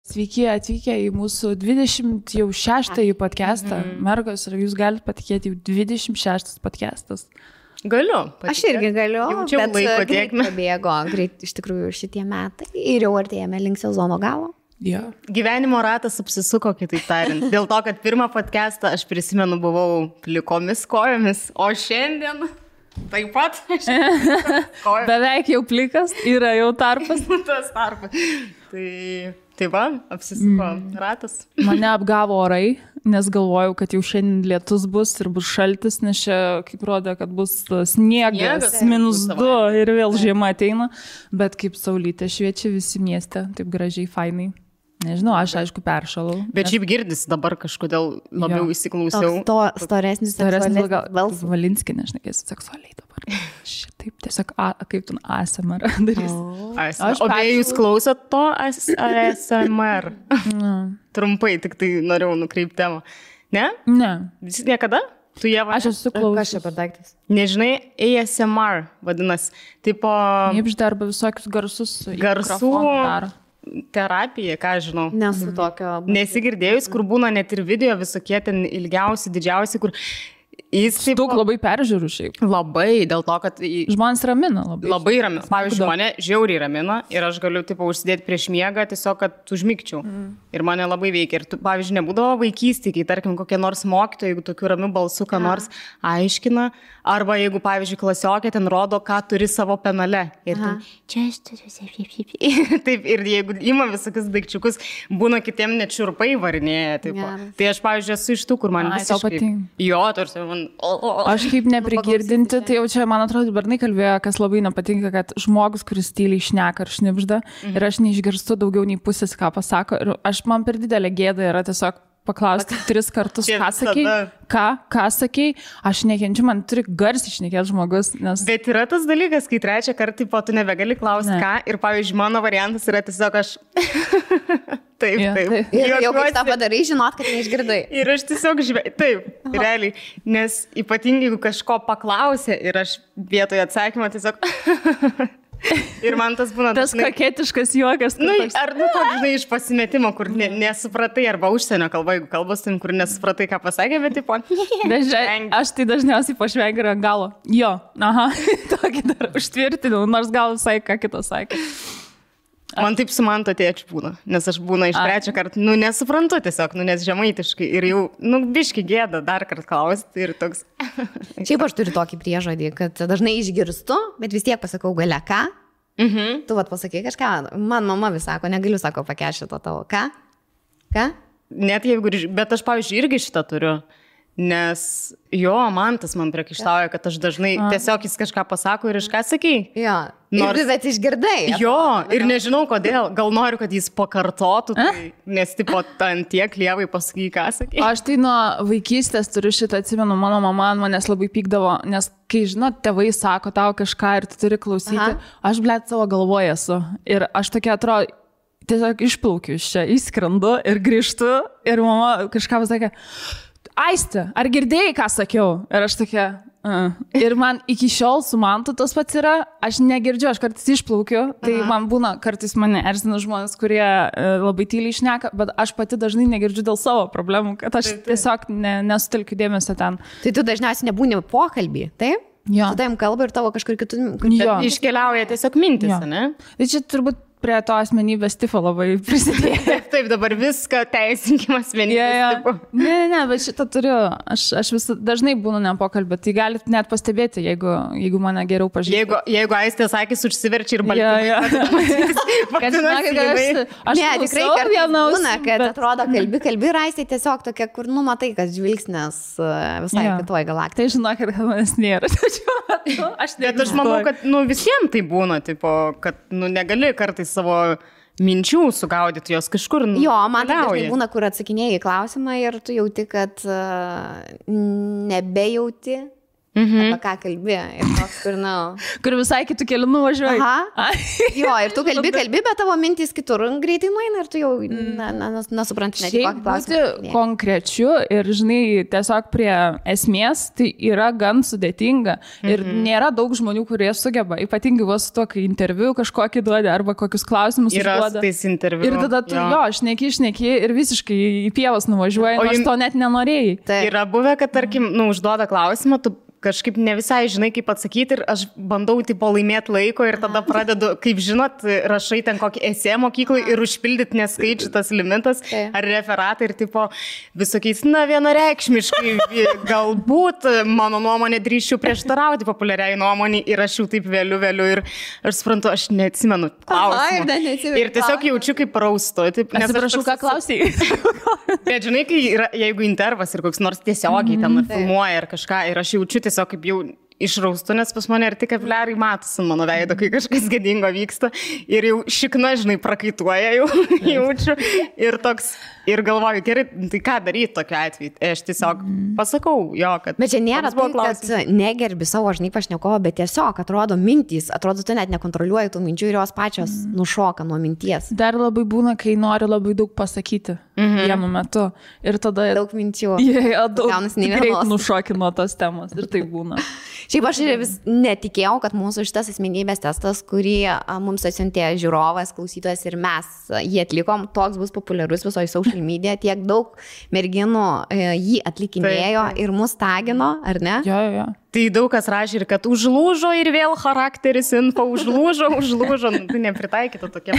Sveiki atvykę į mūsų 26-ąjį podcastą. Mergos, ar jūs galite patikėti, jau 26 podcastas? Galiu. Aš irgi galiu, Jaučiau bet laiko greit tėkmę. pabėgo, greit iš tikrųjų šitie metai ir jau artėjame link sezono galo. Ja. Gyvenimo ratas apsisuko, kitaip tariant. Dėl to, kad pirmą podcastą aš prisimenu buvau plikomis kojomis, o šiandien taip pat. Beveik jau plikas, yra jau tarpas. Tas tarpas. Tai va, apsisuko ratas. Mane apgavo orai, nes galvojau, kad jau šiandien lietus bus ir bus šaltis, nes čia, kaip rodė, kad bus sniegas, -2 ir vėl žiema ateina. Bet kaip saulytė šviečia visi mieste, taip gražiai, fainai. Nežinau, aš aišku peršalau. Bet šiaip girdisi dabar kažkodėl labiau įsiklausiau. Storesnis balsas. Valinskį, nešnekėsiu seksualiai dabar. Šitaip, tiesiog, kaip tu ASMR darys. O beje, jūs klausot to ASMR? Trumpai, tik tai norėjau nukreipti temą. Ne? Ne. Visi niekada? Tu Ieva? Aš esu klausęs. Kas čia per daiktas? Nežinai, ASMR vadinasi. Tipo... Nypžda arba visokius garsus. Garsų terapija, ką žinau. Nesu tokio... Nesigirdėjus, kur būna net ir video visokie ten ilgiausi, didžiausi, kur jis taip... Daug labai peržiūrų šiaip. Labai, dėl to, kad... Žmonės ramina labai. Labai ramina. Pavyzdžiui, mane žiauriai ramina ir aš galiu tipo užsidėti prieš miegą tiesiog, kad užmigčiau. Ir mane labai veikia. Ir tu, pavyzdžiui, nebūdavo vaikystėje, kai, tarkim, kokie nors mokytojai, jeigu tokiu ramiu balsu, ką nors aiškina, arba jeigu, pavyzdžiui, klasiokė ten rodo, ką turi savo penale. Ir ten, čia aš turiu. Taip, ir jeigu ima visokius daikčiukus, būna kitiem net šiurpai varinėja. Tai aš, pavyzdžiui, esu iš tų, kur man visiškai... Jo, tarsi man... Aš kaip neprigirdinti, tai jau čia, man atrodo, bernai kalbėjo, kas labai nepatinka, kad žmogus, kuris tyliai šneka ar šnipžda, ir aš neišgirstu daugiau nei pusės, ką pasako. Ir man per didelė gėda yra tiesiog paklausti 3 kartus, ką sakei, ką sakei, aš nekenčiu, man turi garsiai šnekėti žmogus. Nes... Bet yra tas dalykas, kai 3 kartą po tu nebegali klausti, ką, ir pavyzdžiui, mano variantas yra tiesiog aš... Taip. Ir jau kai tą padarai, žinot, kad neišgirdai. Ir aš tiesiog taip, realiai, nes ypatingai, jeigu kažko paklausė ir aš vietoje atsakymą tiesiog... Ir man tas būna... Tas koketiškas juokas. Ar toks, žinai, iš pasimetimo, kur nesupratai, arba užsienio kalba, jeigu kalbos tim, kur nesupratai, ką pasakė, bet tipo... Aš tai dažniausiai pašvengiu ant galo. Jo, tokį dar užtvirtinau, nors gal visai ką kitą sakė. Man taip su manto tėčiu būna, nes aš būna iš 3 kartą, nesuprantu tiesiog, nes žemaitiškai ir jau, biški gėda dar kartą klausti ir toks. Šiaip aš turiu tokį priežodį, kad dažnai išgirstu, bet vis tiek pasakau gale ką. Tu vat pasakai kažką, man mama vis sako, negaliu, sako, pakešti to tavo, ką? Net jeigu, bet aš, pavyzdžiui, irgi šitą turiu. Nes jo, man tas man priekaištauja, kad aš dažnai tiesiog jis kažką pasako ir iš ką sakai. Jo, bet išgirdai. Jo, ir nežinau kodėl. Gal noriu, kad jis pakartotų, nes tipo ant tiek lievai pasakai, ką sakai. Aš tai nuo vaikystės turiu šitą, atsimenu, mano mama manęs labai pykdavo, nes kai, žinot, tėvai sako tau kažką ir tu turi klausyti, aš, blet, savo galvoje esu. Ir aš tokia atrodo, tiesiog išplaukiu iš čia, įskrendu ir grįžtu ir mama kažką pasakė, Aiste, ar girdėjai, ką sakiau? Ir aš tokia, Ir man iki šiol su mantu tas pats yra, aš negirdžiu, aš kartais išplaukiu, tai man būna, kartais mane erzina žmonės, kurie labai tyliai šneka, bet aš pati dažnai negirdžiu dėl savo problemų, kad aš tiesiog nesutelkiu dėmesio ten. Tai tu dažniausiai nebūni pokalbį, taip? Jo. Su tavim kalba ir tavo kažkur kitų... Iškeliauja tiesiog mintis, ne? Tai čia turbūt prie to asmenybės tipo labai prisidėjo. Taip, dabar viską teisinkim asmenybės tipo. Ne, bet šitą turiu. Aš vis dažnai būnu nepokalbė, tai galit net pastebėti, jeigu mane geriau pažįstate. Jeigu Aistė sakys, užsiverčia ir baltymai. Kad žinokit, aš tikrai būna, kad atrodo kalbi ir Aistė tiesiog tokia, kur matai, kad žvilgsnės visai kitoj galaktikoj. Tai žinokit, kad manęs nėra. Bet aš manau, kad visiems tai būna, tipo, kad negali kartais savo minčių sugaudyti, jos kažkur Jo, man tai dažnai būna, kur atsakinėjai klausimą ir tu jauti, kad nebejauti apie ką kalbė. Ir toks, kur visai kitų kelių nuvažiuoji. Aha. Jo, ir tu kalbi, bet tavo mintys kitur greitai nueina ir tu jau nesupranti net kokį klausimą. Būti konkrečiu ir, žinai, tiesiog prie esmės, tai yra gan sudėtinga. Ir nėra daug žmonių, kurie sugeba, ypatingai vos su to, kai interviu kažkokį duodi arba kokius klausimus užduoda. Ir tada tu šneki ir visiškai į pievas nuvažiuoji, nors to net nenorėjai. Yra buvę, kad, tarkim, užduoda klausimą, tu kažkaip ne visai žinai, kaip atsakyti ir aš bandau tipo laimėti laiko ir tada pradedu, kaip žinot, rašai ten kokį esė mokyklai ir užpildyti neskaičių tas limitas ar referatą ir tipo visokiais, vienareikšmiškai, galbūt mano nuomonė drįsčiau prieštarauti populiariai nuomonį ir aš jau taip vėliu ir aš suprantu, aš neatsimenu klausimą. Ir tiesiog jaučiu kaip raustu. Atsiprašau, ką klausai. Bet žinai, jeigu intervas ir koks nors tiesiogiai ten filmuoja ar kažką ir aš jaučiu tiesiog kaip jau išraustu, nes pas mane ir tik kapiliarai matosi mano veido, kai kažkas gėdingo vyksta ir jau šikna, žinai, prakaituoja jau jaučiu ir toks, ir galvoju, gerai, tai ką daryti tokiu atveju? Aš tiesiog pasakau, kad... Bet čia nėra tai, kad negerbi savo, žinai, pašnekovo, bet tiesiog atrodo mintys, atrodo, tu net nekontroliuoji tų minčių ir jos pačios nušoka nuo minties. Dar labai būna, kai nori labai daug pasakyti vienu metu ir tada... Daug minčių. Greit nušoki nuo tos temos ir tai būna. Šiaip aš vis netikėjau, kad mūsų šitas asmenybės testas, kurį mums atsiuntė žiūrovas, klausytojas ir mes jį atlikom, toks bus populiarus visoje social media, tiek daug merginų jį atlikinėjo ir mus tagino, ar ne? Jo. Tai daug kas rašė ir kad užlūžo ir vėl charakteris info, užlūžo, tai nepritaikyta tokia.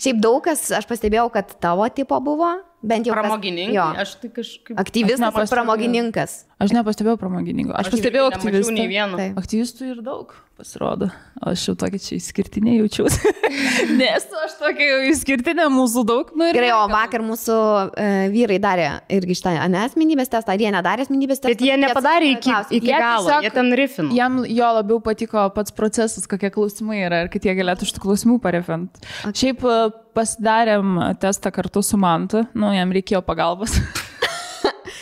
Šiaip daug kas, aš pastebėjau, kad tavo tipo buvo, bent jau pramogininkai. Aš tai kažkaip... Aktyvistas, pramogininkas. Aš nepastebėjau pramogininko. Aš pastebėjau aktyvistų. Aktyvistų ir daug pasirodo. Aš jau tokia čia išskirtinė jaučiausi. Nes aš tokia jau išskirtinė, mūsų daug. Gerai, o vakar mūsų vyrai darė irgi šitą asmenybės testą, ar jie nedarė asmenybės testą? Bet jie nepadarė iki galo, jie ten rifino. Jam jo labiau patiko pats procesas, kokie klausimai yra ir kad jie galėtų šitų klausimų parefint. Šiaip pasidarėm testą kartu su Mantu, jam reikėjo pagalbos.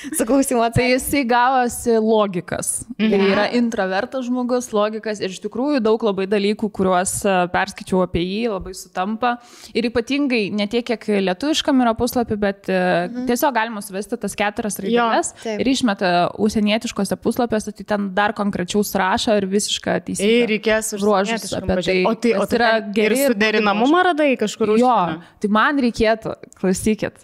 Tai jisai gavosi logikas. Tai yra introvertas žmogus, logikas ir iš tikrųjų daug labai dalykų, kuriuos perskaičiau apie jį, labai sutampa. Ir ypatingai ne tiek, kiek lietuviškam yra puslapį, bet tiesiog galima suvesti tas 4 raideles ir išmeta užsienietiškose puslapiuose, tai ten dar konkrečiau surašo ir visišką teisybę. Ir reikės užruožus apie tai. O tai yra geri ir suderinamumą radai kažkur užsienio? Jo, tai man reikėtų, klausykit,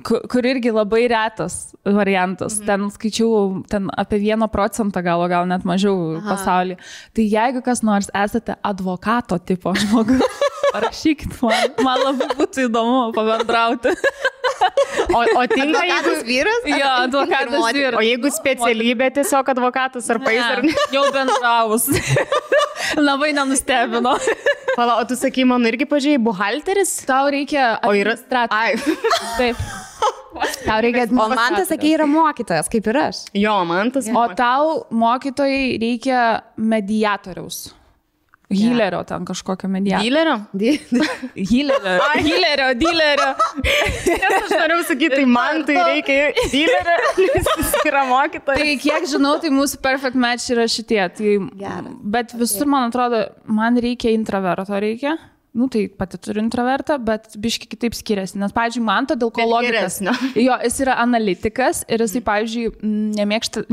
kur irgi labai retas variantas. Ten skaičiau apie 1% gal net mažiau pasaulyje. Tai jeigu kas nors esate advokato tipo žmogus, parašykit man labai būtų įdomu pabendrauti. O tinka advokatas vyras? Jo, advokatas vyras. O jeigu specialybė tiesiog advokatas ar pais ar ne? Jau bendravus. Labai nenustebino. Pala, o tu sakai, man irgi pažiūrėjai, buhalteris? Tau reikia administratorius. Taip. O Mantas, sakė, yra mokytojas, kaip ir aš. Jo, Mantas. O tau mokytojai reikia mediatoriaus. Hilerio ten kažkokio mediatoriaus. Dilerio. Nes aš norėjau sakyti, tai man tai reikia dilerio, nes jis yra mokytojas. Tai kiek žinau, tai mūsų perfect match yra šitie. Bet visur, man atrodo, man reikia introverto reikia. Tai pati turiu introvertą, bet biški kitaip skiriasi. Nes, pavyzdžiui, Manto dėl ko logikas. Jo, jis yra analitikas ir jisai, pavyzdžiui,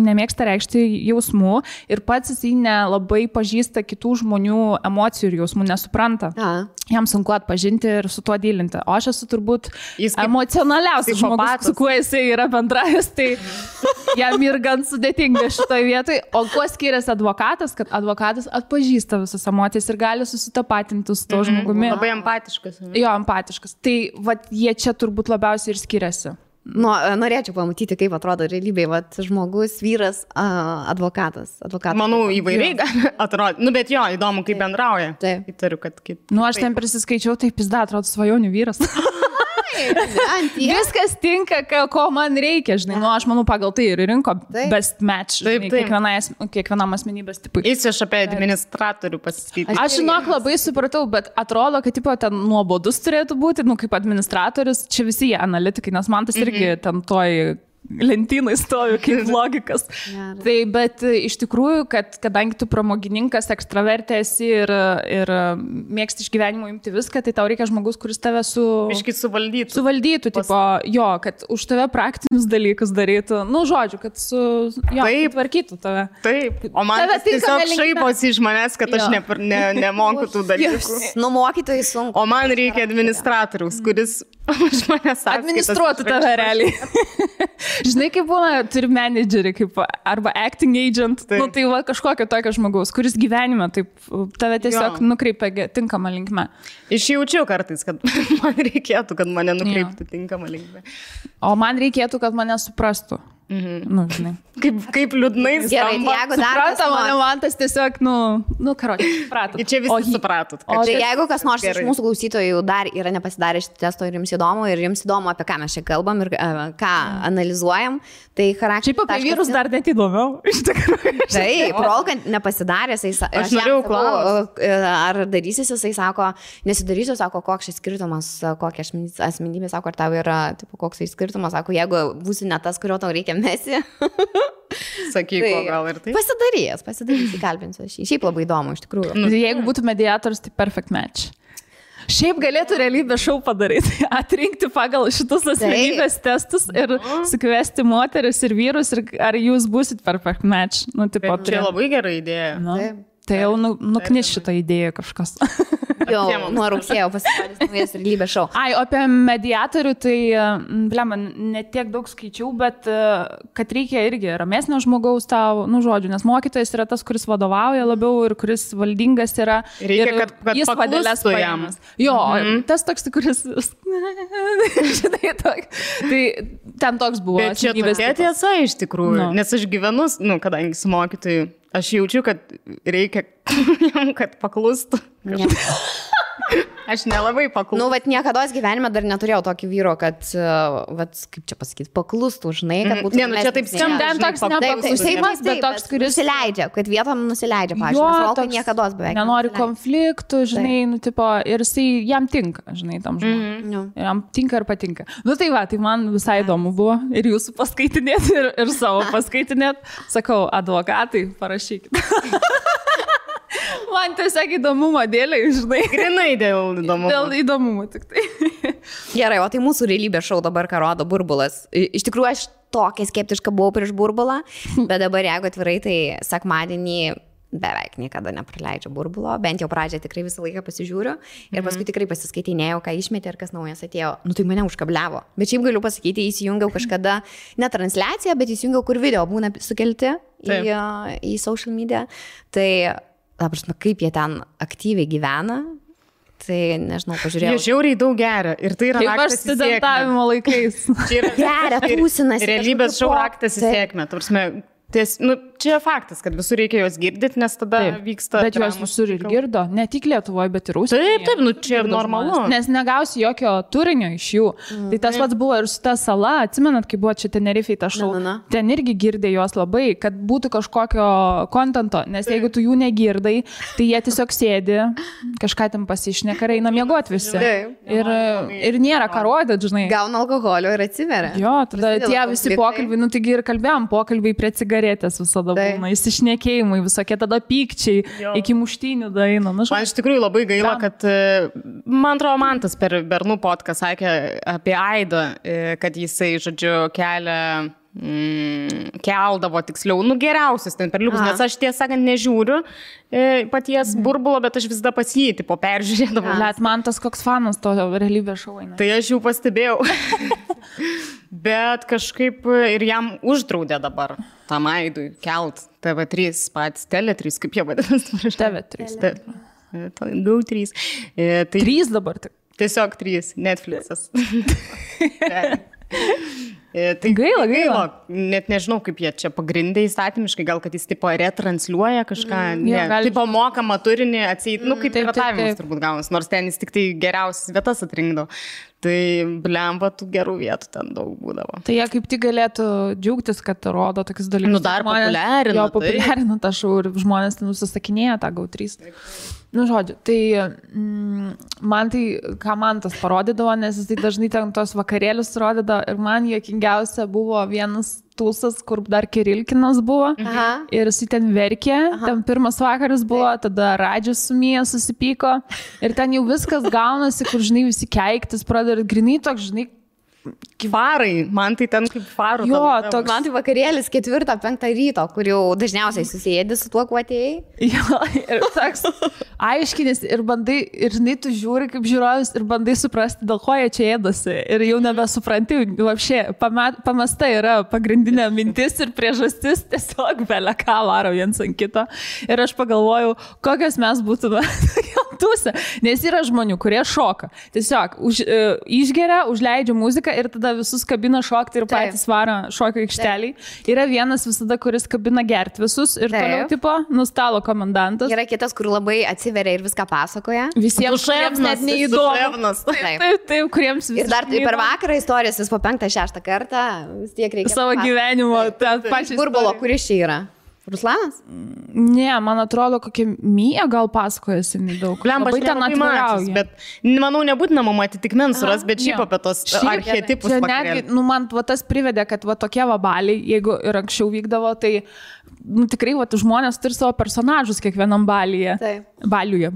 nemėgsta reikšti jausmų ir pats jisai nelabai pažįsta kitų žmonių emocijų ir jausmų, nesupranta. Jam sunku atpažinti ir su tuo dylinti. O aš esu turbūt emocionaliausias žmogus, su kuo jisai yra bendravęs, tai jam ir gan sudėtinga šitoje vietoje. O kuo skiriasi advokatas, kad advokatas atpažįsta visas emocijas ir gali susitapatinti su to žmogumi. Labai empatiškas. Jo, empatiškas. Tai jie čia turbūt labiausiai ir skiriasi. Norėčiau pamatyti, kaip atrodo realybėje, žmogus, vyras, advokatas. Manau, įvairiai atrodo. Bet jo, įdomu, kaip bendrauja. Taip. Įtariu, kad aš ten prisiskaičiau, tai pizda, atrodo svajonių vyras. Viskas tinka, ko man reikia, žinai. Aš manau, pagal tai ir rinko best match, žinai, kiekvienam asmenybės tipui. Jis iš apie administratorių pasiskaityti. Aš labai supratau, bet atrodo, kad ten nuobodus turėtų būti, kaip administratorius, čia visi jie analitikai, nes man tas irgi ten toj lentynai stovi kaip logikas. Tai, bet iš tikrųjų, kadangi tu pramogininkas, ekstravertė esi ir mėgsti iš gyvenimo imti viską, tai tau reikia žmogus, kuris tave suvaldytų, tipo, jo, kad už tave praktinius dalykus darytų, nu, žodžiu, kad tvarkytų tave. Taip, o man tiesiog šaiposi iš manęs, kad aš nemoku tų dalykų. Nu, mokytojai sunku. O man reikia administratoriaus, kuris už manęs administruotų tave realiai. Žinai, kaip būna, turi menedžerį, kaip arba acting agent, nu, tai va kažkokio tokio žmogaus, kuris gyvenime taip tave tiesiog nukreipia tinkamą linkmę. Išjaučiu kartais, kad man reikėtų, kad mane nukreiptų tinkamą linkmę. O man reikėtų, kad mane suprastų. Nu, žinai. Kaip liūdnai skamba. Supranta mane, man tas tiesiog, karočiui, supratot. Čia visi supratot. O tai jeigu kas nors iš mūsų klausytojų dar yra nepasidarę šitą testo ir jums įdomu, apie ką mes čia kalbam ir ką analizuojam, tai charakteris. Šiaip apie vyrus dar net įdomiau, iš tikrųjų. Taip, rolkant nepasidaręs, aš norėjau klausti. Ar darysis, jisai sako, nesidarysiu, sako, koks šis skirtumas, kokia asmenybė, sako, ar tau yra, tipo, koks šis skirtumas, sako, jeigu būsi ne tas, kurio tau reikia mesi. Sakyk, tai, gal ir tai. Pasidarys, įkalbinsiu aš jį. Šiaip labai įdomu, iš tikrųjų. Jeigu būtų mediatorius, tai perfect match. Šiaip galėtų realybės šou padaryti, atrinkti pagal šitus asmenybės testus ir sukviesti moteris ir vyrus, ir ar jūs būsit perfect match. Nu, tipo, čia labai gera idėja. Tai jau nuknis šitą idėją kažkas. Jau nuo rugsėjo pasirodys naujas realybės šou. Ai, apie mediatorių, tai, blema, ne tiek daug skaičiau, bet kad reikia irgi ramesnio žmogaus tau, nu, žodžiu, nes mokytojas yra tas, kuris vadovauja labiau ir kuris valdingas yra. Reikia, kad jis padelės pajamas. Jo, tas toks, kuris, žinai, tai ten toks buvo. Bet čia tokia tiesa iš tikrųjų, nes aš gyvenu, kadangi su mokytoju, aš jaučiu, kad reikia jam, kad paklustų. Aš nelabai paklustų. Nu, vat niekados gyvenime dar neturėjau tokį vyro, kad, vat, kaip čia pasakyti, paklustų, žinai, kad būtų... Ne, nu čia taip skamba. Ten toks nepaklusimas, bet toks, kuris... Nusileidžia, kad vietom nusileidžia, pavyzdžiui, nes rolkai niekados beveik. Nenori konfliktų, žinai, nu, tipo, ir jisai jam tinka, žinai, tam žmogui. Jam tinka ir patinka. Nu, tai va, tai man visai įdomu buvo ir jūsų paskaitinėti, ir savo paskaitinėti. Sakau, advokatai, parašykit. Man tiesiog įdomumo dėlei, žinai. Grinai dėl įdomumo. Dėl įdomumo tik tai. Gerai, o tai mūsų realybės šou dabar, ką rodo Burbulas. Iš tikrųjų, aš tokia skeptiška buvau prieš Burbulą, bet dabar, jeigu atvirai, tai sekmadienį beveik niekada nepraleidžiu Burbulo, bent jau pradžią tikrai visą laiką pasižiūriu ir paskui tikrai pasiskaitinėjau, ką išmetė ir kas naujas atėjo. Nu, tai mane užkabliavo. Bet šiaip galiu pasakyti, įsijungiau kažkada, ne transliaciją, bet įsijungiau, kur video būna sukelti į social media. Tai kaip jie ten aktyviai gyvena, tai nežinau, pažiūrėjau. Jie žiauriai daug geria ir tai yra raktas į sėkmę. Kaip aš studentavimo laikais. Geria, tūsinasi. Realybės šou raktas į sėkmę. Čia faktas, kad visur reikia jos girdyti, nes tada vyksta... Bet jos visur ir girdo, ne tik Lietuvoje, bet ir užsienyje. Taip, čia ir normalu. Nes negausi jokio turinio iš jų. Tai tas pats buvo ir su ta sala, atsimenat, kai buvo čia Tenerifei ta šou, ten irgi girdė jos labai, kad būtų kažkokio kontento, nes jeigu tu jų negirdai, tai jie tiesiog sėdi, kažką ten pasišneka ir eina miegoti visi. Ir nėra ką rodyti, žinai. Gauna alkoholio ir atsiveria. Jo, tada tie visi pokalbiai, nu taigi ir kalbėjom, pokalbiai prie cigaretės visada būna, įsišnekėjimai, visokie tada pykčiai, iki muštynių daina. Man iš tikrųjų labai gaila, kad, man atrodo, Mantas per Bernų podcast sakė apie Aidą, kad jisai, žodžiu, keldavo tiksliau, geriausius ten perliukus, nes aš tiesą sakant nežiūriu paties Burbulo, bet aš visada pas jį, tipo, peržiūrėdavau. Net man tas koks fanas to realybės šou eina. Tai aš jau pastebėjau. Bet kažkaip ir jam uždraudė dabar tam Aidui kelt TV3 patys, Tele3, kaip jie vadinasi? TV3. Daug 3. 3 dabar tik. Tiesiog 3, Netflixas. Tai gaila. Net nežinau, kaip jie čia pagrindė įstatymiškai, gal kad jis tipo retransliuoja kažką, tipo mokamą turinį atseit, kaip piratavimas turbūt gaunas, nors ten jis tik tai geriausias vietas atrinkdavo. Tai blemba, tų gerų vietų ten daug būdavo. Tai jie kaip tik galėtų džiaugtis, kad rodo tokius dalykus. Nu, dar populiarina. Jo, populiarina tą šou ir žmonės ten nusisakinėja tą GO3. Nu, žodžiu, tai man tai, ką man tas parodydavo, nes jis tai dažnai ten tos vakarėlius rodydavo ir man juokingiausia buvo vienas tūsas, kur dar Kirilkinas buvo. Aha. Ir jis ten verkė, ten pirmas vakaras buvo, tada Radžius su Mija susipyko ir ten jau viskas gaunasi, kur, žinai, visi keiktis pradeda ir grinai toks, žinai, Farai, man tai ten kaip farų. Jo, toks. Man tai vakarėlis 4-5 ryto, kur jau dažniausiai susėdi su tuo, kuo atėjai. Jo, ir toks aiškinis ir bandai, ir žinai, tu žiūri kaip žiūrovas ir bandai suprasti, dėl ko jie čia ėdasi. Ir jau nebesupranti, vapšė, pamesta yra pagrindinė mintis ir priežastis, tiesiog belia ką varo viens ant kito. Ir aš pagalvojau, kokios mes būtume tūse, nes yra žmonių, kurie šoka. Tiesiog išgeria, užleidžia muziką ir tada visus kabina šokti ir patys varo šokio aikšteliai. Yra vienas visada, kuris kabina gerti visus ir toliau tipo nustalo komendantas. Yra kitas, kur labai atsiveria ir viską pasakoja. Visiems kuriems net neįdomu. Taip, kuriems viskas. Ir dar tai per vakarą istorijos vis po 5-6 kartą vis tiek reikia. Savo gyvenimo, tą pačią. Burbulo, kuris čia yra? Ruslanas? Ne, man atrodo, kokia Mija gal pasakojasi nedaug. Labai ten atvirauja. Bet manau, nebūtina mama atitikmens suras, bet šiaip apie tos archetipus. Netgi, man tas privedė, kad tokie vabaliai, jeigu ir anksčiau vykdavo, tai tikrai žmonės turi savo personažus kiekvienam balyje. Baliuje.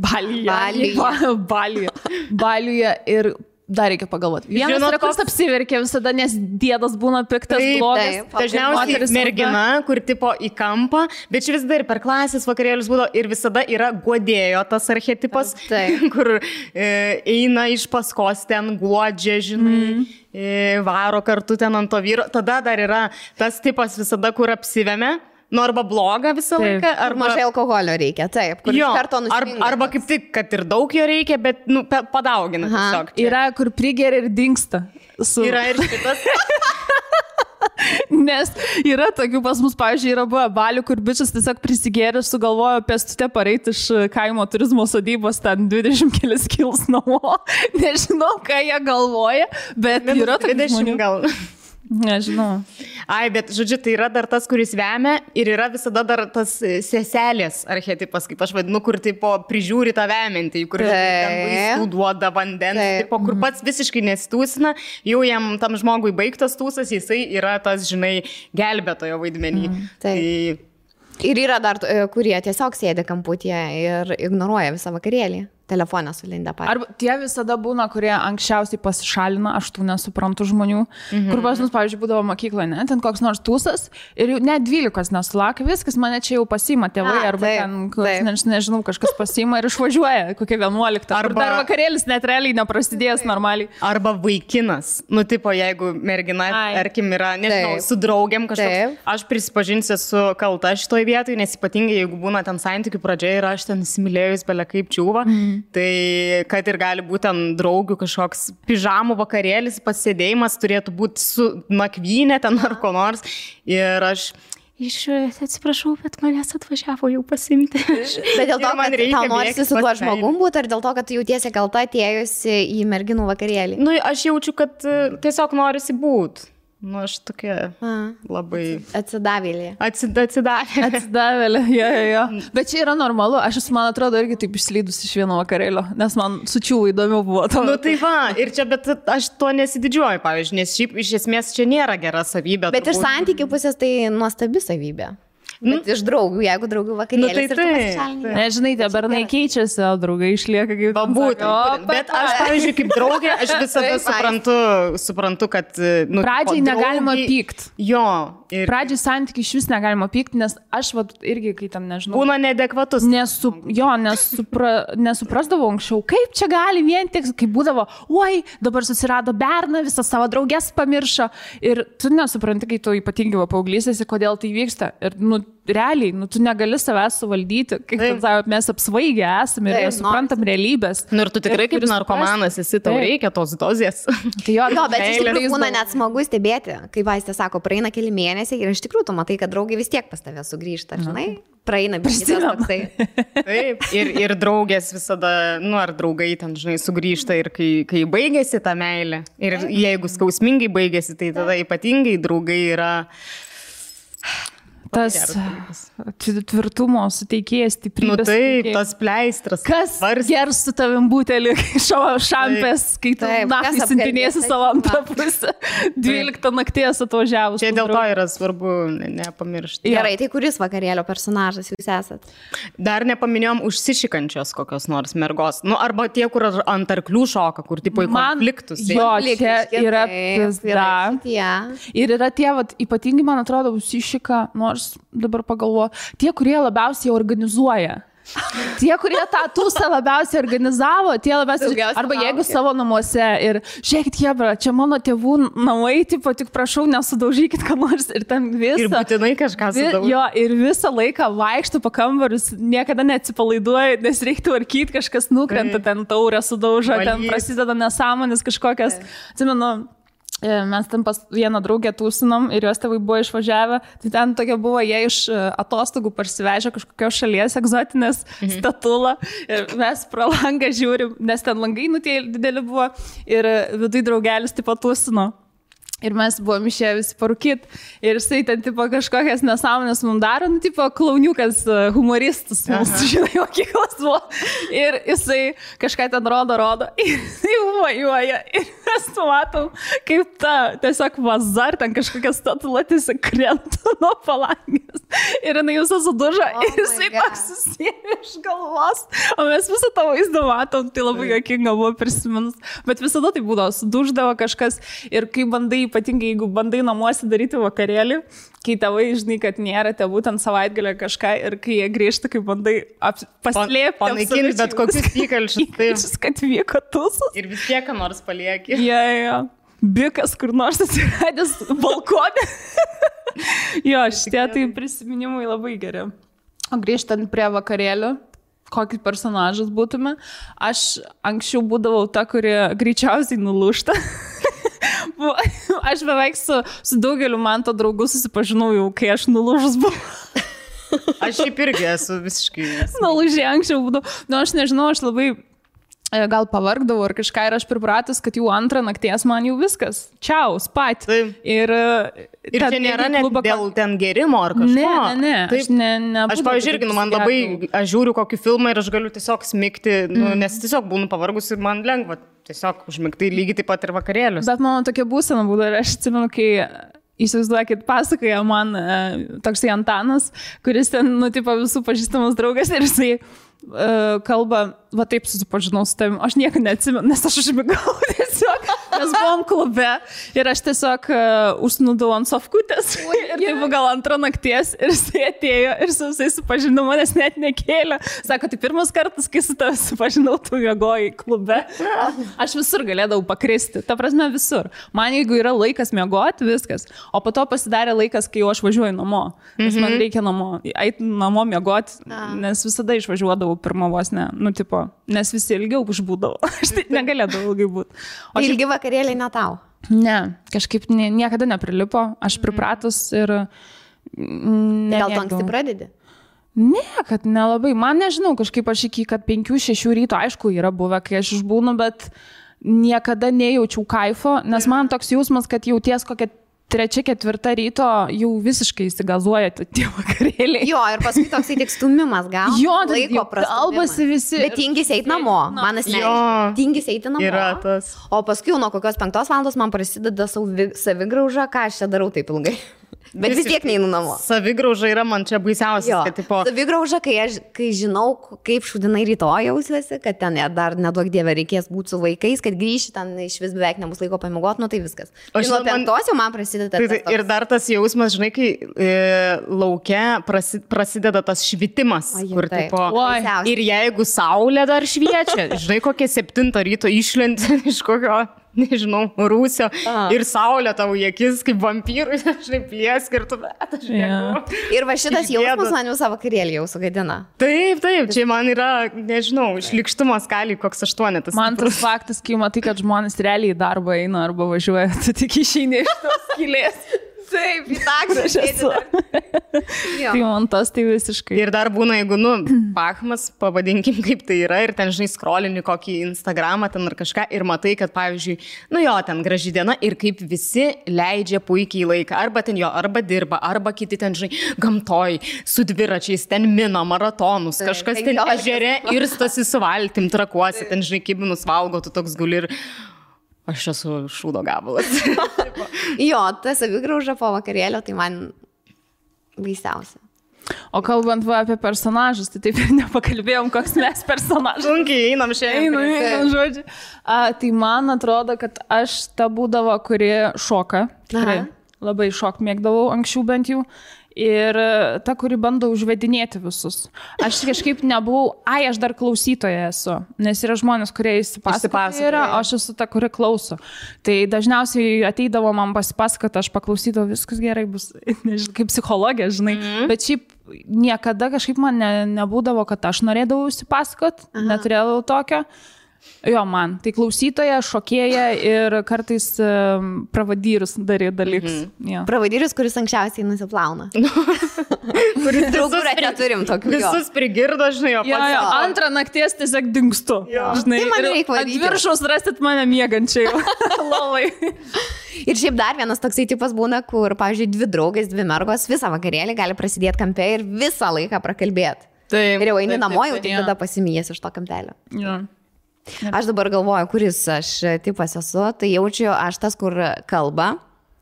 Ir dar reikia pagalvoti. Vienas yra, kuris apsiverkia visada, nes dėdas būna piktas, blogas. Dažniausiai mergina, kur tipo į kampą, bet čia vis dar per klasės vakarėlius būdavo ir visada yra guodėjo tas archetipas, kur eina iš paskos ten guodžia, žinai, varo kartu ten ant to vyro. Tada dar yra tas tipas visada, kur apsivemia. Nu, arba blogą visą laiką, arba mažai alkoholio reikia, taip, kur iš karto nusipinga. Arba kaip tik, kad ir daug jo reikia, bet padaugina tiesiog. Yra, kur prigeria ir dingsta. Yra ir šitas. Nes yra tokių pas mus, pavyzdžiui, yra buvę balių, kur bičias tiesiog prisigėrė, sugalvojo pėstute pareiti iš kaimo turizmo sodybos ten 20 kelias kils namo. Nežinau, ką jie galvoja, bet yra tokių žmonių. Gal. Nežinau. Ai, bet, žodžiu, tai yra dar tas, kuris vemia ir yra visada dar tas seselės archetipas, kaip aš vadinu, kur tipo prižiūri tą vemiantį, kur vaistų duoda vandens, tipo, kur pats visiškai nesitūsina, jau jam tam žmogui baigtas tūsas, jisai yra tas, žinai, gelbėtojo vaidmenį. Ir yra dar, kurie tiesiog sėdi kamputyje ir ignoruoja visą vakarėlį. Telefoną sulindę patys. Arba tie visada būna, kurie anksčiausiai pasišalina, aš tų nesuprantu žmonių, kur pas mus, pavyzdžiui, būdavo mokykloje, ne, ten koks nors tūsas ir jau net 12 nesulaukia, viskas mane čia jau pasiima tėvai, arba ten, nežinau, kažkas pasiima ir išvažiuoja, kokia 11. Arba dar vakarėlis net realiai neprasidėjęs normaliai. Arba vaikinas, nu, tipo, jeigu mergina, tarkim, yra, nežinau, su draugiam kažkoks, aš prisipažinsiu, esu kalta šitoj vietoj, nes ypatingai, jeigu būna ten santykių pradžia ir aš ten įsimylėjus belia kaip čiūva. Tai kad ir gali būti ten draugių kažkoks pižamų vakarėlis, pasėdėjimas turėtų būti su nakvynė ten ar ko nors. Ir aš atsiprašau, bet manęs atvažiavo jau pasimti. Bet dėl to, kad tau norisi su tuo žmogum būti, ar dėl to, kad tu jautiesi kalta atėjusi į merginų vakarėlį? Nu, aš jaučiu, kad tiesiog norisi būti. Nu, aš tokia labai... Atsidavėlė. Atsidavėlė, jo. Bet čia yra normalu. Aš esu, man atrodo, irgi taip išslydus iš vieno vakarėlio, nes man sučiau įdomiau buvo. Nu, tai va, ir čia, bet aš to nesididžiuoju, pavyzdžiui, nes šiaip iš esmės čia nėra gera savybė. Bet iš santykių pusės tai nuostabi savybė. Bet iš draugų, jeigu draugų vakarėlis ir tu pasišalini. Nežinai, tie bernai keičiasi, o draugai išlieka kaip... Būtent. Bet aš, pavyzdžiui, kaip draugė, aš visada suprantu, kad... Pradžiai negalima pykti. Jo. Pradžiai santykiai iš vis negalima pykti, nes aš irgi, kai tam nežinau... Būna neadekvatus. Nesuprasdavau anksčiau, kaip čia gali vien tik, kaip būdavo, oi, dabar susirado berną, visą savo draugės pamiršo. Ir tu nesupranti, kai tu ypatingai paauglysėsi, kodėl tai vyksta. Ir, realiai, tu negali savęs suvaldyti, kaip mes apsvaigę esame ir suprantam realybės. Nu, ir tu tikrai kaip narkomanas esi, tau reikia tos dozės. Tai bet iš tikrųjų būna net smagu stebėti, kai vaistė sako, praeina keli mėnesiai ir iš tikrųjų tu matai, kad draugai vis tiek pas tave sugrįžta, žinai? praeina biškitas toksai. Taip, ir draugės visada, ar draugai ten, žinai, sugrįžta ir kai baigėsi ta meilė. Ir jeigu skausmingai baigėsi, tai tada ypatingai draugai yra... Tas tvirtumo suteikėjas, stiprybės. Taip, tas pleistras. Kas gers su tavim butelį šampės, kai tu naktį sintinėsi savo antrą pusę. 12 nakties atvažiavus. Čia dėl to yra svarbu nepamiršti. Gerai, tai kuris vakarėlio personažas jūs esat? Dar nepaminėjom užsišikančios kokios nors mergos. Arba tie, kur ant arklių šoka, kur tipo į konfliktus. Jo, čia yra pizda. Ir yra tie, ypatingai, man atrodo, užsišika, nors dabar pagalvoju, tie, kurie labiausiai organizuoja. Tie, kurie tą tūsą labiausiai organizavo, tie labiausiai... Arba jeigu savo namuose ir žiūrėkit, jebra, čia mano tėvų namai, tipo, tik prašau, nesudaužykit ką nors ir ten visą... Ir būtinai kažką sudaužyti. Jo, ir visą laiką vaikštų po kambarius, niekada neatsipalaiduoja, nes reikia tvarkyti, kažkas nukrenta, ten taurę sudaužo, ten prasideda nesąmonės kažkokias... Atsimenu, mes ten pas vieną draugę tūsinom ir jos tėvai buvo išvažiavę, tai ten tokia buvo, jie iš atostogų parsivežė kažkokios šalies egzotinės statulą ir mes pro langą žiūrim, nes ten langai tie dideli buvo ir viduj draugelis tipo tūsino. Ir mes buvom išėję visi parūkit. Ir jisai ten tipo kažkokias nesąmonės mums daro, tipo klauniukas, humoristas, mūsų, žinai, mokyklos buvo. Ir jisai kažką ten rodo. Ir jisai vajuoja. Ir mes matom, kaip ta tiesiog vazar, ten kažkokia statula tiesiog krenta nuo palangės. Ir jinai visą sudužo. Ir jisai toks susėmė iš galvos. O mes visą tą vaizdą matom. Tai labai juokinga buvo prisiminus. Bet visada tai būdavo, suduždavo kažkas. Ir kai bandai, ypatingai jeigu bandai namuose daryti vakarėlį, kai tėvai žinai, kad nėra tėvų ten savaitgalio kažką ir kai jie grįžta, kai bandai paslėpti. Panaikinti bet kokius įkalčius, kad vyko tūsas. Ir vis tiek nors palieki. Jo. Bikas kur nors atsiradęs balkonė. Jo, šitie tai prisiminimai labai geri. O grįžtant prie vakarėlių, kokį personažas būtume, aš anksčiau būdavau ta, kuri greičiausiai nulūžta. Aš beveik su daugeliu man to draugų susipažinau jau, kai aš nulūžus buvau. Aš šiaip irgi esu visiškai... Nulūžė anksčiau būdavau. Aš nežinau, aš labai gal pavargdavau ar kažką ir aš pripratus, kad jau antrą nakties man jau viskas. Čiau, spat. Ir čia nėra net dėl ten gerimo ar kažko. Ne. Aš pavyzdžiui, man labai, aš žiūriu kokį filmą ir aš galiu tiesiog smigti, nes tiesiog būnu pavargus ir man lengva tiesiog užmigti lygiai taip pat ir vakarėlius. Bet mano tokia būsena būdavo ir aš atsimenu, kai įsivaizduokit, pasakoja man toksai Antanas, kuris ten, tipo, visų pažįstamas draugas ir jisai kalba, va taip susipažinau su tavim, aš nieko neatsimenu, nes aš užmigau tiesiog, mes buvom klube ir aš tiesiog užsnūdau ant sofkutės ir tai buvo gal antrą nakties ir jisai atėjo ir su visai supažinau, manęs net nekėlė. Sako, tai pirmas kartas, kai su tavim supažinau, tu miegojai klube. Aš visur galėdavau pakristi, ta prasme visur. Man jeigu yra laikas miegoti, viskas. O po to pasidarė laikas, kai jau aš važiuoju namo, nes man reikia eiti namo miegoti, nes visada išvažiuodavau pirmą vos ne, tipo, nes visi ilgiau užbūdavo. Aš tai negalėdavau ilgai būti. Ilgi vakarėliai ne tau? Ne, kažkaip niekada neprilipo. Aš pripratus ir... Gal tu anksti pradedi? Ne, kad nelabai. Man nežinau, kažkaip aš iki 5-6 ryto, aišku, yra buvę, kai aš išbūnu, bet niekada nejaučiau kaifo, nes man toks jausmas, kad jauties kokią 3-4 ryto jau visiškai įsigazuoja tie vakarėliai. Jo, ir paskui toksai tik stumimas gal. Jo, laiko kalbasi visi. Bet tingis eiti namo. Man asmeniškai. Tingis eiti namo. Yra tas. O paskui nuo kokios 5 valandos man prasideda savigrauža, ką aš čia darau taip ilgai. Bet vis tiek neinu namo. Savigrauža yra man čia baisiausias, kad tipo... Savigrauža, kai žinau, kaip šūdinai rytoj jausiuosi, kad ten dar neduok dievę reikės būti su vaikais, kad grįši ten iš vis beveik nebus laiko pamiegoti, tai viskas. O nuo 5 jau man prasideda tas. Ir dar tas jausmas, žinai, kai lauke prasideda tas švitimas, kur tipo... Ir jeigu saulė dar šviečia, žinai, kokie 7 ryto išlenti iš kokio... nežinau, rūsio ir saulė tavo į akis kaip vampyrui, žinai, pliesk ir tu bet, aš nežinau. Ir va šitas jausmas man visą vakarėlį jau sugadina. Taip, čia man yra, nežinau, išlikštumo skalį koks 8. Man tas faktas, kai matai, kad žmonės realiai į darbą eina arba važiuoja, tu tik išeini iš tos skylės. Taip, į taksą sėdi. Tai man tas tai visiškai. Ir dar būna, jeigu, pachmas, pavadinkim kaip tai yra, ir ten, žinai, skrolini kokį Instagramą ten ar kažką ir matai, kad, pavyzdžiui, ten graži diena ir kaip visi leidžia puikiai laiką. Arba ten arba dirba, arba kiti ten, žinai, gamtoj, su dviračiais, ten mina, maratonus, kažkas ten ežere ir stasi su valtim, trakuosi, ten, žinai, kibinus valgo, tu toks guli ir aš esu šūdo gabalas. Jo, ta savigrauža po vakarėlio, tai man baisiausia. O kalbant apie personažus, tai taip ir nepakalbėjom, koks mes personažas. Sunkiai einam šiandien. Einam, žodžiu. Tai man atrodo, kad aš ta būdavo, kuri šoka. Tikrai. Labai šok mėgdavau anksčiau bent jau. Ir ta, kuri bando užvedinėti visus. Aš kažkaip nebuvau, aš dar klausytoja esu, nes yra žmonės, kurie įsipasakoja, o aš esu ta, kuri klauso. Tai dažniausiai ateidavo man pasipasakoti, aš paklausydavau, viskas gerai bus, nežinau, kaip psichologija, žinai. Bet šiaip niekada kažkaip man nebūdavo, kad aš norėdavau įsipasakoti, neturėdavau tokio. Jo, man. Tai klausytoja, šokėja ir kartais pravadyrius darė dalykus. Pravadyrius, kuris anksčiausiai nusiplauna. Kuris draugų neturim tokių. Visus prigirdo, žinai, o pats. Antrą nakties tiesiog dingstu. Žinai, tai man reikia varyti. Ant viršaus rasit mane miegančiai. Lovai. Ir šiaip dar vienas toksai tipas būna, kur, pavyzdžiui, 2 draugės, 2 mergos visą vakarėlį gali prasidėti kampe ir visą laiką prakalbėti. Ir jau eini namo, jau tik tada pasimijęs iš to kampelio. Aš dabar galvoju, kuris aš tipas esu, tai jaučiu aš tas, kur kalba,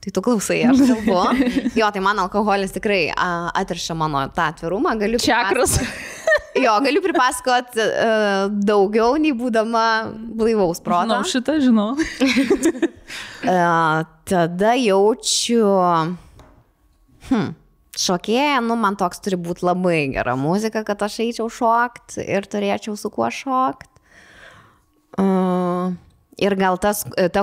tai tu klausai, aš kalbu. Jo, tai man alkoholis tikrai atriša mano tą atvirumą. Galiu pripasakot daugiau, nei būdama blaivaus proto. Šitą žinau. Tada jaučiu... Šokėja, man toks turi būti labai gera muzika, kad aš eičiau šokt ir turėčiau su kuo šokt. Ir gal ta,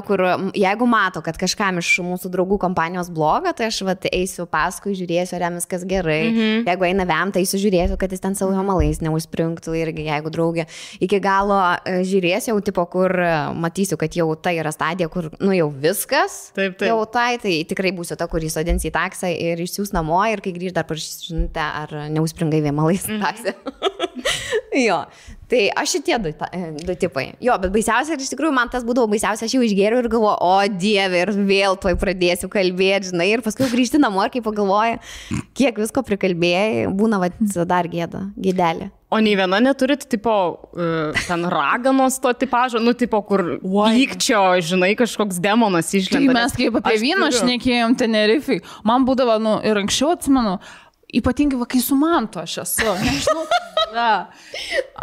kur jeigu mato, kad kažkam iš mūsų draugų kompanijos bloga, tai aš eisiu paskui, žiūrėsiu, ar jam viskas gerai. Jeigu eina vem, tai eisiu, kad jis ten savo malais neužspringtų irgi, jeigu draugė. Iki galo žiūrėsiu jau tipo, kur matysiu, kad jau tai yra stadija, kur jau viskas. Taip. Jau tai tikrai būsiu ta, kur įsodins į taksą ir išsiūs namo ir kai grįž dar parašysite, ar neužspringai vien malais taksą. Jo. Tai aš šitie 2 tipai. Jo, bet baisiausia, ir iš tikrųjų man tas būdavo baisiausia, aš jau išgėriau ir galvoju, o Dieve, ir vėl tuoj pradėsiu kalbėti, žinai, ir paskui grįžti namo ir kai pagalvoju, kiek visko prikalbėjai, būna dar gėdelė. O nei viena neturit, tipo, ten raganos to tipažo, tipo, kur pykčio, žinai, kažkoks demonas išlenda. Tai mes kaip apie vyną šnekėjom Tenerifei, man būdavo, ir anksčiau atsimenu, ypatingai, kai su Mantu aš esu. Nežinau,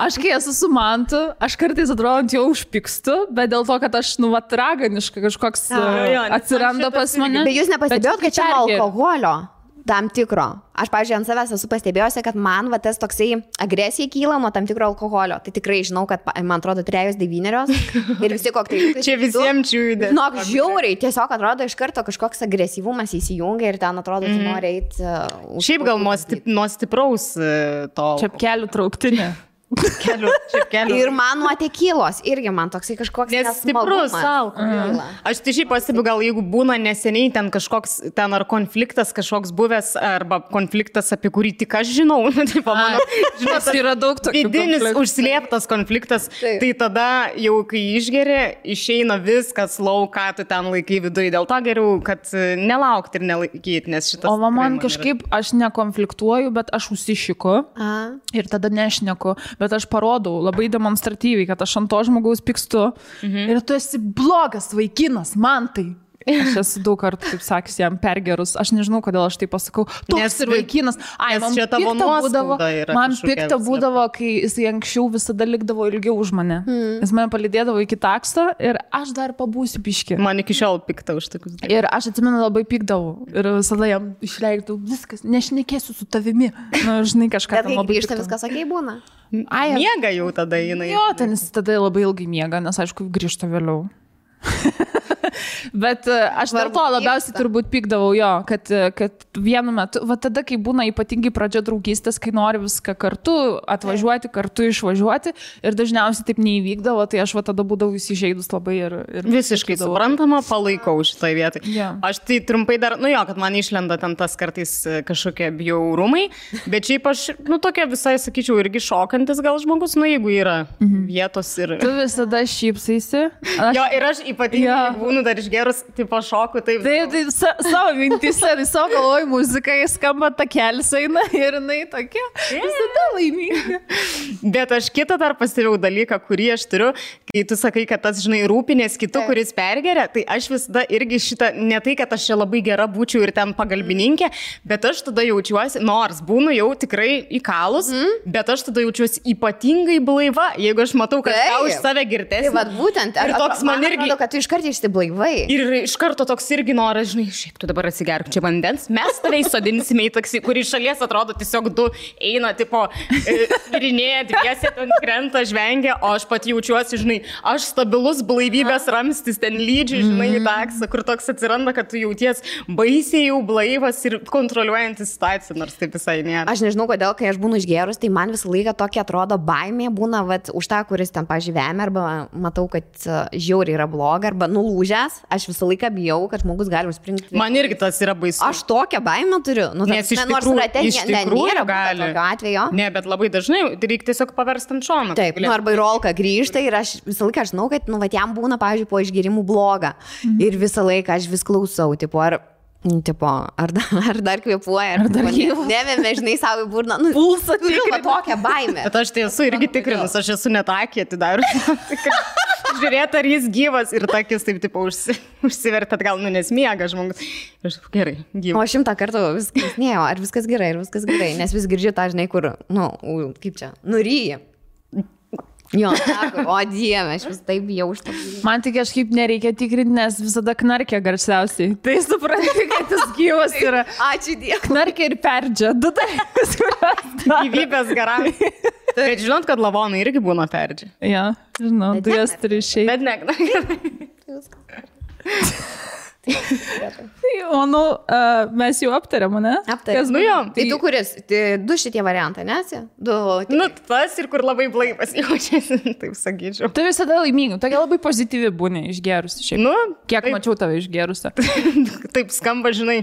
aš kai esu su Mantu, aš kartais atrodo jau užpykstu, bet dėl to, kad aš, raganiška kažkoks atsiranda pas mane. Bet jūs nepastebėjot, kad čia alkoholio tam tikro. Aš, pavyzdžiui, ant savęs esu pastebėjusi, kad man tas toksai agresija kyla nuo tam tikro alkoholio. Tai tikrai žinau, kad, man atrodo, 3-9 ir visi kokteiliukai. Čia visiems čiūdė. Žiauriai, tiesiog atrodo iš karto kažkoks agresyvumas įsijungia ir ten atrodo, tu nori eiti. Šiaip gal nuo stipraus to. Čepkelių trauktinė. Kelių. Ir man nuo tekilos irgi man toksai kažkoks stiprus alkoholis. Aš tai šiaip pastebiu, gal jeigu būna neseniai ten kažkoks, ten ar konfliktas kažkoks buvęs, arba konfliktas, apie kurį tik aš žinau, žinot, yra daug tokių vidinis užslėptas konfliktas, tai tada jau kai išgeri, išeina viskas lauką, tu ten laikai viduje, dėl to geriau, kad nelaukti ir nelaikyti, nes šitas... O man kažkaip, aš nekonfliktuoju, bet aš užsišiku ir tada nešneku. Bet aš parodau labai demonstratyviai, kad aš ant to žmogaus pykstu ir tu esi blogas vaikinas, man tai. Aš esu daug kartų, taip sakys, jam pergerus. Aš nežinau, kodėl aš tai pasakau. Toks ir vaikinas. Man pikta būdavo, kai jisai anksčiau visada likdavo ilgiau už mane. Jis mane palydėdavo iki taksto ir aš dar pabūsiu biškį. Man iki šiol pikta už tokius dalykus. Ir aš atsimenu, labai pikdavau. Ir visada jam išleidau viskas, nešnekėsiu su tavimi. Žinai, kažką ten labai grįžta, viskas okei būna. Miega jau tada jinai. Jo, ten jis tada labai ilgai miega, nes aišku, grįžta vėliau. Bet aš dėl to labiausiai turbūt pykdavau jo, kad vienu metu, va tada, kai būna ypatingai pradžia draugystės, kai nori viską kartu atvažiuoti, kartu išvažiuoti ir dažniausiai taip neįvykdavo, tai aš va tada būdavau įsižeidus labai ir visiškai suprantama, palaikau šitoj vietoj. Yeah. Aš tai trumpai dar, kad man išlenda ten tas kartais kažkokie bjaurumai, bet šiaip aš, tokia visai, sakyčiau, irgi šokantis gal žmogus, jeigu yra vietos ir... Tu visada šypsaisi. Jo, ir aš ypatingai būnu dar išgerus, tipo šoku, taip. Tai savo mintise, savo galvoj muzika, jis skamba takelis eina ir jinai tokia, visada laiminga. Bet aš kitą dar pastebėjau dalyką, kurį aš turiu, kai tu sakai, kad tas, žinai, rūpinės kitų, kuris pergeria, tai aš visada irgi šitą, ne tai, kad aš čia labai gera būčiau ir ten pagalbininkė, bet aš tada jaučiuosi, nors būnu jau tikrai įkalus, bet aš tada jaučiuosi ypatingai blaiva, jeigu aš matau, kad tau iš save girtesnė. Tai vad būtent, ir toks man irgi, atrodo, kad tu iškart išsiblaivai. Ir iš karto toks irgi noras, žinai, šiaip tu dabar atsigerk čia vandens, mes tave įsodinsime į taksi, kur iš šalies atrodo tiesiog du eina, tipo, virinėja, dviesi ten krenta, žvengia, o aš pat jaučiuosi, žinai, aš stabilus blaivybės ramstis ten lydžiai, žinai, į taksą, kur toks atsiranda, kad tu jauties baisiai jau blaivas ir kontroliuojantis situaciją, nors taip visai nėra. Aš nežinau, kodėl, kai aš būnu išgerus, tai man visą laiką tokia atrodo baimė būna, vat, už tą, kuris ten pažyvėmė, arba matau, kad žiauriai yra bloga, arba nulūžęs, aš visą laiką bijau, kad žmogus gali užspringti. Man irgi tas yra baisu. Aš tokią baimę turiu. Nes iš tikrųjų gali. Atveju. Ne, bet labai dažnai reikia tiesiog paversti ant šono. Taip, arba į rolką grįžta ir aš visą laiką žinau, kad vat, jam būna, pavyzdžiui, po išgerimų bloga. Ir visą laiką aš vis klausau, tipo, ar dar kvėpuoja, ar dar nevėmė, žinai, savo į burną. Pulsą turiu tokią baimę. Bet aš tai esu irgi tikrinus, aš esu net akį atidarius. Žiūrėti, ar jis gyvas ir takis taip, tipo, užsivertė atgal, nes miega žmogus. Ir gerai, gyvas. O 100 kartų vis klausinėjau, ar viskas gerai, nes vis girdžiu tą, žinai, kur, kaip čia, nuryji. Jo, sako, o Dieve, aš vis taip bijau už tą. Man tik kažkaip nereikia tikrinti, nes visada knarkia garsiausiai. Tai supranti, kad jis gyvas yra. Ačiū Dievui. Knarkia ir perdžia. Du dalykus, kuriuos gyvybės garantija. Bet žinot, kad lavonai irgi būna perdžia. Ja, žinau, tu jas turi išeiti. Bet ne. O, mes jau aptarėm, ne? Aptarėm. Jo. Tai tu kuris? Du šitie variantai, nesi? Tas ir kur labai blaivas jaučiasi, taip sakyčiau. Tu visada laiminga, tokia labai pozityvi būni išgerusi šiaip. Kiek mačiau tave išgerusi. Taip skamba, žinai.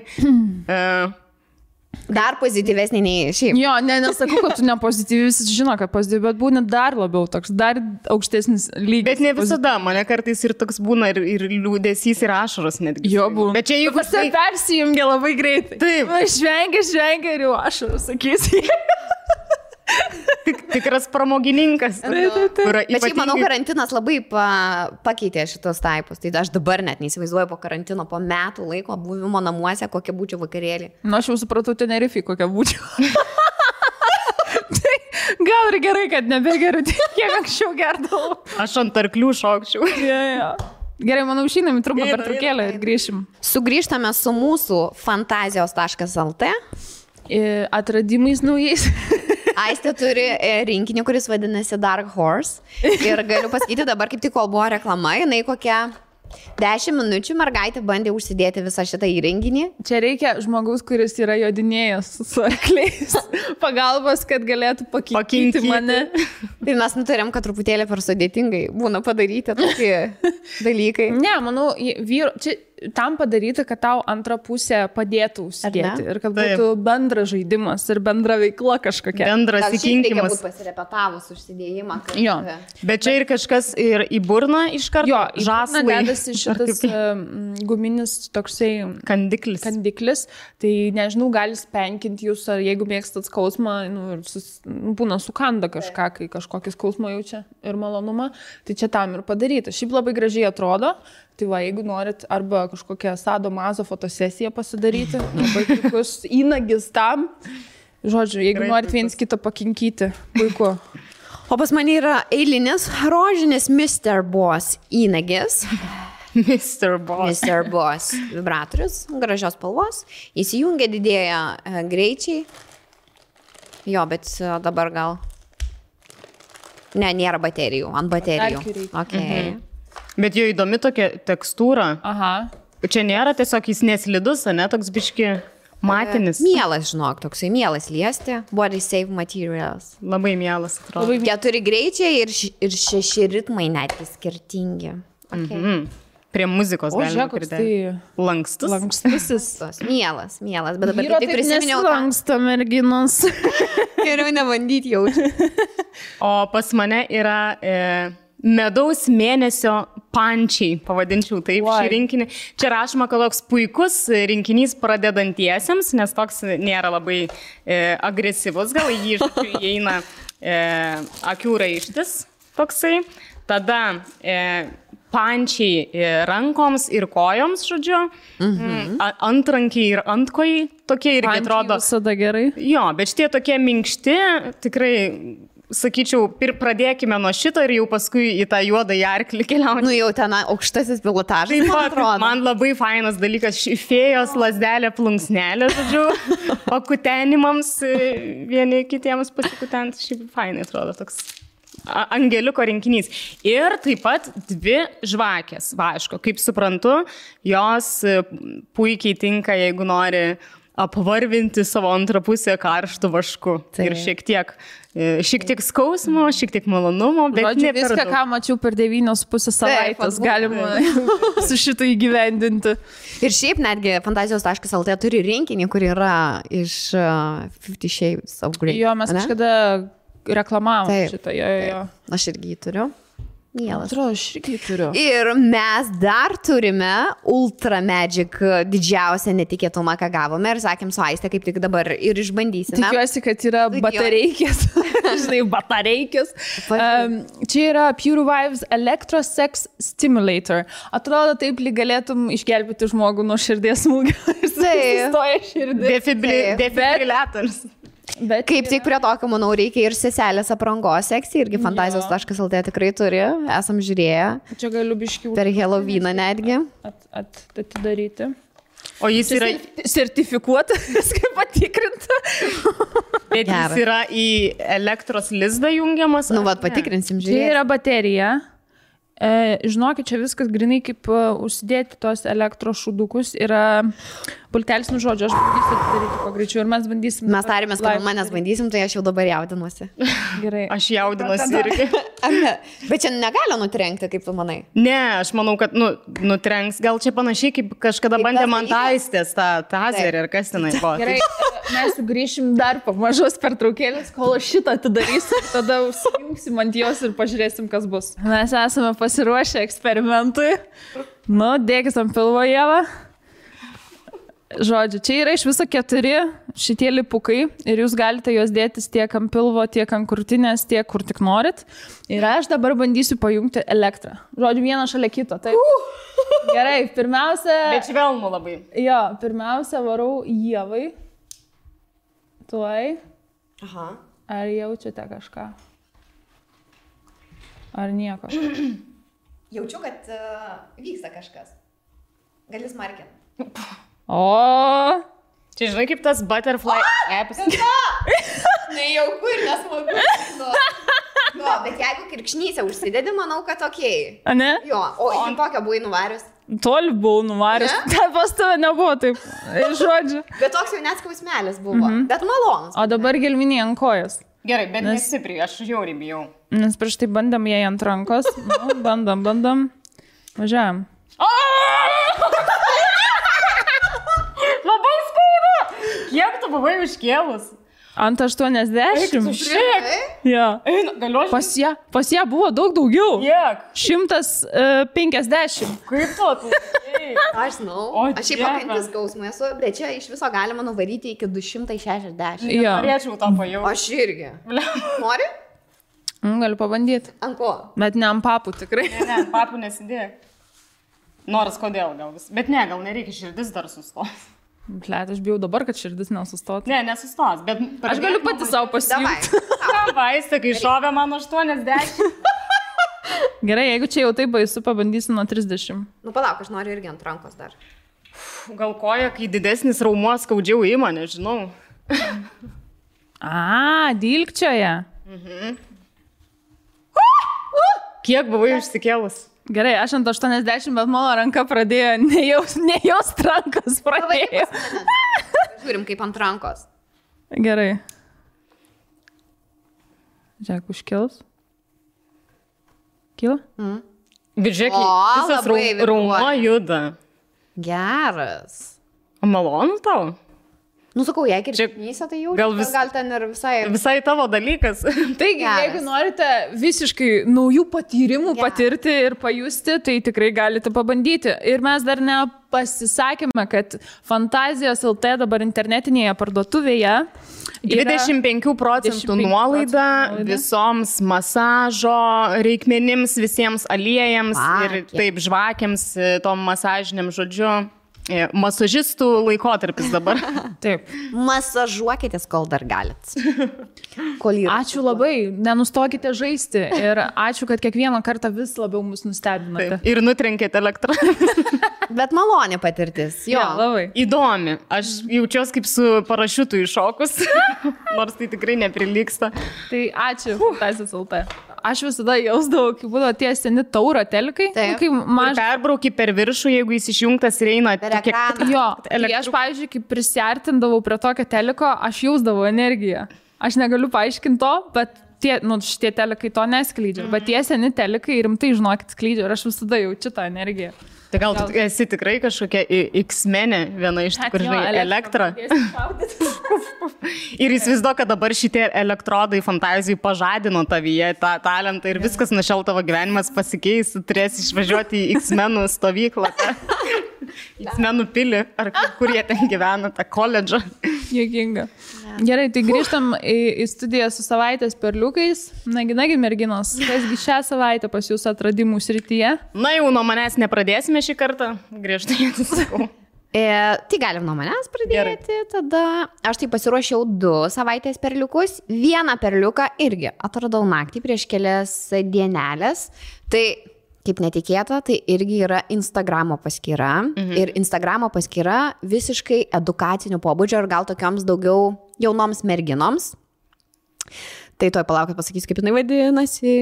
Dar pozityvesnė nei šiaip. Jo, nesakau, kad tu nepozityvi, visi žino, kad pozityvi, bet būni dar labiau toks, dar aukštesnis lygis. Bet ne visada, mane kartais ir toks būna ir liūdesys, ir ašaros netgi. Jo, būna. Bet čia jeigu... Visi persijungia labai greitai. Taip. Žvengia ir jau ašaros, sakysi. Tikras pramogininkas. Bet šiaip, manau, karantinas labai pakeitė šitos taipus. Tai aš dabar net neįsivaizduoju po karantino, po metų laiko buvimo namuose, kokia būčiau vakarėlį. Aš jau supratau, Tenerifei, kokia būčiau. Tai gal ir gerai, kad nebegeriu, kiek anksčiau gerdavau. Aš ant arklių šokčiau. Ja. Gerai, manau, išeinam į trumpą pertraukėlę ir grįšim. Sugrįžtame su mūsų fantazijos.lt atradimais naujais. Aistė turi rinkinį, kuris vadinasi Dark Horse. Ir galiu pasakyti dabar, kaip tik kol buvo reklama, jinai kokia 10 minučių mergaitė bandė užsidėti visą šitą įrenginį. Čia reikia žmogaus, kuris yra jodinėjęs su arkliais. Pagalbos, kad galėtų pakinti mane. Tai mes nutarėm, kad truputėlį per sudėtingai būna padaryti tokie dalykai. Ne, manau, čia tam padaryti, kad tau antrą pusę padėtų užsidėti. Ir kad būtų bendras žaidimas ir bendra veikla kažkokia. Bendras įkinkimas. Reikia būti pasirepetavus užsidėjimą. Jo. Bet čia ir kažkas ir į burną iš karto. Jo, žaslai. Dedasi šitas guminis toksai kandiklis. Tai nežinau, gali spenkinti jūs, ar jeigu mėgstat skausmą, būna sukanda kažką, kai kažkokį skausmą jaučia ir malonumą. Tai čia tam ir padaryta. Šiaip labai gražiai atrodo. Tai va, jeigu norit arba kažkokią sado mazo fotosesiją pasidaryti, labai puikus įnagis tam. Žodžiu, jeigu norit viens kitą pakinkyti, puiku. O pas mane yra eilinis rožinis Mr. Boss įnagis. Mr. Boss vibratorius, gražios spalvos. Įsijungia, didėja greičiai. Jo, bet dabar gal... Ne, nėra baterijų, ant baterijų. Okay. Bet jo įdomi tokia tekstūra. Aha. Čia nėra tiesiog jis neslidus, ne, toks biški matinis. Mielas, žinok, toksai mielas liesti. Body safe materials. Labai mielas, atrodo. 4 greičiai ir 6 ritmai netgi skirtingi. Okay. Prie muzikos O, galima žiūrėk, koks pridėti. tai Lankstus. lankstusis. Mielas, bet dabar Vyro tik prisiminiau. lanksto merginos. Geriau nebandyti jaučiu. O pas mane yra medaus mėnesio pančiai, pavadinčiau taip šį rinkinį. Čia rašoma, kad toks puikus rinkinys pradedantiesiems, nes toks nėra labai agresyvus, gal jį įeina akių raištis toksai. Tada pančiai rankoms ir kojoms, žodžiu, antrankiai ir antkojai, tokie irgi Pančiai atrodo. visada gerai. Jo, bet šitie tokie minkšti, tikrai, sakyčiau, pradėkime nuo šito ir jau paskui į tą juodą arklį keliaujame. Nu jau ten aukštasis pilotažas, Taip man pat, atrodo. man labai fainas dalykas, fėjos lasdelė plunksnelė, žodžiu, o kutenimams vieni kitiems pasikutent, šiaip fainai atrodo toks. Angeliuko rinkinys. Ir taip pat 2 žvakės, vaško. Kaip suprantu, jos puikiai tinka, jeigu nori apvarvinti savo antrą pusę karštų vašku. Taip. Ir šiek tiek skausmo, šiek tiek malonumo, bet Žodžiu, ne per viską, daug. ką mačiau per 9,5 savaitės, galima su šitą įgyvendinti. Ir šiaip netgi fantazijos.lt turi rinkinį, kur yra iš 50 Shades of Grey. Jo, mes ane? kažkada reklamavom Taip, šitą. Jo. Aš irgi jį turiu. Mielas. Atrodo, aš irgi turiu. Ir mes dar turime Ultra Magic didžiausią netikėtumą, ką gavome. Ir sakėm su Aiste, kaip tik dabar ir išbandysime. Tikiuosi, kad yra batareikės. Žinai, batareikės. Čia yra Pure Vibes Electrosex Stimulator. Atrodo, taip lyg galėtum išgelbėti žmogų nuo širdies smūgio. Sustoja širdis. Defibrillatorius. Bet Kaip tik prie tokio, manau, reikia ir seselės aprangos sekcijai, irgi fantazijos.lt tikrai turi, esam žiūrėję. Čia galiu biškių Per Halloweeną netgi. atidaryti. O jis yra, Sertifikuotas, viską patikrinta. bet jis Geras. yra į elektros lizdą jungiamas. Nu, ar vad, ne? patikrinsim, Čia žiūrėsim. yra baterija. Žinokit, čia viskas grinai kaip užsidėti tos elektros šudukus. Yra pultelis, nu žodžiu, aš bandysiu atidaryti kuo greičiau ir mes bandysim. Mes tarėmės, kad manęs bandysim, tai aš jau dabar jaudinuosi. Gerai. Aš jaudinuosi irgi. Ar ne? Bet čia negali nutrenkti, kaip tu manai. Ne, aš manau, kad nutrenks. Gal čia panašiai kaip kažkada Kaip bandė tas man dalykas? taistės tą tazerį ir kas tenai buvo. Gerai, mes sugrįšim dar po mažos pertraukėlės, kol aš šitą atidarysiu, tada užsijungsim ant jos ir pažiūrėsim, kas bus. Mes esame pasiruošę eksperimentui. Nu, dėkis ant pilvo, Ieva. Žodžiu, čia yra iš viso 4 šitie lipukai ir jūs galite juos dėtis tiek ant pilvo, tiek ant krūtinės, tiek kur tik norit. Ir aš dabar bandysiu pajungti elektrą. Žodžiu, vieną šalia kito. Taip. Gerai, pirmiausia... Bet švelnų labai. Jo, pirmiausia varau Ievai. Tuoj. Aha. Ar jaučiate kažką? Ar nieko? Jaučiu, kad vyksta kažkas. Gali smarkinti. O, Čia žinai kaip tas butterfly apps. Nejauku ir nesmagu. Nu, bet jeigu kirkšnysę užsidedi, manau, kad okei. ne? Jo, o ant tokio buvai nuvarius. Toli buvau nuvaręs. Ten pas tave nebuvo taip. Žodžiu. Bet toks jau net skausmelis buvo. Bet malonus. O dabar gelminį ant kojas. Gerai, bet nesipriu, aš žiauriai bijau. Nes prieš tai bandėm jai ant rankos. Nu, bandom. Važiuojam. Labai skauda. Kiek tu buvai užkėlus? Ant 80. Šiek. Jo. Galiu aš? Pas ją buvo daug daugiau. Kiek? 150. Kaip tu atlaikei? Aš žinau. O, Aš šiaip Dieve. pakantęs skausmų esu, bet čia iš viso galima nuvaryti iki 260. Jo. Norėčiau tą pajausti. Aš irgi. Nori? Galiu pabandyti. Ant ko? Bet ne ant papų tikrai. Ne, papų nesidėk. Nors kodėl gal vis. Bet ne, gal nereikia, širdis dar sustos. Blet, aš bijau dabar, kad širdis nesustotų. Ne, nesustos, bet... Aš galiu pati savo Davai. pasijungti. Vaistą, kai šovė man 80. Gerai, jeigu čia jau taip baisu, pabandysiu nuo 30. Nu, palauk, aš noriu irgi ant rankos dar. Gal koja, kai didesnis raumuo skaudžiau ima, nežinau. Dilgčioje. Kiek buvai išsikėlus? Gerai, aš ant 80, bet mano ranka pradėjo nejaust rankos pradėjo. Žiūrim kaip ant rankos. Gerai. Žiūrėk, užkils. Kyla? Bet žiūrėk, O, visas labai raumo vibruoja. juda. Geras. O malonu tau? Nu, sakau, jeigu ir Čia šipnysia, tai jau gal gal ten ir visai... Visai tavo dalykas. Taigi, Geras. jeigu norite visiškai naujų patyrimų patirti ir pajusti, tai tikrai galite pabandyti. Ir mes dar nepasisakėme, kad Fantazijos LT dabar internetinėje parduotuvėje 25% nuolaida visoms masažo reikmenims, visiems aliejams ir taip žvakiams, tom masažiniam žodžiu. Masažistų laikotarpis dabar. Taip. Masažuokitės, kol dar galit. Kol yra. Ačiū labai, nenustokite žaisti ir ačiū, kad kiekvieną kartą vis labiau mus nustebinote. Ir nutrenkėte elektrą. Bet malonė patirtis. Jo. Jo, labai. Įdomi. Aš jaučiuosi kaip su parašiutu iššokus, nors tai tikrai neprilyksta. Tai ačiū, Fantazijos LT. Aš visada jausdavau, kai būdavo tie seni tauro telikai. Taip. Kai Ir perbrauki per viršų, jeigu jis išjungtas ir eina Per ekraną. Jo, tai aš, pavyzdžiui, kai prisiartindavau prie tokio teliko, aš jausdavau energiją. Aš negaliu paaiškinti to, bet šitie telikai to neskleidžia. Bet tie seni telikai rimtai, žinokit, skleidžia ir aš visada jaučiu tą energiją. Tai gal tu esi tikrai kažkokia X-menė, viena iš tų, kur žinai, elektrą. Ir įsivaizduoju, kad dabar šitie elektrodai Fantazijai pažadino tavyje tą talentą ir viskas nuo šiol tavo gyvenimas pasikeis, turėsi išvažiuoti į X-menų stovyklą, X-menų pilį, ar kur jie ten gyvena, tą koledžą. Juokinga. Gerai, tai grįžtam į studiją su savaitės perliukais. Nagi, merginos, kasgi šią savaitę pas jūs atradimų srityje? Na jau nuo manęs nepradėsime šį kartą, griežtai atsisakau. Tai galim nuo manęs pradėti. Tada aš tai pasiruošiau 2 savaitės perliukus. Vieną perliuką irgi atradau naktį prieš kelias dienelės. Tai kaip netikėta, tai irgi yra Instagramo paskyra. Ir Instagramo paskyra visiškai edukacinio pobūdžio ir gal tokioms daugiau jaunoms merginoms. Tai toj palaukit pasakysiu, kaip jinai vadinasi.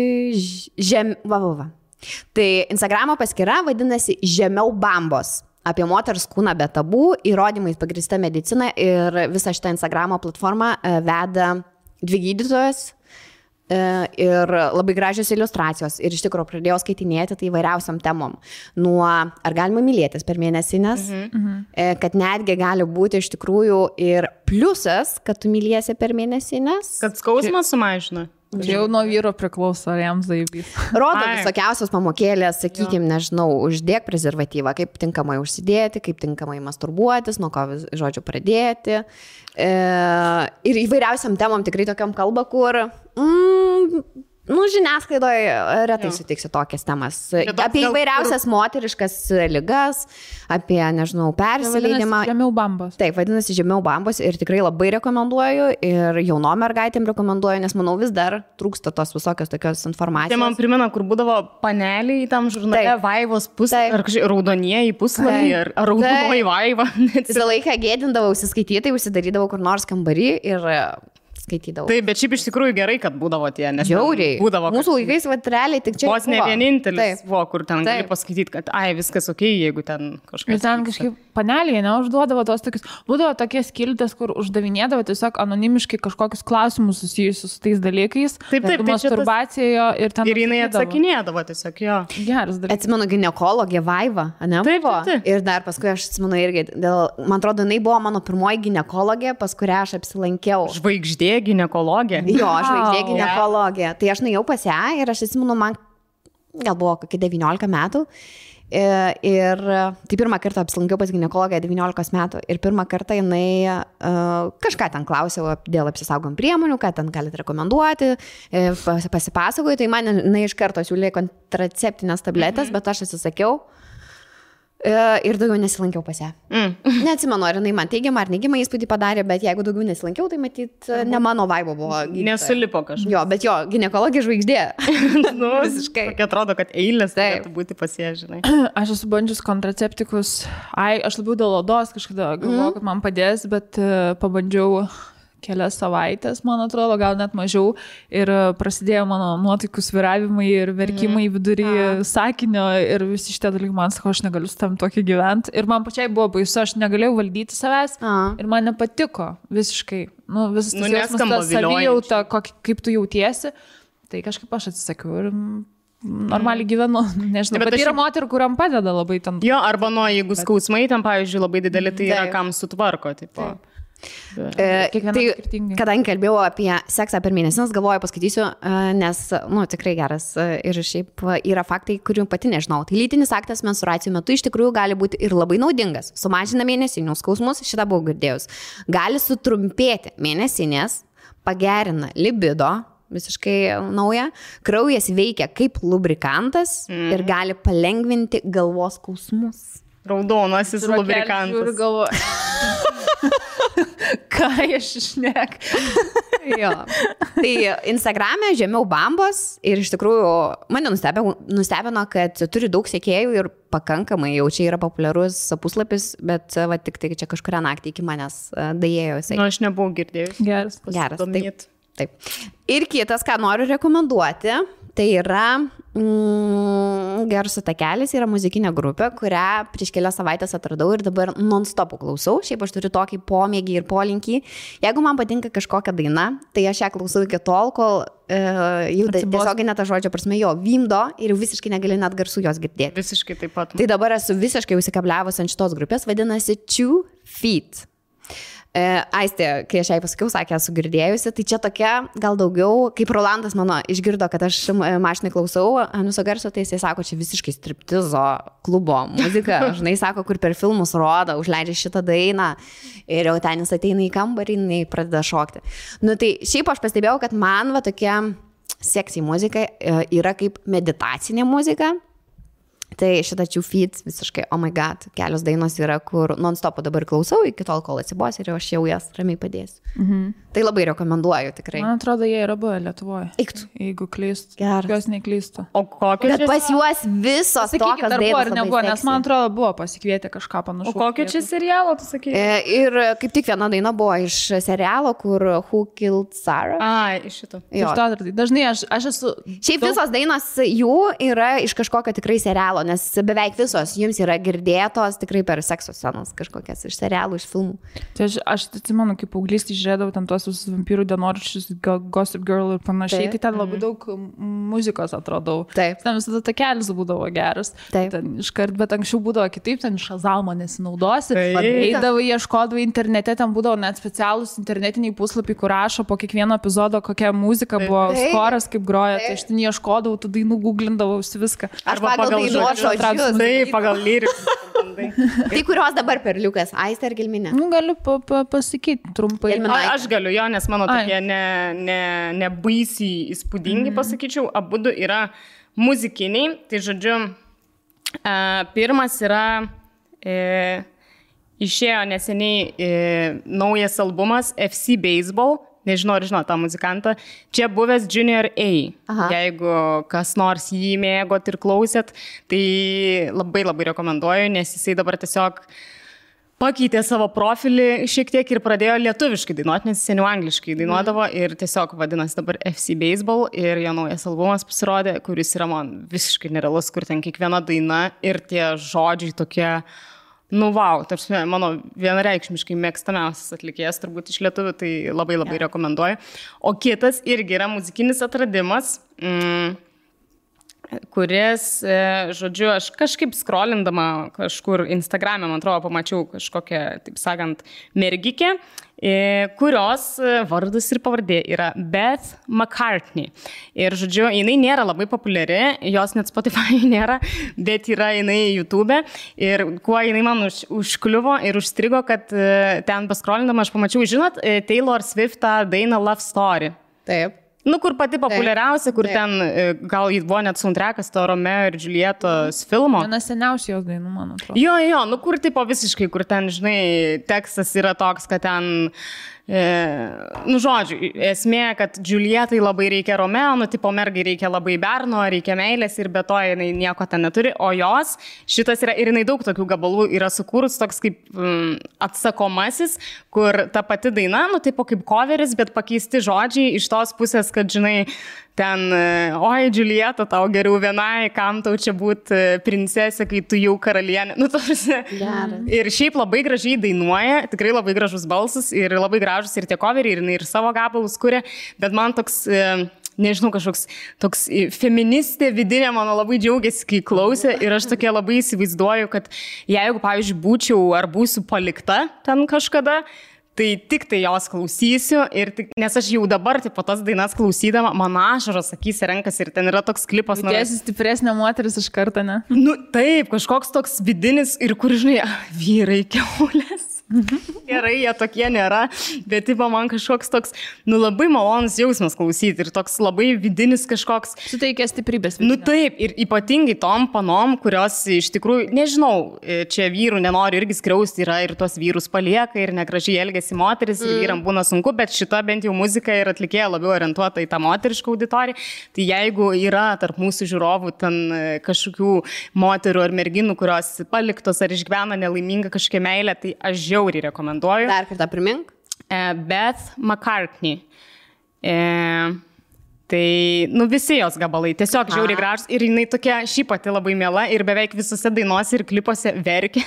Tai Instagramo paskyra vadinasi Žemiau bambos. Apie moters kūną be tabų, įrodymais pagrįsta medicina ir visą šitą Instagramo platformą veda 2 gydytojos ir labai gražios iliustracijos. Ir iš tikrųjų pradėjau skaitinėti tai įvairiausiam temom. Nuo ar galima mylėtis per mėnesinės, kad netgi gali būti iš tikrųjų ir pliusas, kad tu myliesi per mėnesinės. Kad skausmas sumažina. Čia jau nuo vyro priklauso, ar jam zaibys. Rodo visokiausios pamokėlės, sakykime, nežinau, uždėk prezervatyvą, kaip tinkamai užsidėti, kaip tinkamai masturbuotis, nuo ko, žodžiu, pradėti. Ir įvairiausiam temom tikrai tokiam kalba, kur žiniasklaidoje retai sutiksi tokias temas. Apie įvairiausias moteriškas ligas, apie, nežinau, persileidimą. Žemiau bambos. Taip, vadinasi Žemiau bambos ir tikrai labai rekomenduoju ir jaunom mergaitėm rekomenduoju, nes manau vis dar trūksta tos visokios tokios informacijos. Tai man primena, kur būdavo paneliai tam žurnale, Vaivos puslapį, ar raudonieji puslapį, ar raudonoji Vaiva. Visą laiką gėdindavau užsiskaityti, užsidarydavau kur nors kambarį ir skaitydavau. Taip, bet šiaip iš tikrųjų gerai, kad būdavo tie, nes žiauriai. Būdavo, mūsų laikais, realiai tik čia. Vos ne vienintelis Taip. buvo, kur ten gali pasakyti, kad viskas ok, jeigu ten kažkas. Ir ten kažkaip panelėje neužduodavo tos tokius, būdavo tokie skiltės, kur uždavinėdavo tiesiog anonimiškai kažkokius klausimus susijusius su tais dalykais. Taip, masturbacijoje ir ten. Ir jinai atsakinėdavo tiesiog, jo. Geras dalykas. Atsimenu, ginekologė Vaiva, ne? Taip. Ir dar paskui aš atsimenu irgi, man atrodo, jinai buvo mano pirmoji ginekologė, pas kurią aš apsilankiau. Žvaigždė ginekologė. Jo, žvaigždė ginekologė. Tai aš nuėjau pas ją ir aš atsimenu, man gal buvo kokie 19 metų. Ir tai pirmą kartą apsilankiau pas ginekologę 19 metų ir pirmą kartą jinai kažką ten klausiau dėl apsisaugom priemonių, ką ten galite rekomenduoti, pasipasakoju, tai man jinai iš karto siūlė kontraceptinės tabletės, bet aš atsisakiau. Ir daugiau nesilankiau pas ją. Neatsimenu, ar jinai man teigiamą ar neigiamą įspūdį padarė, bet jeigu daugiau nesilankiau, tai matyt, ne mano vaibo buvo. Nesulipo kažkas. Jo, bet jo, ginekologė žvaigždė. Visiškai. Tokia atrodo, kad eilės turėtų būti pas ją, žinai. Aš esu bandžius kontraceptikus. Aš labiau dėl odos kažkada galvoju, kad man padės, bet pabandžiau kelias savaitės, man atrodo, gal net mažiau. Ir prasidėjo mano nuotaikų svyravimai ir verkimai vidury sakinio ir visi šitie dalykai, man sako, aš negaliu su tam tokį gyventi. Ir man pačiai buvo baisu, aš negalėjau valdyti savęs ir man nepatiko visiškai. Visas tas jausmas, ta savijauta, kaip tu jautiesi. Tai kažkaip aš atsisakiau ir normaliai gyvenu. Nežinau, bet yra moterų, kuriam padeda labai ten. Jo, arba jeigu skausmai ten, pavyzdžiui, labai dideli, tai yra kam sutvarko. Tipo. Tai, kadangi kalbėjau apie seksą per mėnesinas, galvoju, paskaitysiu, nes, tikrai geras ir šiaip yra faktai, kurių pati nežinau. Tai lytinis aktas menstruacijų metu iš tikrųjų gali būti ir labai naudingas. Sumažina mėnesinius skausmus, šitą buvau girdėjus. Gali sutrumpėti mėnesinės, pagerina libido, visiškai nauja. Kraujas veikia kaip lubrikantas ir gali palengvinti galvos skausmus. Raudonasis lubrikantas. Ką aš išnek. Jo. Tai Instagram'e žemiau bambos ir iš tikrųjų mane nustebino, kad turi daug sekėjų ir pakankamai jau čia yra populiarus puslapis, bet tik tai čia kažkuria naktį iki manęs daėjo jisai. Aš nebuvau girdėjus. Geras. Taip. Ir kitas, ką noriu rekomenduoti, tai yra Garso takelis, yra muzikinė grupė, kurią prieš kelias savaitės atradau ir dabar non-stopų klausau. Šiaip aš turiu tokį pomėgį ir polinkį. Jeigu man patinka kažkokia daina, tai aš ją klausau iki tol, kol jau tiesiog net žodžio prasme jo vimdo ir visiškai negali net garsų jos girdėti. Visiškai taip pat. Tai dabar esu visiškai užsikabliavus ant šitos grupės, vadinasi 2 Feet. Aistė, kai aš jai pasakiau, sakė, esu girdėjusi, tai čia tokia, gal daugiau, kaip Rolandas mano išgirdo, kad aš mašinai klausau Anuso garso, tai jisai sako, čia visiškai striptizo klubo muzika, žinai, sako, kur per filmus rodo, užleidžia šitą dainą ir jau ten jis ateina į kambarį, jinai pradeda šokti. Tai šiaip aš pastebėjau, kad man va tokia seksy muzika yra kaip meditacinė muzika. Tai šitą 2 Feet visiškai, oh my god, kelios dainos yra, kur non-stopą dabar klausau, iki tol, kol atsibos ir aš jau jas ramiai padėsiu. Tai labai rekomenduoju tikrai. Man atrodo, jie yra buvę Lietuvoje. Jeigu klystu. Jos neklystu. O kokios? Bet pas juos visos tokios dainos nebuvo, nes man atrodo, buvo pasikvietę kažką panašaus. O kokio čia serialo, tu sakai? Ir kaip tik viena daina buvo iš serialo, kur Who Killed Sarah. Iš šito. Dažnai aš esu... Šiaip visos dainos jų yra iš kažkokio tikrai serialo, nes beveik visos jums yra girdėtos tikrai per sekso scenas kažkokias iš serialų, iš filmų. Tai aš atsimenu, kaip paauglystį žiūrėdavau ten tuos vampyrų dienoraščius, Gossip Girl ir panašiai, tai ten labai daug muzikos atradau. Taip. Ten visada takelis būdavo geras. Taip. Ten iškart, bet anksčiau būdavo kitaip, ten Shazamą nesinaudosi. Eidavai, ieškodavai internete, ten būdavo net specialūs internetiniai puslapiai, kur rašo po kiekvieno epizodo, kokia muzika buvo, skoras kaip groja. Tai aš ten ieškodavau, tų dainų googlindavausi viską. Arba pagal dainos žodžius. Taip, pagal lyrikus. Tai kurios dabar perliukas, Aistė ar Gelminė? Galiu pasakyti trumpai. Aš galiu jo, nes mano tokie ne baisiai įspūdingi, pasakyčiau, abudu yra muzikiniai. Tai žodžiu, pirmas yra, išėjo neseniai naujas albumas FC Baseball. Nežinau, ar žinau tą muzikantą. Čia buvęs Junior A. Aha. Jeigu kas nors jį mėgot ir klausėt, tai labai labai rekomenduoju, nes jisai dabar tiesiog pakeitė savo profilį šiek tiek ir pradėjo lietuviškai dainuoti, nes seniau angliškai dainuodavo ir tiesiog vadinasi dabar FC Baseball ir jo naujas albumas pasirodė, kuris yra man visiškai nerealus, kur ten kiekviena daina ir tie žodžiai tokie... wow, tarsi mano vienareikšmiškai mėgstamiausias atlikėjas turbūt iš lietuvių, tai labai labai rekomenduoju. O kitas irgi yra muzikinis atradimas, kuris, žodžiu, aš kažkaip scrollindama kažkur Instagram'e, man atrodo, pamačiau kažkokią, taip sakant, mergikę, kurios vardas ir pavardė yra Beth McCartney. Ir, žodžiu, jinai nėra labai populiari, jos net Spotify nėra, bet yra jinai YouTube. Ir kuo jinai man užkliuvo ir užstrigo, kad ten paskrolindama aš pamačiau, žinot, Taylor Swift dainą Love Story. Taip. Nu, kur pati populiariausia, kur ten, gal jį buvo net soundtrackas to Romeo ir Julietos filmo. Viena seniausių jos dainų, man atrodo. Jo, nu kur tipo visiškai, kur ten, žinai, tekstas yra toks, kad ten, nu žodžiu, esmė, kad Julietai labai reikia Romeo, nu tipo mergai reikia labai berno, reikia meilės ir be to jinai nieko ten neturi, o jos, šitas yra ir jinai daug tokių gabalų yra sukūrus toks kaip atsakomasis, kur ta pati daina, nu tipo kaip coveris, bet pakeisti žodžiai iš tos pusės, kad žinai, ten, oi, Julieta, tau geriau vienai, kam tau čia būti princesė, kai tu jau karalienė. Nu, tarsi. Ir šiaip labai gražiai dainuoja, tikrai labai gražus balsas ir labai gražus ir tie coveriai, ir savo gabalus kuria, bet man toks, nežinau, kažkoks toks feministė vidinė mano labai džiaugiasi, kai klausė ir aš tokia labai įsivaizduoju, kad jeigu, pavyzdžiui, būčiau ar būsiu palikta ten kažkada, tai tik tai jos klausysiu, nes aš jau dabar po tas dainas klausydama, man ašaros akys renkasi ir ten yra toks klipas. Tiesi stipresnė moteris iš karto, ne? Nu taip, kažkoks toks vidinis ir kur, žinai, vyrai kiaulės. Gerai, jie tokie nėra, bet tipo man kažkoks toks, nu labai malonus jausmas klausyti ir toks labai vidinis kažkoks. Suteikia stiprybės. Vidinio. Nu taip, ir ypatingai tom panom, kurios iš tikrųjų, nežinau, čia vyrų nenori irgi skriausti, yra ir tos vyrus palieka ir negražiai elgesi moteris ir vyram būna sunku, bet šita bent jau muzika ir atlikėja labiau orientuota į tą moterišką auditoriją. Tai jeigu yra tarp mūsų žiūrovų ten kažkokių moterų ar merginų, kurios paliktos ar išgyvena nelaimingą kažkokią meilę, tai aš žiauriai rekomenduoju. Dar kartą primink. Beth McCartney. Tai, nu, visi jos gabalai, tiesiog žiauriai gražus ir jinai tokia šiaip pati labai miela ir beveik visose dainuose ir klipuose verkia,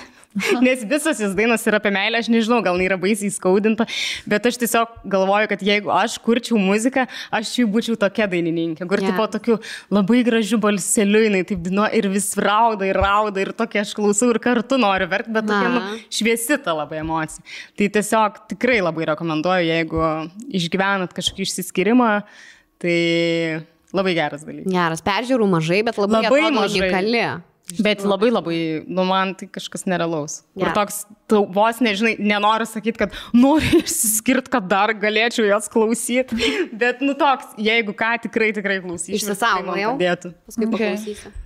nes visos jos dainos yra apie meilę, aš nežinau, gal yra baisiai skaudinta, bet aš tiesiog galvoju, kad jeigu aš kurčiau muziką, aš jau būčiau tokia dainininkė, kur tipo tokiu labai gražiu balseliu jinai taip dainuoja ir vis rauda ir tokia aš klausau ir kartu noriu verkti, bet tokia šviesi ta labai emocija. Tai tiesiog tikrai labai rekomenduoju, jeigu išgyvenat kažkokį išsiskyrimą, tai labai geras dalykas. Geras, peržiūrų mažai, bet labai unikali. Bet labai, nu man tai kažkas nerealaus. Ir toks, tu vos nežinai, nenoriu sakyti, kad noriu išsiskirti, kad dar galėčiau jos klausyti, bet nu toks, jeigu ką, tikrai klausysiu. Išsisaugojau. Paskui paklausysiu.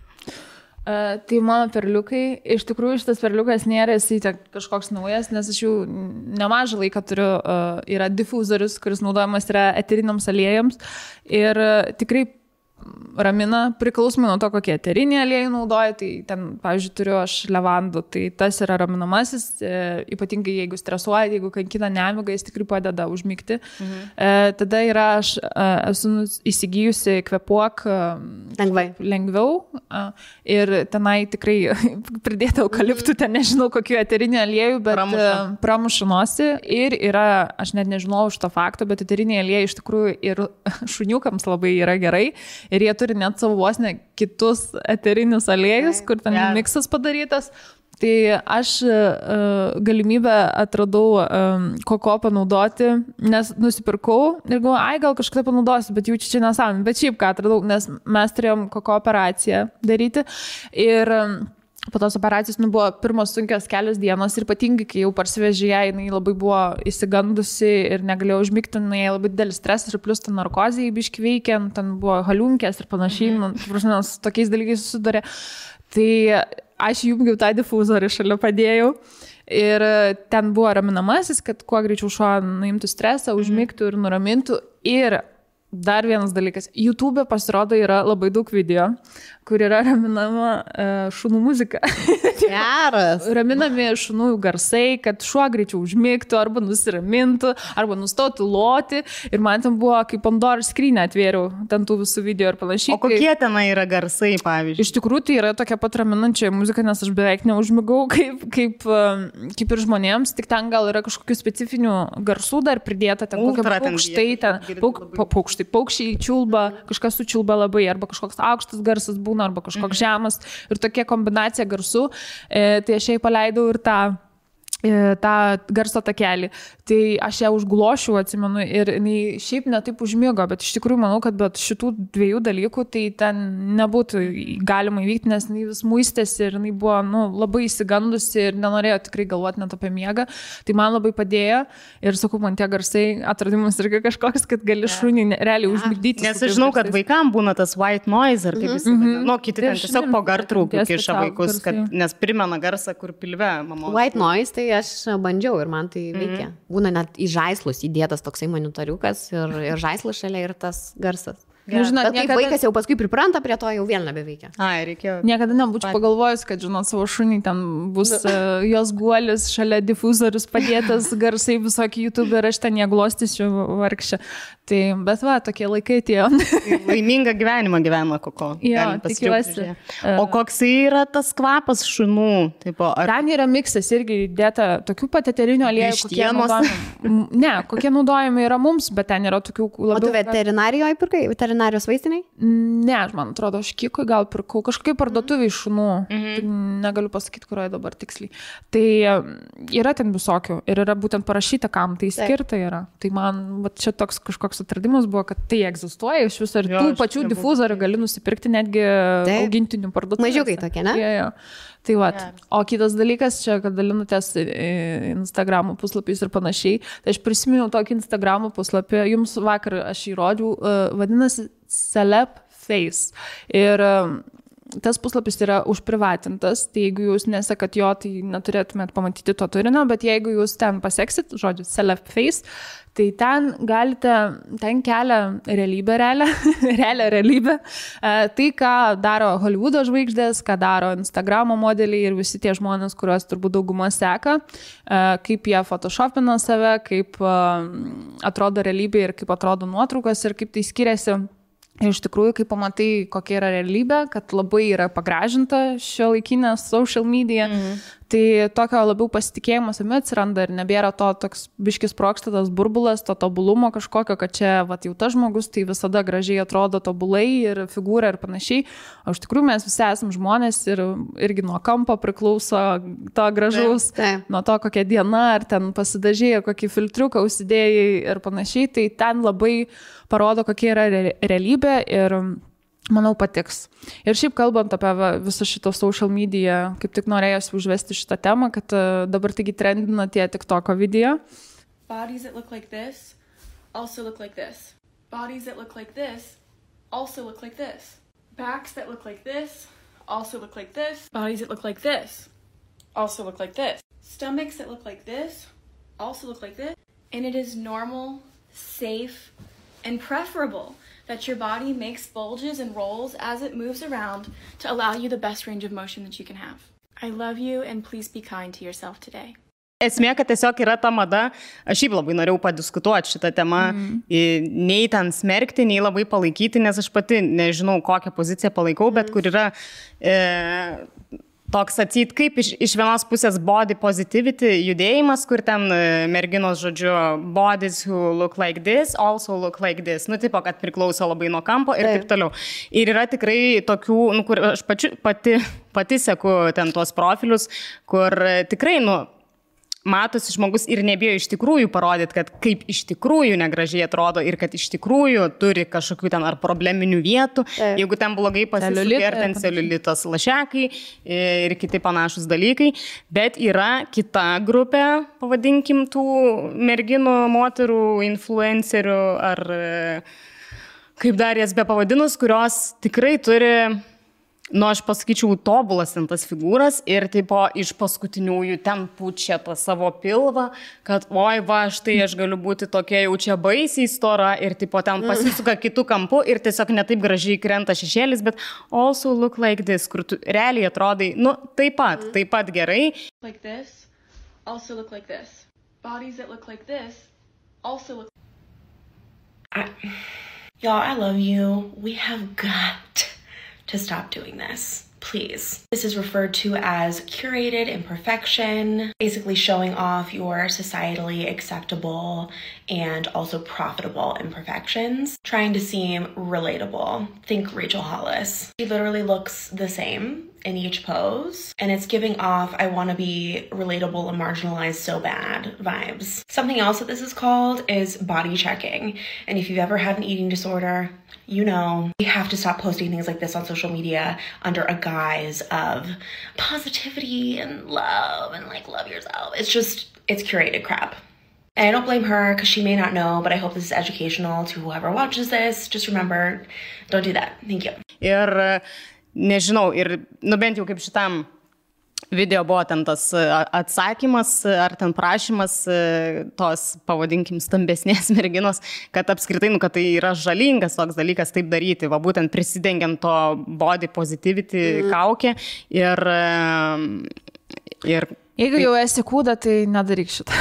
Tai mano perliukai, iš tikrųjų šitas perliukas nėra jisai kažkoks naujas, nes aš jau nemažą laiką turiu, yra difuzorius, kuris naudojamas yra eteriniams aliejams ir tikrai ramina, priklausomai nuo to, kokie eteriniai aliejai naudoja, tai ten, pavyzdžiui, turiu aš levandų, tai tas yra raminamasis, ypatingai jeigu stresuoja, jeigu kankina nemiga, jis tikrai padeda užmigti. Tada yra, aš esu įsigijusi Kvėpuok lengviau ir tenai tikrai pridėta eukaliptų, ten nežinau kokiu eteriniu aliejų, bet pramuša nosį ir yra, aš net nežinau už to fakto, bet eteriniai aliejai iš tikrųjų ir šuniukams labai yra gerai. Ir jie turi net savo vos ne kitus eterinius aliejus, kur ten miksas padarytas. Tai aš galimybę atradau koko panaudoti, nes nusipirkau ir galvoju, ai gal kažkada panaudosiu, bet jau čia nesąmonė. Bet šiaip ką atradau, nes mes turėjom koko operaciją daryti ir po tos operacijos buvo pirmos sunkios kelios dienos ir ypatingai, kai jau parsivežė ją, jinai labai buvo įsigandusi ir negalėjo užmigti, jinai labai didelis stresas ir plus ten narkozijai biški veikia, ten buvo haliunkės ir panašiai, su tokiais dalykais susidarė. Tai aš jungiau tą difuzorių, šalia padėjau ir ten buvo raminamasis, kad kuo greičiau šuo nuimtų stresą, užmigtų ir nuramintų. Ir dar vienas dalykas, YouTube pasirodo yra labai daug video, kur yra raminama šunų muzika. Geras. Raminami šunų garsai, kad šuo greičiau užmigtų, arba nusiramintų, arba nustotų loti. Ir man ten buvo, kaip Pandoros skrynią atvėriau, ten tų visų video ir panašiai. O kokie tenai yra garsai, pavyzdžiui? Iš tikrųjų, tai yra tokia pat raminančia muzika, nes aš beveik neužmigau, kaip ir žmonėms, tik ten gal yra kažkokių specifinių garsų dar pridėta, ten kokie paukštai, ten paukščiai čiulba, kažkas sučiulba labai, arba kažkoks aukštas garsas būna, arba kažkoks žemas ir tokia kombinacija garsų. Tai aš jai paleidau ir tą tą garso takelį. Tai aš ją užglošiau, atsimenu, ir jinai šiaip netaip užmigo, bet iš tikrųjų manau, kad be šitų dviejų dalykų tai ten nebūtų galima įvykti, nes jinai vis muistėsi ir jinai buvo labai įsigandusi ir nenorėjo tikrai galvoti net apie miegą. Tai man labai padėjo ir sakau, man tie garsai atradimas irgi kažkoks, kad gali šunį realiai užmigdyti. Nes aš žinau, kad vaikam būna tas white noise, ar kaip jis vadina. Kiti ten tiesiog po gartraukių kiša vaikus, nes primena garsą, kur pilve mamos. White noise, tai aš bandžiau ir man tai veikia. Būna net į žaislus įdėtas toksai monitoriukas ir žaislas šalia ir tas garsas. Žinot, bet kaip vaikas jau paskui pripranta prie to, jau vėl nebeveikia. Reikėjo. Niekada nebūčiau pagalvojus, kad, žinot, savo šunį ten bus jos guolis, šalia difuzorius padėtas, garsai visokie YouTube ir aš ten jie glostysiu vargšę. Tai, bet tokie laikai atėjo. Laimingą gyvenimą gyvena Koko. Jo, tikiuosi. O koks yra tas kvapas šunų? Ten yra miksas irgi įdėta tokių pat eterinių aliejų, kokie naudojami. Ne, kokie naudojami yra mums, bet ten yra tokių labiau. O tu veterinarijoje pirkai? Veterinarijos vaistiniai? Ne, man atrodo, aš Kikui gal pirkau kažkokiai parduotuviai šunų. Negaliu pasakyti, kurioje dabar tiksliai. Tai yra ten visokių ir yra būtent parašyta, kam tai skirta yra. Tai man čia toks kažkoks atradimas buvo, kad tai egzistuoja iš viso ir tų pačių difuzorių gali nusipirkti netgi augintinių parduotuvėse. Mažiukai tokie, ne? Jo. Tai o kitas dalykas čia, kad dalinutės Instagramo puslapiais ir panašiai, tai aš prisiminiau tokį Instagramo puslapį, jums vakar aš jį rodžiau, vadinasi Celeb Face. Ir tas puslapis yra užprivatintas, tai jeigu jūs nesekat jo, tai neturėtumėt pamatyti to turinio, bet jeigu jūs ten paseksit, žodžiu, Celeb Face, tai ten kelia realybę, realią realybę. Tai, ką daro Hollywoodo žvaigždės, ką daro Instagramo modeliai ir visi tie žmonės, kuriuos turbūt dauguma seka, kaip jie photoshopina save, kaip atrodo realybė ir kaip atrodo nuotraukos ir kaip tai skiriasi. Ir iš tikrųjų, kai pamatai, kokia yra realybė, kad labai yra pagražinta šiuolaikinė social media, tai tokio labiau pasitikėjimo savimi atsiranda ir nebėra to toks biškis sprogstatas burbulas, to tobulumo kažkokio, kad čia jau tas žmogus tai visada gražiai atrodo tobulai ir figūra ir panašiai. O iš tikrųjų mes visi esam žmonės ir irgi nuo kampo priklauso to gražaus, nuo to kokia diena, ar ten pasidažėjai, kokį filtriuką užsidėjai ir panašiai. Tai ten labai parodo, kokia yra realybė ir manau patiks. Ir šiaip kalbant apie visą šitą social media, kaip tik norėjusi užvesti šitą temą, kad dabar taigi trendina tie TikToko video. Bodies that look like this also look like this. Bodies that look like this also look like this. Backs that look like this also look like this. Bodies that look like this also look like this. Stomachs that look like this also look like this. And it is normal, safe, and preferable that your body makes bulges and rolls as it moves around to allow you the best range of motion that you can have. I love you and please be kind to yourself today. Esmė, kad tiesiog yra ta mada, aš šiaip labai norėjau padiskutuoti šitą temą, nei ten smerkti, nei labai palaikyti, nes aš pati nežinau, kokią poziciją palaikau, bet kur yra toks atseit, kaip iš vienos pusės body positivity judėjimas, kur ten merginos, žodžiu, bodies who look like this, also look like this. Tipo, kad priklauso labai nuo kampo ir taip toliau. Ir yra tikrai tokių, kur aš pati seku ten tuos profilius, kur tikrai, matosi žmogus ir nebijo iš tikrųjų parodyti, kad kaip iš tikrųjų negražiai atrodo ir kad iš tikrųjų turi kažkokių ten ar probleminių vietų, jeigu ten blogai pasisukė, ar ten celiulitas lašekai ir kiti panašus dalykai. Bet yra kita grupė, pavadinkim, tų merginų, moterų, influencerių ar kaip dar jas be pavadinus, kurios tikrai turi, aš pasakyčiau, tobulas ten tas figūras ir tipo iš paskutiniųjų ten pučia tą savo pilvą, kad oi va, štai aš galiu būti tokia jau čia baisiai stora ir tipo ten pasisuka kitų kampų ir tiesiog netaip gražiai krenta šešėlis, bet also look like this, kur tu realiai atrodai, taip pat gerai. Like this, also look like this. Bodies that look like this, also look. Y'all, I love you. We have got to stop doing this, please. This is referred to as curated imperfection, basically showing off your societally acceptable and also profitable imperfections, trying to seem relatable. Think Rachel Hollis. She literally looks the same in each pose, and it's giving off I want to be relatable and marginalized so bad vibes. Something else that this is called is body checking. And if you've ever had an eating disorder, you know, you have to stop posting things like this on social media under a guise of positivity and love and like love yourself. It's curated crap. And I don't blame her because she may not know, but I hope this is educational to whoever watches this. Just remember, don't do that. Thank you. Ir nežinau, ir bent jau kaip šitam video buvo ten tas atsakymas ar ten prašymas tos, pavadinkim, stambesnės merginos, kad apskritai, kad tai yra žalingas toks dalykas taip daryti, va būtent prisidengiant to body positivity kaukę ir Jeigu jau esi kūda, tai nedaryk šitą.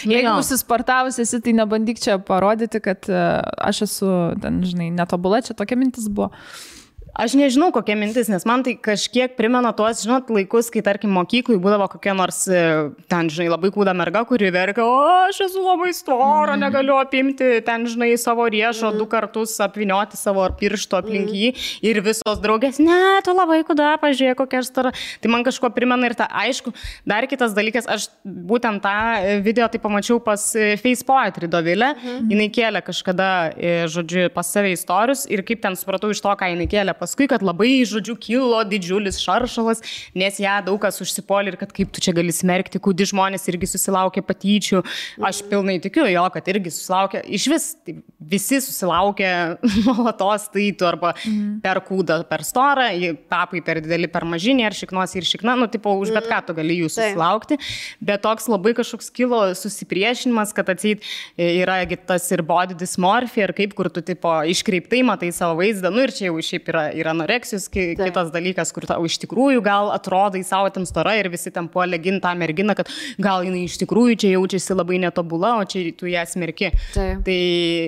Jeigu susisportavus esi, tai nebandyk čia parodyti, kad aš esu, ten, žinai, netobula, čia tokia mintis buvo. Aš nežinau, kokia mintis, nes man tai kažkiek primena tuos, žinot, laikus, kai, tarkim, mokyklai būdavo kokia nors, ten, žinai, labai kūda merga, kuri verkia, aš esu labai stora, negaliu apimti, ten, žinai, savo riešo 2 kartus apvinioti savo piršto aplink jį ir visos draugės, ne, tu labai kūda, pažiūrėk, kokia aš stora. Tai man kažko primena ir ta, aišku, dar kitas dalykas, aš būtent tą video tai pamačiau pas Face Poetry Dovilę, jinai kėlė kažkada, žodžiu, pas save istorijus ir kaip ten supratau iš to, ką jinai kėlė. Paskui, kad labai, žodžiu, kilo didžiulis šaršalas, nes ją daug kas užsipolė ir kad kaip tu čia gali smerkti, kūdi žmonės irgi susilaukė patyčių. Aš pilnai tikiu jo, kad irgi susilaukė. Iš vis tai visi susilaukė nuolatos taitų arba per kūdą, per storą, papai per didelį, per mažinį, ar šiknos ir šikna, nu, tipo, už bet ką tu gali jų susilaukti. Bet toks labai kažkoks kilo susipriešinimas, kad atseit yra tas ir body dysmorphia, ir kaip, kur tu, tipo, iškreiptai matai savo vaizdą, nu ir čia jau šiaip yra anoreksijos, kitas dalykas, kur tau iš tikrųjų gal atrodai savo ten stora ir visi ten puolė ginti tą merginą, kad gal jinai iš tikrųjų čia jaučiasi labai netobula, o čia tu ją smerki. Tai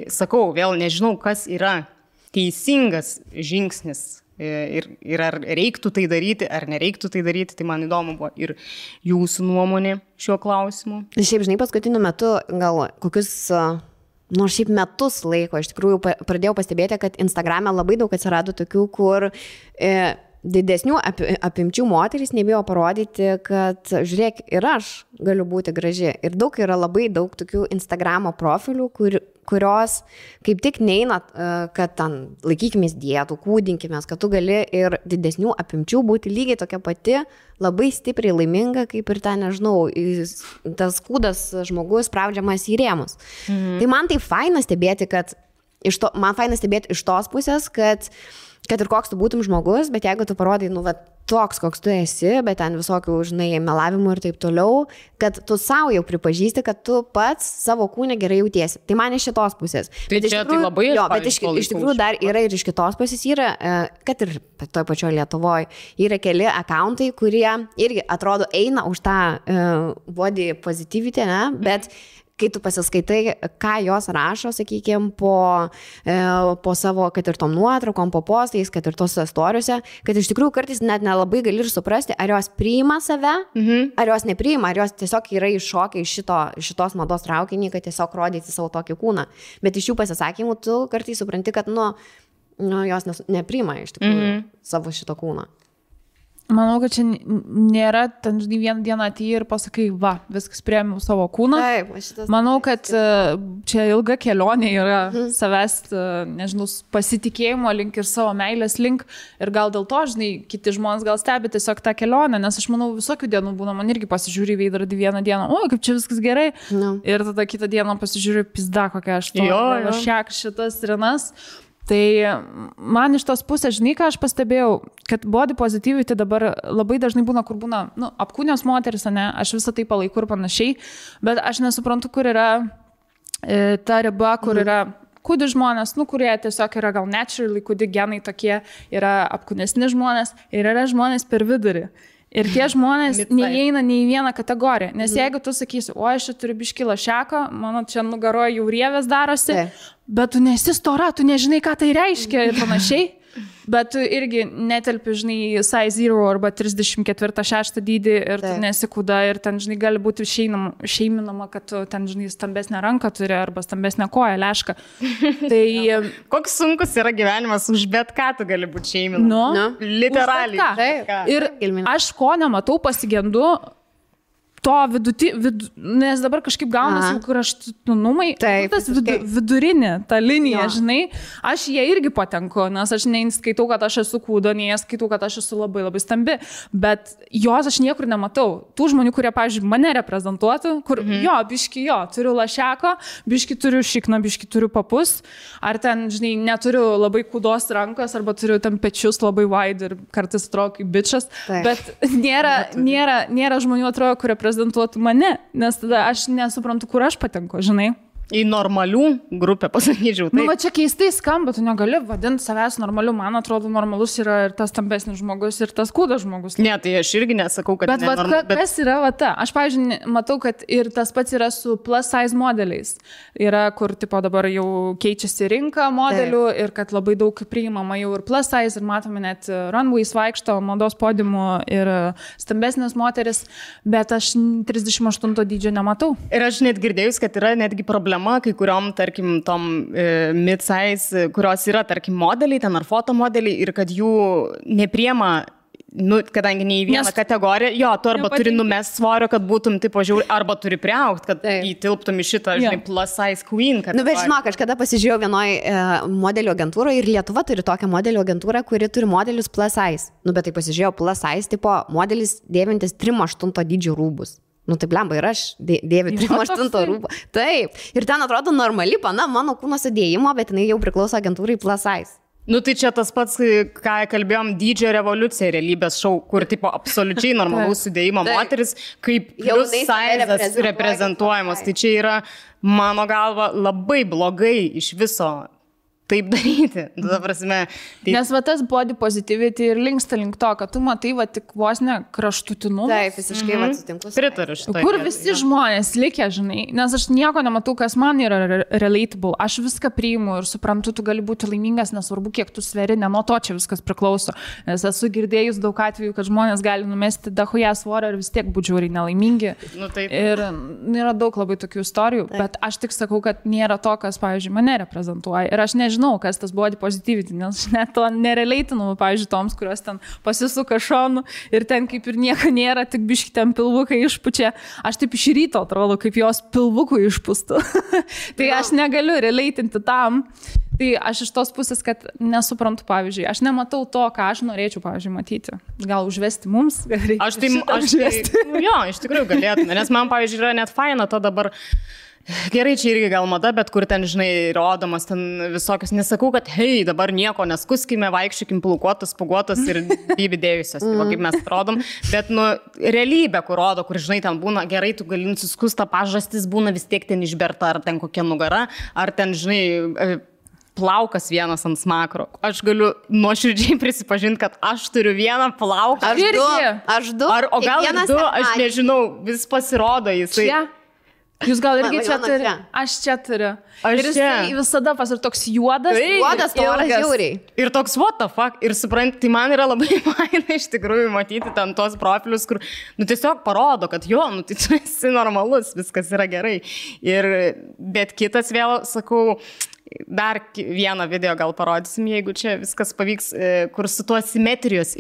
sakau, vėl nežinau, kas yra teisingas žingsnis ir ar reiktų tai daryti, ar nereiktų tai daryti, tai man įdomu buvo ir jūsų nuomonė šiuo klausimu. Šiaip, žinai, paskutiniu metu gal kokius... Nors šiaip metus laiko, iš tikrųjų pradėjau pastebėti, kad Instagrame labai daug atsirado tokių, kur didesnių apimčių moterys nebijo parodyti, kad žiūrėk, ir aš galiu būti graži. Ir yra labai daug tokių Instagramo profilių, kurios kaip tik neina, kad ten laikykimės dietų, kūdinkimės, kad tu gali ir didesnių apimčių būti lygiai tokia pati, labai stipriai laiminga, kaip ir ten, nežinau, tas kūdas žmogus spraudžiamas į rėmus. Tai man tai faina stebėti, man faina stebėti iš tos pusės, kad ir koks tu būtum žmogus, bet jeigu tu parodai, nu, va, toks, koks tu esi, bet ten visokių, žinai, melavimų ir taip toliau, kad tu savo jau pripažįsti, kad tu pats savo kūne gerai jautiesi. Tai man iš šitos pusės. Tai čia tai labai bet iš tikrųjų dar yra ir iš kitos pusės yra, kad ir toj pačioje Lietuvoje, yra keli accountai, kurie irgi atrodo eina už tą body positivity, ne, bet kai tu pasiskaitai, ką jos rašo, sakykime, po savo, kad ir tom nuotraukom, po postais, kad ir tos istorijose, kad iš tikrųjų kartais net nelabai gali ir suprasti, ar jos priima save, ar jos nepriima, ar jos tiesiog yra iššokę iš šitos mados traukinį, kad tiesiog rodyti savo tokį kūną. Bet iš jų pasisakymų tu kartais supranti, kad jos nepriima iš tikrųjų savo šito kūną. Manau, kad čia nėra, ten, žinai, vieną dieną atėjai ir pasakai, va, viskas priėmiau savo kūną. Taip, manau, kad čia ilga kelionė yra savęs, nežinau, pasitikėjimo link ir savo meilės link. Ir gal dėl to, žinai, kiti žmonės gal stebi tiesiog tą kelionę, nes aš manau, visokių dienų būna, man irgi pasižiūri į veidrodį vieną dieną, o, kaip čia viskas gerai. Ir tada kitą dieną pasižiūri, pizda, kokia aš to, šiek šitas rinas. Tai man iš tos pusės, žinai, ką aš pastebėjau, kad body positivity dabar labai dažnai būna, kur būna, apkūnios moteris, ne, aš visą tai palaikau ir panašiai, bet aš nesuprantu, kur yra ta riba, kur yra kūdi žmonės, kurie tiesiog yra gal naturally, kūdi genai tokie, yra apkūnesni žmonės ir yra žmonės per vidurį. Ir tie žmonės neįeina nei į vieną kategoriją. Nes jeigu tu sakysi, o aš čia turiu biškį lašeko, mano čia nugaroje jau rievės darosi, bet tu nesi stora, tu nežinai, ką tai reiškia ir panašiai. Bet tu irgi netelpi, žinai, size 0 arba 34-6 dydį ir tu nesikūda ir ten, žinai, gali būti šeiminama, kad tu ten, žinai, stambesnę ranką turi arba stambesnę koją, lešką. Tai... Koks sunkus yra gyvenimas, už bet ką tu gali būti šeiminama. Literaliai. Ir aš ko nematau, pasigendu to nes dabar kažkaip gaunasi kraštutinumai, tas vidurinė, ta linija, žinai, aš jie irgi patenku, nes aš neskaitau, kad aš esu kūdo, nei skaitau, kad aš esu labai labai stambi, bet jos aš niekur nematau. Tų žmonių, kurie, pavyzdžiui, mane reprezentuotų, kur biški turiu lašeko, biški turiu šikną, biški turiu papus, ar ten, žinai, neturiu labai kūdos rankos, arba turiu ten pečius labai wide ir kartais atrodo kaip bičas, bet nėra žmonių atrodo, kurie reprezentuotų mane, nes tada aš nesuprantu, kur aš patenku, žinai. Į normalių grupę, pasakyčiau. Nu, va čia keistai skamba, tu negali vadinti savęs normaliu, man atrodo, normalus yra ir tas stambesnis žmogus, ir tas kūdas žmogus. Ne, tai aš irgi nesakau, kad bet kas yra va ta? Aš, pavyzdžiui, matau, kad ir tas pats yra su plus size modeliais. Yra, kur, tipo, dabar jau keičiasi rinka modelių ir kad labai daug priimama jau ir plus size ir matome net runways vaikšto, mados podiumų ir stambesnės moteris, bet aš 38 dydžio nematau. Ir aš net girdėjus, kad yra netgi problema kai kuriom, tarkim, tom mid-size, kurios yra, tarkim, modeliai, ten ar fotomodeliai ir kad jų nepriema, kadangi ne į vieną kategoriją, tu arba turi numest svorio, kad būtum tipo žiauri, arba turi priaugti, kad įtilptum į šitą, žinai, plus size queen. Bet žinok, aš kada pasižiūrėjau vienoj modelio agentūroje ir Lietuva turi tokią modelio agentūrą, kuri turi modelius plus size. Bet tai pasižiūrėjau plus size, tipo modelis dėvintis 3-8 dydžių rūbus. Tai blemba ir aš dėviu 3-8 rūbų. Taip. Ir ten atrodo normali pana mano kūno sudėjimo, bet jinai jau priklauso agentūrai plus size. Tai čia tas pats, ką kalbėjom, dydžio revoliucija realybės šou, kur tipo absoliučiai normalaus sudėjimo moteris, kaip plus size reprezentuojamas. Tai čia yra, mano galva, labai blogai iš viso taip daryti. Nes va tas body positivity ir linksta link to, kad tu matai va tik vos ne kraštutinumus. Taip, visiškai va sutinku. Pritariu šitą. Kur visi žmonės likę, žinai, nes aš nieko nematau, kas man yra relatable. Aš viską priimu ir suprantu, tu gali būti laimingas, nesvarbu, kiek tu sveri, ne nuo to čia viskas priklauso. Nes esu girdėjus daug atvejų, kad žmonės gali numesti dahuja svorio ir vis tiek būti žiauriai nelaimingi. Ir yra daug labai tokių istorijų, bet aš tik sakau, kad nėra to, kas, pavyzdžiui, mane reprezentuoja. Ir aš nežinau, kas tas body positivity, nes aš net to nerelatinu, pavyzdžiui, toms, kurios ten pasisuka šonu ir ten kaip ir nieko nėra, tik biški ten pilvukai išpučia. Aš taip iš ryto atrodo, kaip jos pilvukų išpūstų. Tai aš negaliu relatinti tam. Tai aš iš tos pusės, kad nesuprantu, pavyzdžiui, aš nematau to, ką aš norėčiau, pavyzdžiui, matyti. Gal užvesti mums? Aš iš tikrųjų galėtume, nes man, pavyzdžiui, yra net faina to dabar. Gerai, čia irgi gal mada, bet kur ten, žinai, rodomas ten visokios, nesakau, kad hei, dabar nieko neskuskime, vaikščiukim plaukuotas, spuguotas ir bybidėjusios, kaip mes rodom, bet, realybė, kur rodo, kur, žinai, ten būna, gerai, tu gali nusiskusta pažastis, būna vis tiek ten išberta, ar ten kokia nugara, ar ten, žinai, plaukas vienas ant smakro. Aš galiu nuoširdžiai prisipažinti, kad aš turiu vieną plauką. Aš du. O gal ir du, aš nežinau, vis pasirodo jisai. Jūs gal irgi čia turi? Aš čia turiu. Ir jis visada ir toks juodas. Juodas, toras žiauriai. Ir toks what the fuck. Ir supranti, tai man yra labai faina iš tikrųjų matyti ten tos profilius, kur, tiesiog parodo, kad tai tu esi normalus, viskas yra gerai. Bet kitas vėl, sakau, dar vieną video gal parodysim, jeigu čia viskas pavyks, kur su tuo simetrijos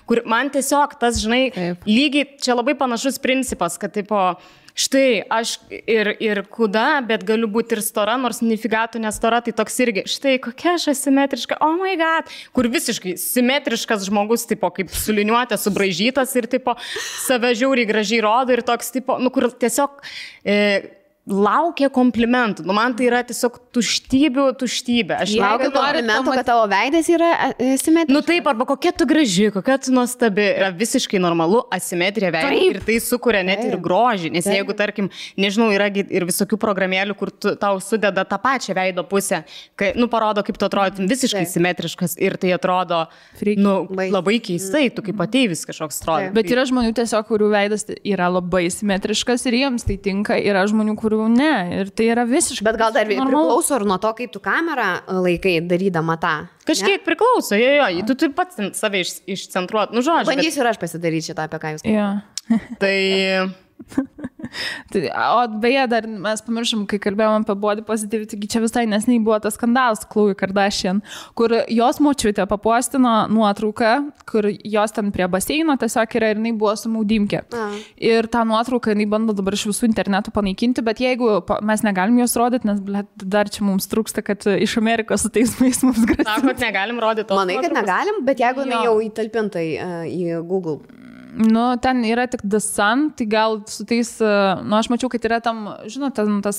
kur man tiesiog tas, žinai, lygiai, čia labai panašus principas, kad tipo, štai, aš ir kuda, bet galiu būti ir stora, nors nifigatų nestora, tai toks irgi, štai, kokia aš asimetriška, oh my god, kur visiškai simetriškas žmogus, tipo, kaip suliniuotė, subraižytas ir, tipo, save žiauriai gražiai rodo ir toks, tipo, kur tiesiog laukia komplimentų. Man tai yra tiesiog tuštybė. Aš laukiu komplimentų, kad tavo veidas yra simetriškas. Taip, arba kokia tu graži, kokia tu nuostabi. Yra visiškai normalu asimetrija veido ir tai sukuria net ir grožį. Nes jeigu, tarkim, nežinau, yra ir visokių programėlių, kur tau sudeda tą pačią veido pusę, kai, parodo, kaip tu atrodytum visiškai simetriškas ir tai atrodo, labai keistai, tu kaip ateivis kažkoks atrodo. Bet yra žmonių tiesiog, kurių veidas yra labai simetriškas ir jiems tai tinka. Yra žmonių, kurių ne, ir tai yra visiškai. Bet gal dar priklauso ir nuo to, kaip tu kamerą laikai darydama tą. Kažkiek priklauso, jo, tu taip pat save išcentruot, nu žodžiu. Bandysiu ir aš pasidaryti šitą, apie ką jūs kalbate. Tai... O beje, dar mes pamiršom, kai kalbėjom apie body positivity, čia visai nesnei buvo tas skandalas Khloe Kardashian, kur jos močiutė papostino nuotrauką, kur jos ten prie baseino tiesiog yra ir jinai buvo su maudymke. Ir tą nuotrauką jinai bando dabar iš visų internetų panaikinti, bet jeigu mes negalim jos rodyti, nes dar čia mums trūksta, kad iš Amerikos su teismais mums grasina. Sako, kad negalim rodyti tos nuotraukos. Manai, kad negalim, bet jeigu jinai jau įtalpinta į Google. Nu, ten yra tik The Sun, tai gal su tais, aš mačiau, kad yra tam, žinote, tas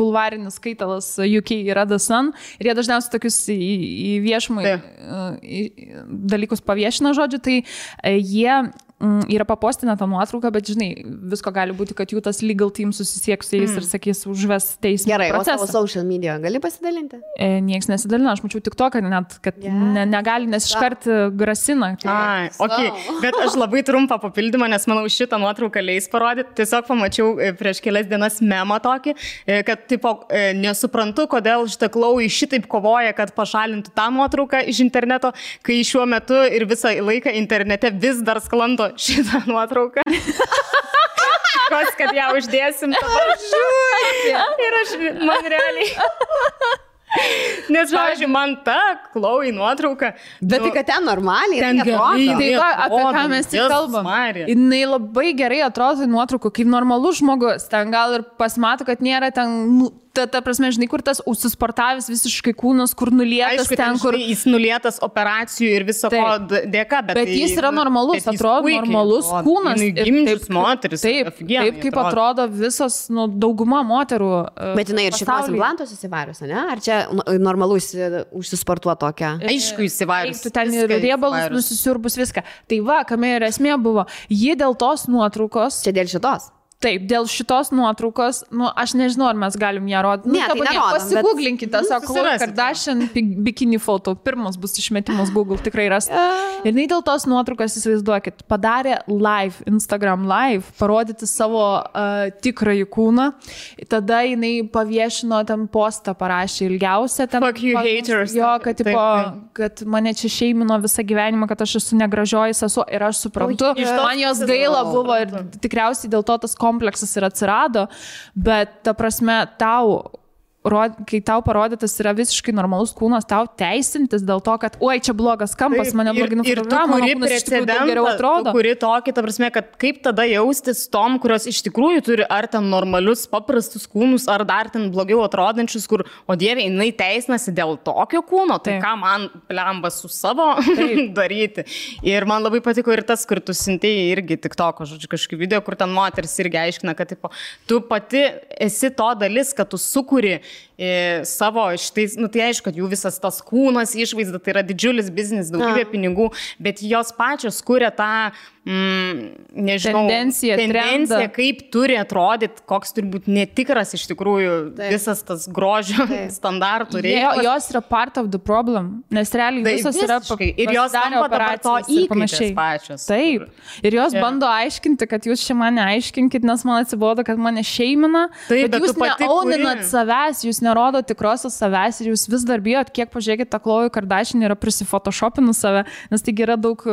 bulvarinis skaitalas UK yra The Sun ir jie dažniausiai tokius į viešumą dalykus paviešina, žodžiu, tai jie yra papostinę tą nuotrauką, bet žinai, visko gali būti, kad jų tas legal team susisieks su jais ir sakys užves teismą. Gerai, procesą. O savo social media gali pasidalinti? Nieks nesidalina, aš mačiau tik to, kad net, kad negali, nes iškart grasina. Ai, okay. Bet aš labai trumpą papildymą, nes manau šitą nuotrauką leis parodyti. Tiesiog pamačiau prieš kelias dienas memą tokį, kad tipo, nesuprantu, kodėl šitą Khloe šitaip kovoja, kad pašalintų tą nuotrauką iš interneto, kai šiuo metu ir visą laiką internete vis dar sklando šitą nuotrauką. Kos, kad ją uždėsim. Ir aš, man realiai. Nes, pavyzdžiui, man ta Khloe nuotrauka. Bet tai, kad ten normaliai. Ten gerai. Tai va, apie ką mes tik kalbam. Jinai labai gerai atrodo nuotraukų, kaip normalus žmogus. Ten gal ir pasimato, kad nėra ten... Ta prasme, žinai, kur tas užsisportavęs visiškai kūnas, kur nulietas. Aišku, ten, kur jis nulietas operacijų ir viso ko dėka, bet jis yra normalus, atrodo normalus kūnas. Gimdžius moteris. Taip, kaip atrodo visos, dauguma moterų. Bet jinai ir šitos implantus įsivarius, ne? Ar čia normalus užsisportuo tokia? Aišku, įsivarius. Tu ten ir riebalus nusisiurbus viską. Tai va, kame ir esmė buvo. Ji dėl tos nuotraukos. Čia dėl šitos? Taip, dėl šitos nuotraukos, aš nežinau, ar mes galim ją rodyti. Ne, tai nerodom, pasigūglinkite, sako, Khloe Kardashian bikini foto, pirmas bus išmetimas Google, tikrai ras. Ir jinai dėl tos nuotraukos, įsivaizduokit, padarė live, Instagram live, parodyti savo tikrąjį kūną. Tada jinai paviešino ten postą, parašė ilgiausią. Fuck you haters. Jo, kad mane čia šeimino visą gyvenimą, kad aš esu negražioji sesuo ir aš suprantu. Man jos gaila buvo ir tikriausiai dėl to tas kompleksas ir atsirado, bet ta prasme kai tau parodytas yra visiškai normalus kūnas, tau teisintis dėl to, kad oi, čia blogas kampas, mane blogai nufotografavo, mano kūnas iš tikrųjų daug geriau atrodo. Tu kuri tokį, ta prasme, kad kaip tada jaustis tom, kurios iš tikrųjų turi ar ten normalius, paprastus kūnus, ar dar ten blogiau atrodančius, kur, o dieve, jinai teisinasi dėl tokio kūno, tai ką man plembas su savo daryti. Ir man labai patiko ir tas, kur tu sintėjai irgi TikToko, žodžiu, kažkokį video, kur ten moteris irgi aiškina, kad tipo, tu pati esi to dalis, kad tu sukuri savo šitais, tai aišku, kad jų visas tas kūnas, išvaizda, tai yra didžiulis biznis, daugybė pinigų, bet jos pačios kuria tą, nežinau, tendencija kaip turi atrodyti, koks turi būti netikras iš tikrųjų visas tas grožio standartų reikalas. Jos yra part of the problem, nes realiai visos yra ir jos tampa dabar to įkaitės pačios. Taip, ir jos bando aiškinti, kad jūs čia mane aiškinkit, nes man atsibodo, kad mane šeimina, bet jūs neauninat savęs, jūs nerodo tikrosios savęs ir jūs vis dar bijot, kiek pažiūrėkit, ta Khloe Kardashian yra prisifotoshopinus save, nes taigi yra daug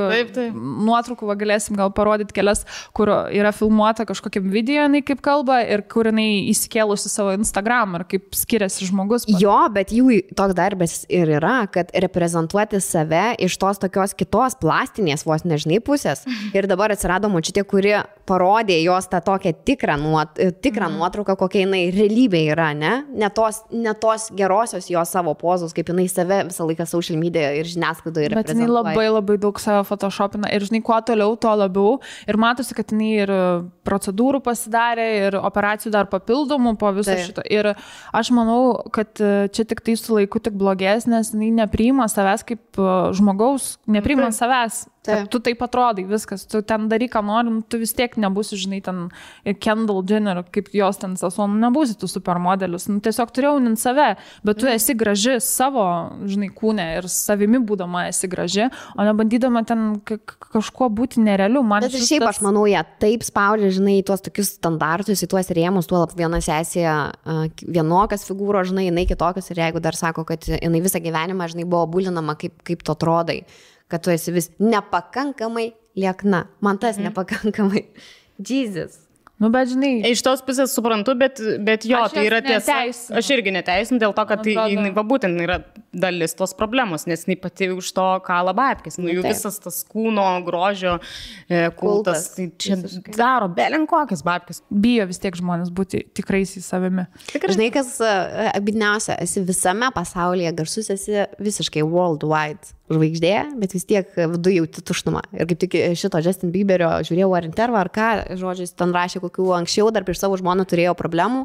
nuotraukų, galėsim gal parodyti kelias, kur yra filmuota kažkokiam video, jinai kaip kalba ir kur jinai įsikėlusi savo Instagram ir kaip skiriasi žmogus. Jo, bet jų toks darbas ir yra, kad reprezentuoti save iš tos tokios kitos plastinės vos nežinai pusės. Ir dabar atsirado močiutė, kuri parodė jos tą tokią tikrą nuotrauką, kokia jinai realybė yra, ne? Ne tos gerosios jos savo pozos, kaip jinai save visą laiką social media ir žiniasklaidoje reprezentuoja. Bet jinai labai daug save photoshopina ir žinai, kuo toliau, to labiau. Ir matosi, kad jinai ir procedūrų pasidarė, ir operacijų dar papildomų po viso šito. Ir aš manau, kad čia tik tai su laiku tik blogės, nes jinai nepriima savęs kaip žmogaus, nepriima savęs. Kad tu taip atrodai, viskas, tu ten daryk, ką nori, tu vis tiek nebūsi, žinai, ten Kendall Jenner, kaip jos ten sesuo, nebūsi tu supermodelis, tiesiog turi jaunint save, bet tu esi graži savo, žinai, kūne ir savimi būdama esi graži, o nebandydama ten kažkuo būti nerealiu. Bet ir šiaip aš manau, jie taip spaudžia, žinai, tuos tokius standartus, į tuos rėmus, tuo viena sesija vienokias figūros, žinai, jinai kitokias ir jeigu dar sako, kad jinai visą gyvenimą, žinai, buvo bulinama, kaip tu atrodai, kad tu esi vis nepakankamai liekna. Man tas nepakankamai. Jesus. Nu, bet žinai. Iš tos pusės suprantu, bet jo, tai yra tiesa. Aš irgi neteisinu dėl to, kad tai būtent yra dalis tos problemos, nes jinai pati už to kala babkės. Nu, jų visas tas kūno, grožio kultas, tai čia daro belenkokias babkės. Bijo vis tiek žmonės būti tikrais į savimi. Žinai, kas abidniausia, esi visame pasaulyje garsus, esi visiškai worldwide žvaigždė, bet vis tiek viduje jauti tuštumą. Ir kaip tik šito Justin Bieberio žiūrėjau ar intervą, ar ką, žodžiais, ten rašė, kokių anksčiau dar prieš savo žmoną turėjo problemų,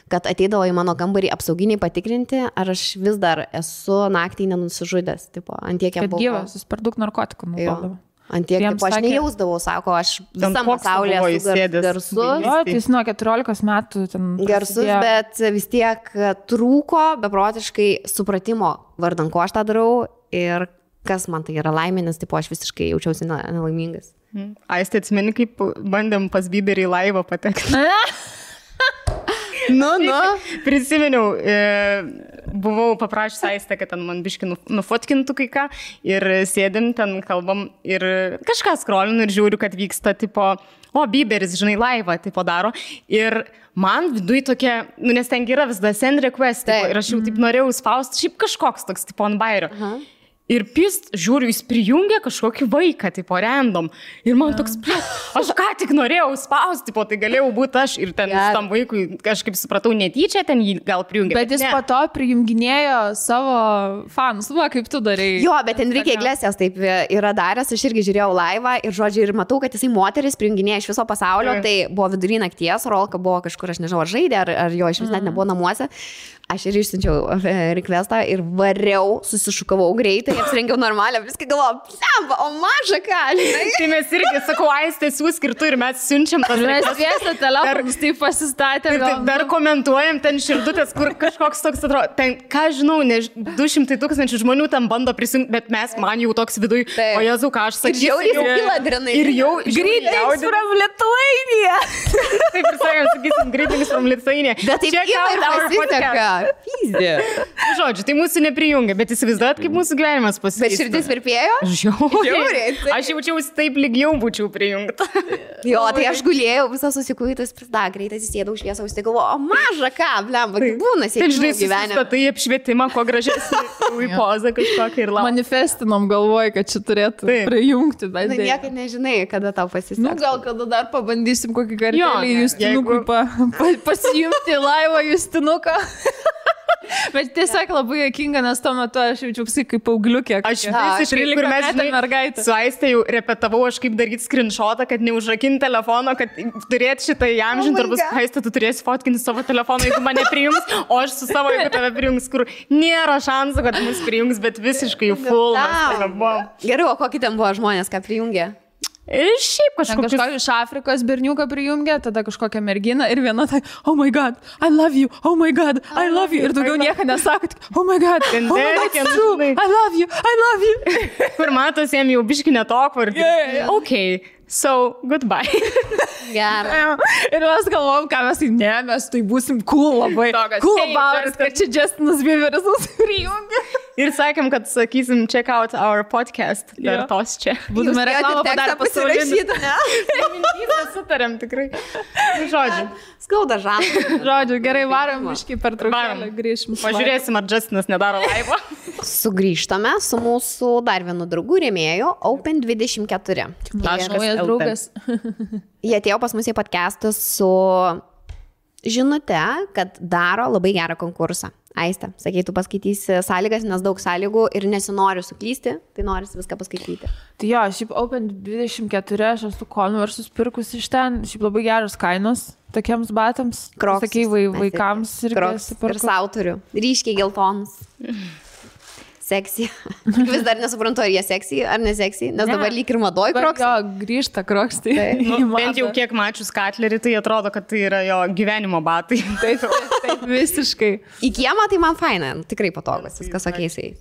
kad ateidavo į mano kambarį apsauginiai patikrinti, ar aš vis dar esu naktį nenusižudęs. Tipo, antiek kad gyvas, jis per daug narkotikų naudodavo. Antiek, tipo, aš nejausdavau, sako, aš visam pasaulyje esu garsus. Jo, tai jis nuo 14 metų ten garsus, bet vis tiek trūko beprotiškai supratimo vardan, ko aš tą darau ir kas man tai yra laimėnis, tipo, aš visiškai jaučiausi nelaimingas. Aistė, atsimeni, kaip bandėm pas Bieberį į laivą patekti. Prisiminiau, buvau paprašęs Aistę, kad ten man biškį nufotkintų kai ką ir sėdim, ten kalbam ir kažką skrolinu ir žiūriu, kad vyksta, tipo, Bieberis, žinai, laivą, tipo, daro. Ir man viduj tokia, nes ten yra vis da send request, tipo, ir aš jau taip norėjau spausti, šiaip kažkoks toks, tipo, ant bairio. Ir pist, žiūriu, jis prijungia kažkokį vaiką, tipo, random. Ir man toks, aš ką tik norėjau spausti, tipo, tai galėjau būti aš. Ir ten tam vaikui, kažkaip supratau, netyčia ten jį gal prijungia. Bet jis po to prijunginėjo savo fanus, kaip tu darei. Jo, bet Enrique Iglesias taip yra daręs, aš irgi žiūrėjau laivą ir, žodžiu, ir matau, kad jisai moteris prijunginėja iš viso pasaulio, tai buvo vidury nakties, Rolka buvo kažkur, aš nežinau, ar žaidė, ar jo iš vis net nebuvo namuose. Aš ir išsiunčiau requestą ir variau, susišukavau greitai, apsirengiau normalią, viską galvojau, plemba, o maža ką, žinai. Tai mes irgi, sakau, Aistė siūsk ir tu ir mes siunčiam tas requestas. Mes viesą telefonus taip pasistatėm. Dar komentuojam ten širdutės, kur kažkoks toks atrodo. Ten, ką žinau, 200 000 žmonių tam bando prisijungti, bet man jau toks viduj, o Jezu, ką aš sakysiu. Ir jau įladrinai. Ir jau greetings from Lithuania. Taip ir sakėm, sakysim, greetings from Lithuania. Bet taip ir pasiseka. Pyzdė. Žodžiu, tai mūsų neprijungia, bet įsivaizduojat, kaip mūsų gyvenimas pasikeitė. Bet širdis virpėjo? Žiauriai. Aš jaučiausi taip lygiau būčiau prijungta. Jo, tai aš gulėjau, visą susikuitas, greitai įsėdau šviesą, užtai galvoju, o maža ką, blemba, tai būna sėdžiu gyvenime. Tai apšvietimą, ko gražesnį į pozą kažkokią ir laukia. Manifestinom galvoju, kad čia turėtų prijungti. Na, niekad nežinai, kada tau pasiseks. Nu, gal kada dar pabandysim kokį kartelį Justinukui pasijungti laivą Justinuką. Bet tiesiog labai juokinga, nes tuo metu aš jaučiausi kaip paaugliukė. Aš visiškai, kur mes, žinai, su Aiste jau repetavau, aš kaip daryti screenshotą, kad neužrakinti telefono, kad turėti šitą įamžinti, arba Aiste, tu turėsi fotkinti savo telefoną, jeigu mane prijungs, o aš su savo, jeigu tave prijungs, kur nėra šansų, kad mus prijungs, bet visiškai full. Gerai, o kokį ten buvo žmonės, ką prijungė? Ir šiaip kažkokį iš Afrikos berniuką prijungė, tada kažkokią merginą ir viena tai, oh my god, I love you, oh my god, I love you. Ir daugiau nieko nesakot, oh my god, it's true, I love you. Kur matos, jam jau biški netokvar. Okay. So, goodbye. Gerai. Ir mes galvom, ką mes tai būsim cool labai. Cool about it, kad čia Justinas Bieberis mus prijungia. Ir sakėm, kad sakysim, check out our podcast. Dar tos čia. Būtume reklamą padarę pasirašyti. Mintys sutarėm tikrai. Žodžiu. Skauda žalą. Žodžiu, gerai, varom biškį per traukėlę, grįšim. Pažiūrėsim, ar Justinas nedaro laivo. Sugrįžtame su mūsų dar vienu draugu rėmėju Open24. Naujas draugas. Jie atėjo pas mus į podcastą su žinute, kad daro labai gerą konkursą. Aiste, sakei, tu paskaitysi sąlygas, nes daug sąlygų ir nesinori suklysti, tai norisi viską paskaityti. Tai jo, šiaip Open24, aš esu Converse'us pirkus iš ten, šiaip labai geros kainos tokiems batams. Crocs. Sakai, vaikams Crocs ir sau turiu. Ryškiai geltonus. seksy. Vis dar nesuprantu, ar jie seksy, ar neseksy, nes dabar lyg ir madoj kroks. Jo, grįžta kroks. Tai Bent jau kiek mačius Katlerį, tai atrodo, kad tai yra jo gyvenimo batai. Taip, visiškai. Į kiemą tai man faina, tikrai patogus, viskas okeisiai.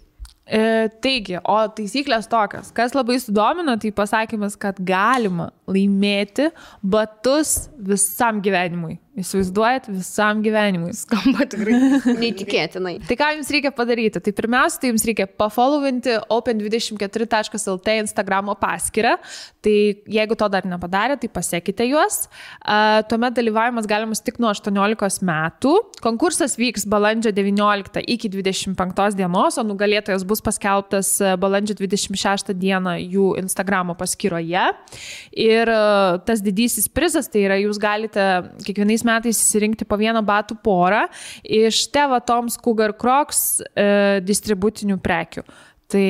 Taigi, o taisyklės tokios, kas labai sudomino, tai pasakymas, kad galima laimėti batus visam gyvenimui. Įsivaizduojat, visam gyvenimui. Skamba tikrai. Neįtikėtinai. Tai ką jums reikia padaryti? Tai pirmiausia, tai jums reikia pafollowinti open24.lt Instagramo paskyrą. Tai jeigu to dar nepadarė, tai pasiekite juos. Tuomet dalyvavimas galimas tik nuo 18 metų. Konkursas vyks balandžio 19 iki 25 dienos, o nugalėtojas bus paskelbtas balandžio 26 dieną jų Instagramo paskyroje. Ir tas didysis prizas, tai yra, jūs galite kiekvienais metais įsirinkti po vieną batų porą iš Teva Toms Cougar Crocs distributinių prekių. Tai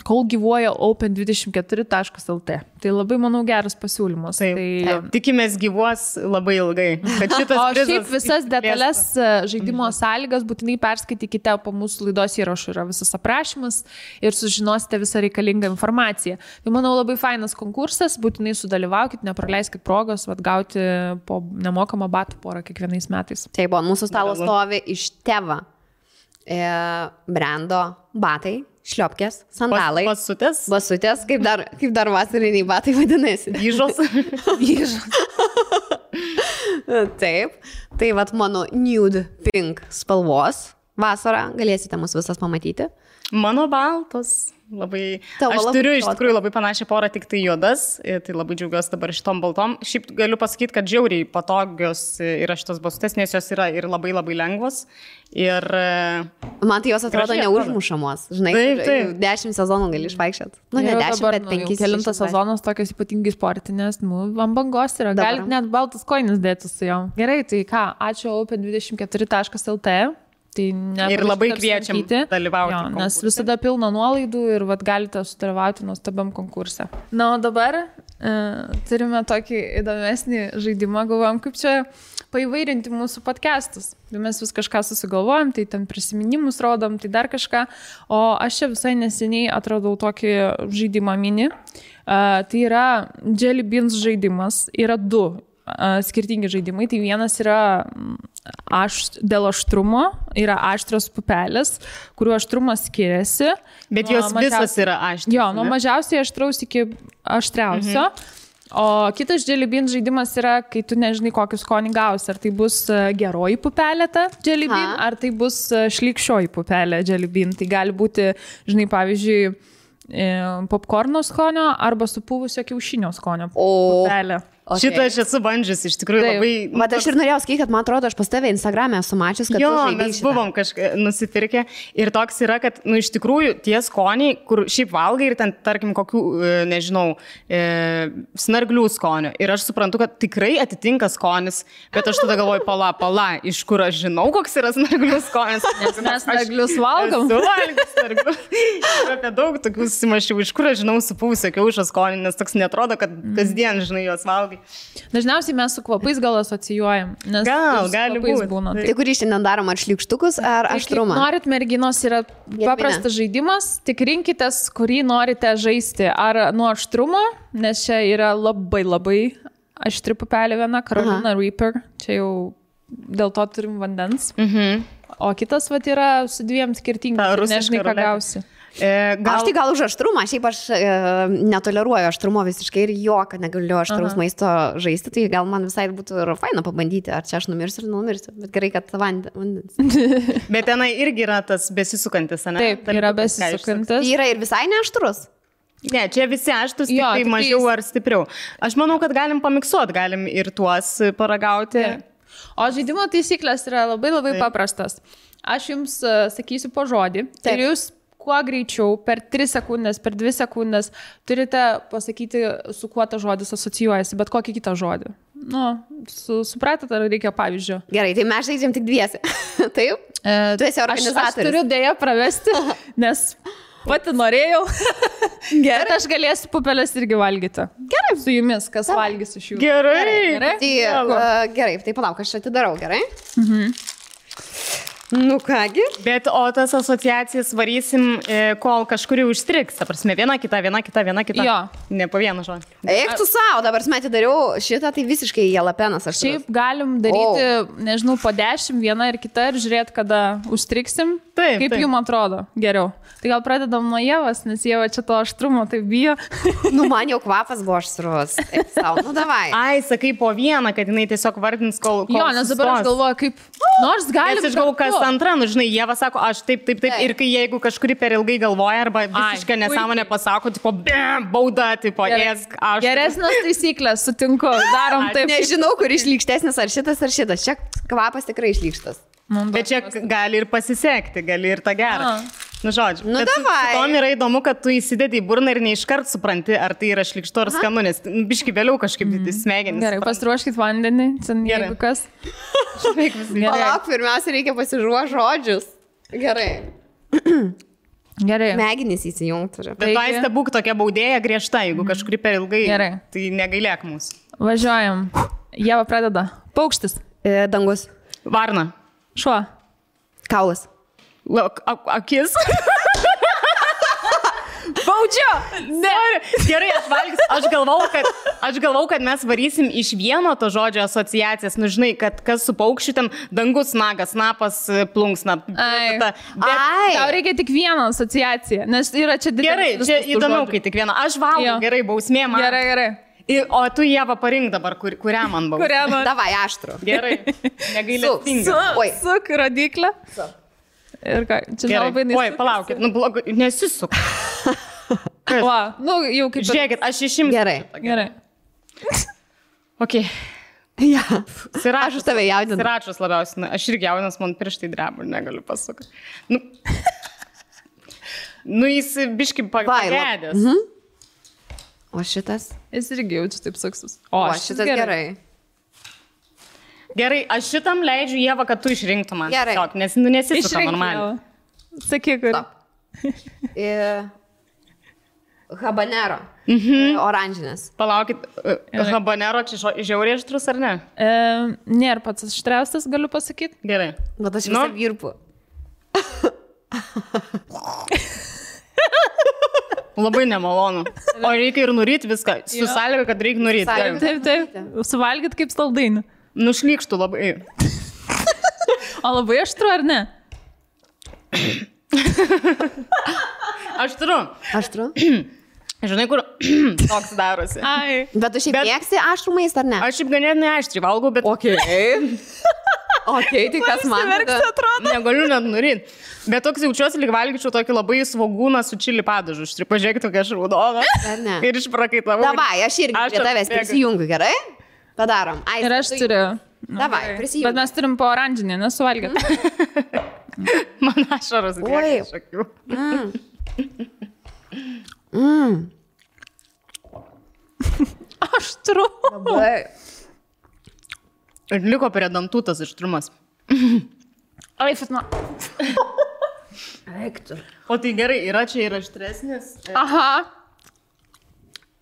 kol gyvuoja open24.lt. Tai labai, manau, geras pasiūlymas. Tai tikimės gyvuos labai ilgai. O šiaip visas detalės žaidimo sąlygas būtinai perskaitykite po mūsų laidos įrašų. Yra visas aprašymas ir sužinosite visą reikalingą informaciją. Tai, manau, labai fainas konkursas. Būtinai sudalyvaukit, nepraleiskit progos gauti po nemokamą batų porą kiekvienais metais. Taip, mūsų stalo stovi iš Teva brando batai. Šliopkės, sandalai. Basutės, kaip dar vasariniai batai vadinasi. Vyžos. Taip, tai vat mano nude pink spalvos vasarą, galėsite mus visas pamatyti. Mano baltos. Labai. Aš turiu iš tikrųjų labai panašią porą, tik tai juodas, tai labai džiaugiuosi dabar šitom baltom. Šiaip galiu pasakyti, kad žiauriai patogios yra šitos basutės, nes jos yra ir labai labai lengvos. Ir man tai jos atrodo neužmušamos. Žinai, taip. 10 sezonų gali išvaikščioti. Nu, ne 10, bet 5. Kelintas sezonas tokios ypatingai sportinės, ant bangos yra. Galit net baltas koinis dėti su jom. Gerai, tai ką, ačiū open24.lt. Tai ir labai kviečiam dalyvauti. Jo, nes visada pilna nuolaidų ir galite sudalyvauti nuostabiam konkurse. Na, o dabar turime tokį įdomesnį žaidimą, galvojam, kaip čia paįvairinti mūsų podcastus. Mes vis kažką susigalvojam, tai ten prisiminimus rodom, tai dar kažką. O aš čia visai neseniai atradau tokį žaidimą mini. Tai yra Jelly Beans žaidimas. Yra du skirtingi žaidimai. Tai vienas yra dėl aštrumo, yra aštrios pupelės, kurių aštrumas skiriasi. Bet jos visos yra aštrios. Jo, nuo mažiausiai aštraus iki aštriausio. O kitas Jelly Bean žaidimas yra, kai tu nežinai, kokį skonį gausi. Ar tai bus geroji pupelė ta Jelly Bean, ar tai bus šlykščioji pupelė Jelly Bean. Tai gali būti, žinai, pavyzdžiui, popkorno skonio arba supuvusio kiaušinio skonio pupelė. Okay. Šitą aš esu bandžius, iš tikrųjų labai... Bet aš ir norėjau skaityti, kad man atrodo, aš pas tave Instagram'e esu mačius, kad tu žaidai mes buvom kažką nusipirkę ir toks yra, kad, iš tikrųjų, tie skoniai, kur šiaip valgai ir ten, tarkim, kokių, nežinau, snarglių skonio. Ir aš suprantu, kad tikrai atitinka skonis, bet aš tada galvoju, pala, iš kur aš žinau, koks yra snarglių skonis. Nes mes snarglius valgom. Ir apie daug tokių susimašiau, iš kur aš žinau supuvusio kiaušio skonį, nes toks netrodo, kad kasdien, žinai, juos valgai. Dažniausiai mes su kvapais gal asocijuojam, nes gali būti. Būna. Tai kurį šiandien darom, ar šliukštukus, ar aštrumą? Norit, merginos, yra paprastas žaidimas, tik rinkitės, kurį norite žaisti. Ar nuo aštrumo, nes čia yra labai aštri pupelė viena, Carolina Reaper, čia jau dėl to turim vandens. O kitas yra su dviem skirtingais, nežinai, ką gausi. Aš tai gal už aštrumą, šiaip aš netoleruoju aštrumo visiškai ir kad negaliu aštraus maisto žaisti, tai gal man visai būtų ir faina pabandyti, ar čia aš numirsiu ir numirsiu, bet gerai, kad vandens. Bet tenai irgi yra tas besisukantis, ne? Taip, yra besisukantis. Yra ir visai neaštrus. Ne, čia visi aštrus, tik tai mažiau ar stipriau. Aš manau, kad galim pamiksuoti, galim ir tuos paragauti. O žaidimo taisyklės yra labai paprastas. Aš jums sakysiu po žodį. Tai jūs kuo greičiau, per 3 sekundės, per 2 sekundės turite pasakyti, su kuo ta žodis asocijuojasi, bet kokį kitą žodį. Nu, supratot, ar reikia pavyzdžio? Gerai, tai mes žaidžiam tik dviesi. Taip? Tu esi organizatorius. Aš turiu dėja pravesti, nes pati norėjau. Gerai. Bet aš galėsiu pupelės irgi valgyti. Gerai. Su jumis, kas valgys iš jų. Gerai. Tai, gerai, tai palauk, aš atidarau, gerai? Nu kągi. Bet o tas asociacijas varysim, kol kažkur jau užstriks. Ta prasme, viena kita. Jo. Ne po vieną žodį. Eik tu savo, dabar metį dariau šitą, tai visiškai jalapenas aš. Šiaip galim daryti, nežinau, po 10, viena ir kita ir žiūrėti, kada užstriksim. Taip, Kaip jums atrodo geriau? Tai gal pradedam nuo Ievos, nes Ieva čia to aštrumo tai bijo. Nu, man jau kvapas buvo aštrus. Eik savo, nu davai. Ai, sakai po vieną, kad jinai tiesiog vardins, kol Jo, nes dabar aš galvoju, kaip... Nors galim... Nes aš galvoju, kas antra, nu žinai, Ieva sako, aš taip. Ir kai jeigu kažkuri per ilgai galvoja arba visiškai nesąmonę pasako, tipo, bauda, tipo, ėsk, aš. Geresnės taisyklės, sutinku, darom taip. Nežinau, kur išlykštesnis, ar šitas. Čia kvapas tikrai išlykštas. Bet čia gali ir pasisekti, gali ir tą gerą. Nu, žodžiu. Nu, bet davai. Tom yra įdomu, kad tu įsidedi į burną ir neiškart supranti, ar tai yra šlikštu ar skanu, nes biški vėliau kažkaip smegenys. Gerai, pasiruoškit vandenį, jeigu kas. Palauk, pirmiausia, reikia pasiruošti žodžius. Gerai. Gerai. Smegenys įsijungti. Bet tu aiste būk tokia baudėja griežta, jeigu kažkuri per ilgai, Gerai. tai negailėk mūsų. Važiuojam. Ieva pradeda. Paukštis. Dangus. Varna. Šuo. Kaulas. Akis. Baudžiu! Ne. Gerai, aš galvau, kad mes varysim iš vieno to žodžio asociacijas. Nu, žinai, kad kas su paukščiu ten dangus, nagas, snapas, plunksna. Ai. Ai. Tau reikia tik vieną asociaciją, nes yra čia didelis. Gerai, čia įdomiau, kai tik vieną. Aš valgau, Jo. gerai, bausmė man. Gerai. O tu, Ieva, parink dabar, kurią man bausmė. Kurią man? Davai, aštru. Gerai, negailestinga. Oi. Suk rodiklę. Ir ką, čia labai Oi, palaukit, nu blogai, nesisuk. Va, nu jau kaip... Žiūrėkit, aš išimsiu. Gerai. Ok. Ja. Siračas. Aš už tave jaudinu. Siračas labiausiai. Na, aš irgi jaudinas, man pirštai dreba, negaliu pasakyti. Nu jis biški pagėdės. O šitas? Jis irgi jaučiu taip saksus. O šitas gerai. Gerai, aš šitam leidžiu, Ieva, kad tu išrinktum man. Gerai. Tiesiog, nes nesisuka normaliai. Sakyk, kur. Habanero. Oranžinės. Palaukit, habanero čia žiauriai aštrus ar ne? Nėra pats aštriausias, galiu pasakyti. Gerai. Bet aš visą virpu. Labai nemalonu. O reikia ir nuryti viską. Su sąlyga, kad reikia nuryti. Taip. Suvalgyt kaip saldainį. Nušlykštų labai. O labai aštru, ar ne? Aštru. Aštru? Žinai, kur toks darosi. Ai. Bet tu šiaip mėgsti aštrų maistą, ar ne? Aš šiaip ganėtinai aštriai valgau, bet... Ok, tai kas man atrodo? Negaliu net nuryti. Bet toks jaučiuosi, lyg valgyčiau tokį labai svogūną su čili padažu. Štai pažiūrėkit, tokia šraudoną. Ar ne? Ir išprakaitavau. Davai, aš irgi prie tavęs prisijungiu, gerai? Padarom. Ai, Ir aš turiu. Davai, prisijungiu. Bet mes turim po oranžinį, nesuvalgyt. Man ašaros bėga iš akių. Aštru. Labai. Ir liko prie dantų tas aštrumas. Ai, Fatma. Eiktų. O tai gerai, yra čia ir aštresnis. Aha.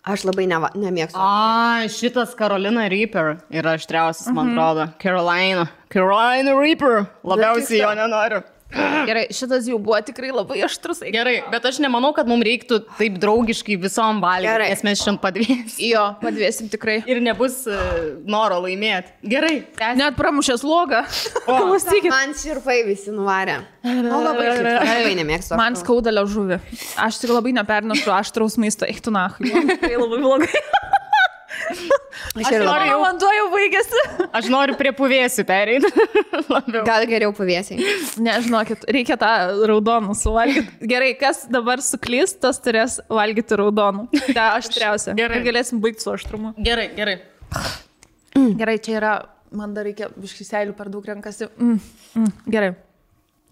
Aš labai nemėgstu. A, šitas Carolina Reaper yra aštriausias, man atrodo. Carolina Reaper. Labiausiai jo nenoriu. Gerai, šitas jau buvo tikrai labai aštrus. Gerai, bet aš nemanau, kad mums reiktų taip draugiškai visom valgyti, Gerai. nes mes šiandien padvėsim. Jo, padvėsim tikrai. Ir nebus noro laimėti. Gerai, tęsim. Net pramušęs logą. Klausykit. Man širpai visi nuvarė. Labai nemėgstu. Man skauda liežuvį. Aš tik labai nepernešu aštraus maisto. Eiktų nahui. Tai labai blogai. Aš ir labai. Jau vanduo jau baigėsi. Aš noriu prie puvėsių pereiti. Gal geriau pavėsiai. Nežinokit, reikia tą raudonų suvalgyti. Gerai, kas dabar suklys, tas turės valgyti raudonų. Tai aštriausia. Gerai. Ir galėsim baigti su aštrumu. Gerai. Gerai, čia yra, man dar reikia biškį seilių per daug renkasi. Gerai.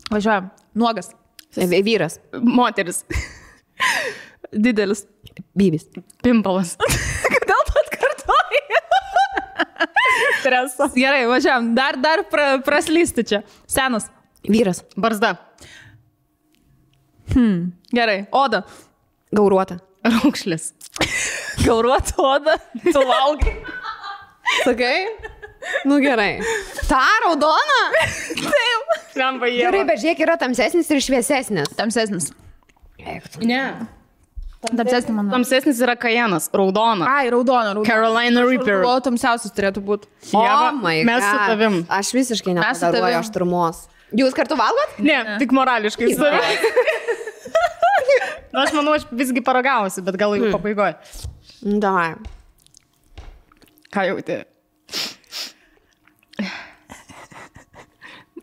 Važiuojam. Nuogas. Vyras. Moteris. Didelis. Bybis. Pimpalas. Kodėl tu atkartoji? Stresas. Gerai, važiuojam. Dar praslysti čia. Senas. Vyras. Barzda. Gerai. Oda. Gauruota. Raukšlis. Gauruota oda. Tu valgai. Sakai? Nu gerai. Ta raudona? Taip. Lemba jie. Gerai, bet žiūrėk, yra tamsesnis ir šviesesnis. Tamsesnis. Ne. Tamsesnis, manau. Tamsesnis yra kajenas, raudona. Ai, raudona. Carolina Reaper. O tamsiausias turėtų būti. Ieva, my mes su God. tavim. Aš visiškai Mes su nepadaruoju tavim. aštrumos. Jūs kartu valgot? Ne, tik morališkai. Na, aš manau, aš visgi paragausiu, bet gal jau pabaigoju. Davai. Ką jauti?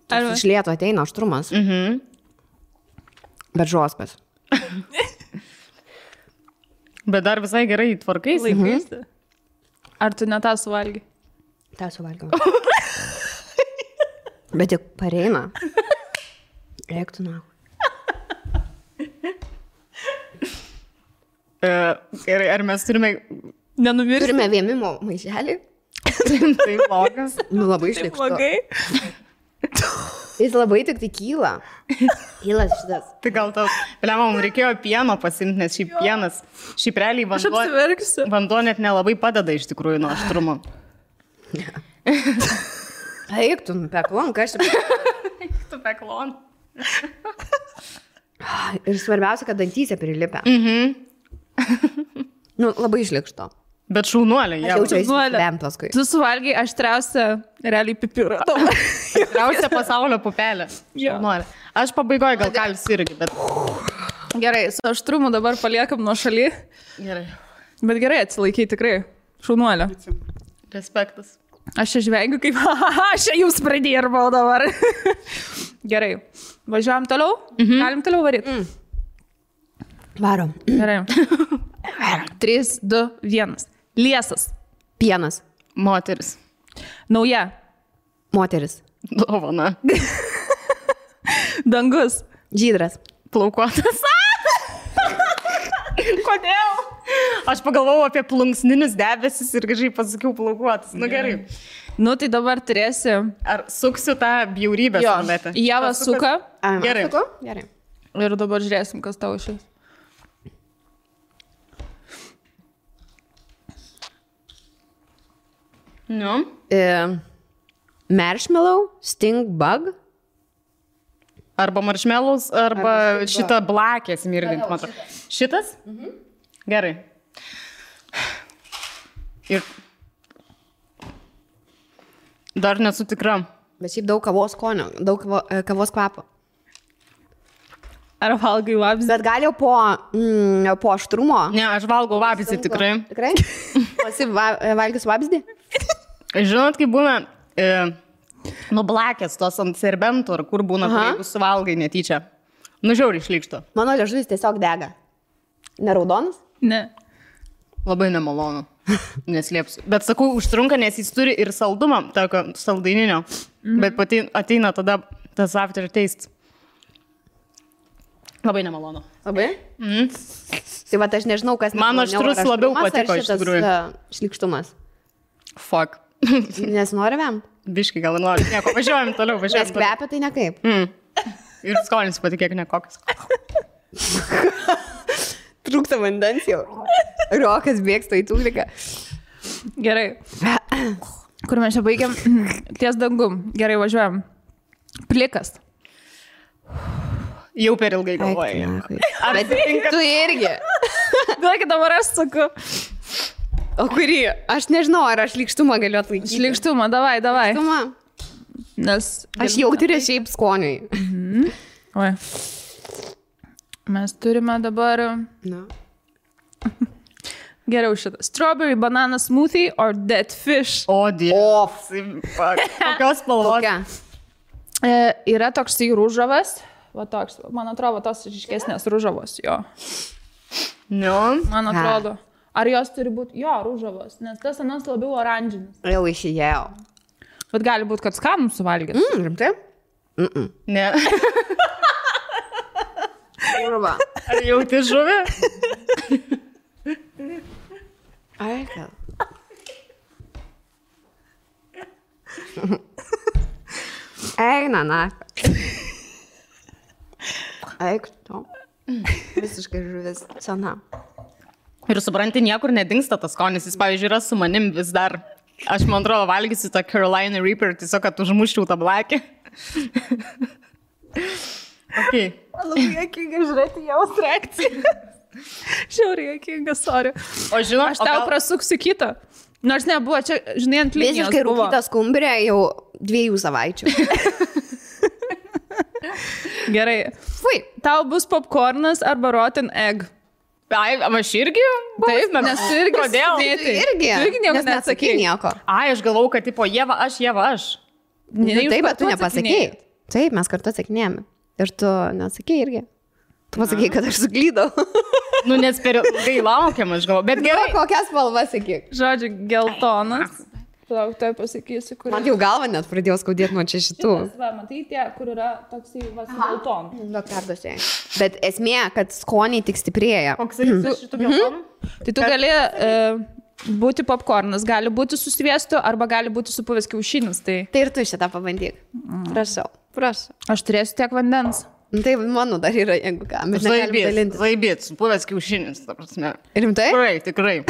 Iš lėto ateina aštrumas. Bet žoskas. Bet dar visai gerai tvarkaisi. Laikaisi. Ar tu ne tą suvalgy? tą suvalgiau. Bet tik pareina. Reiktų na. Gerai, ar mes turime... Nenumirti. Turime vėmimo maišelį. Tai blogas. Nu, labai išlikštu. Jis labai tik tai kyla. Kylas šitas. Tai gal tau, Lema, mums reikėjo pieno pasimti, nes šiaip pienas, šiaip realiai Aš apsiverksiu. vanduo net nelabai padeda iš tikrųjų nuo aštrumo. Eik, tu peklon, kas čia. Tu peklon. Ir svarbiausia, kad dantyse prilipia. Nu, labai išlikšto. Bet šaunuolė, Aš jie. jaučiu Šaunuolė. įsivem paskui. Tu suvalgiai aštriausią realiai pipirą. Tikriausia pasaulio pupelė. Jo. Šaunuolė. Aš pabaigoju gal kalis irgi, bet... Gerai, su aštrumu dabar paliekam nuo šaly. Gerai. Bet gerai atsilaikiai tikrai. Šaunuolė. Respektas. Aš čia žvengiu kaip, aš čia jums pradėrbau dabar. Gerai. Važiuojam toliau? Galim toliau varyti? Varom. Gerai. 3, 2, 1. Liesas. Pienas. Moteris. Nauja. Moteris. Dovana. Dangus. Žydras. Plaukuotas. Kodėl? Aš pagalvojau apie plunksninius debesis ir kažkaip pasakiau plaukuotas. Nu gerai. Nu, tai dabar turėsi. Ar suksiu tą bjaurybę su numetę? Ieva suka. Gerai. Gerai. Ir dabar žiūrėsim, kas tau išės. Nu. Marshmallow, sting bug. Arba marshmallows, arba šitą blakę smirdint, man atrodo. Šitas? Gerai. Ir dar nesu tikra. Bet šiaip daug kavos skonio, daug kavos kvapo. Ar valgai vabzdį? Bet gal jau po aštrumo. Ne, aš valgau vabzdį tikrai. Tikrai? Pasi valgys vabzdį? Žinot, kaip būna nublakės tos ant serbentų, ar kur būna, kur jeigu suvalgai netyčia. Nu, žiauriai išlikšto. Mano liežuvis tiesiog dega. Neraudonas? Ne. Labai nemalonu. Neslėpsiu. Bet sakau, užtrunka, nes jis turi ir saldumą, tokio saldaininio. Bet pati ateina tada tas after taste. Labai nemalonu. Labai? Tai va, aš nežinau, kas... Man aštrus labiau patiko iš tikrųjų. Šlikštumas. Fuck. Nes norime? Biškai gal nori. Nieko, važiuojam toliau, Nes važiuojam toliau. kvepia tai nekaip. Ir skonis patikėk nekokias. Trūksta vandens jau. Rokas bėgsta į tūliką. Gerai. Kur mes čia baigiam? Ties dangum. Gerai, važiuojam. Plikas. Jau per ilgai galvojai. Bet tu irgi. Duokit dabar aš saku. O kurį? Aš nežinau, ar aš šlikštumą galiu atlaikyti. Šlikštumą, davai. Šlikštumą? Nes... Aš jau turiu šiaip skoniui. Oi. Mes turime dabar... Na. Geriau šitą. Strawberry banana smoothie or dead fish. O, dievas. Kokios spalvos? Kokia? Yra toksai rūžavas. Va toks, man atrodo, tos ryškesnės rūžavos, jo. Nu. Man atrodo. Ar jos turi būti, jo, rūžavos, nes tas anas labiau oranžinis. Jau išėjau. Bet gali būti, kad skanų suvalgyti. Rimtai? Ne. Urva. Ar jauti žuvį? Ai, gal. Eina, na. Eik, tu. Visiškai žuvis sena. Ir supranti, niekur nedingsta tas skonis. Jis, pavyzdžiui, yra su manim vis dar. Aš, man atrodo, valgysiu tą Carolina Reaper, tiesiog, kad užmuščiau tą blakę. Okay. Labai jokinga žiūrėti jos reakciją. Žiauriai jokinga, sorry. O žinau, Aš tau prasuksiu kitą. Nors nebuvo, čia, žinai, ant linijos Visiškai buvo. rūkyta skumbrė jau 2 savaičių. Gerai. Fui. Tau bus popcornas arba rotten egg. Ai, aš irgi? Taip, nes tu irgi Kodėl? sudėti. Tu irgi. Tu irgi nieko Nes neatsakei neatsakei. nieko. Ai, aš galvau, kad tipo Ieva aš. Taip, bet tu nepasakei. Taip, mes kartu atsakinėjame. Ir tu neatsakei irgi. Tu pasakei, kad aš suklydau. Nu, nes per ilgai laukiam, aš galvoju. Bet gerai. Kokias spalvas sakyk. Žodžiu, geltonas. Plauk, tai pasakysiu, kur. Man jau galva net pradėjo skaudėti nuo čia šitų. Va, matai tie, kur yra toksai geltonas. Daug perduosiu. Bet esmė, kad skoniai tik stiprėja. Koks jis šitų geltonų? Tai tu gali būti popcornas, gali būti su sviestu arba gali būti supuvęs kiaušinis. Tai Tai ir tu šitą pabandyk. Prašau. Prašau. aš turėsiu tiek vandens. Tai mano dar yra, jeigu ką. Bet negalim dalintis. Zaibėt, supuvęs kiaušinis, ta prasme. Rimtai? Tikrai.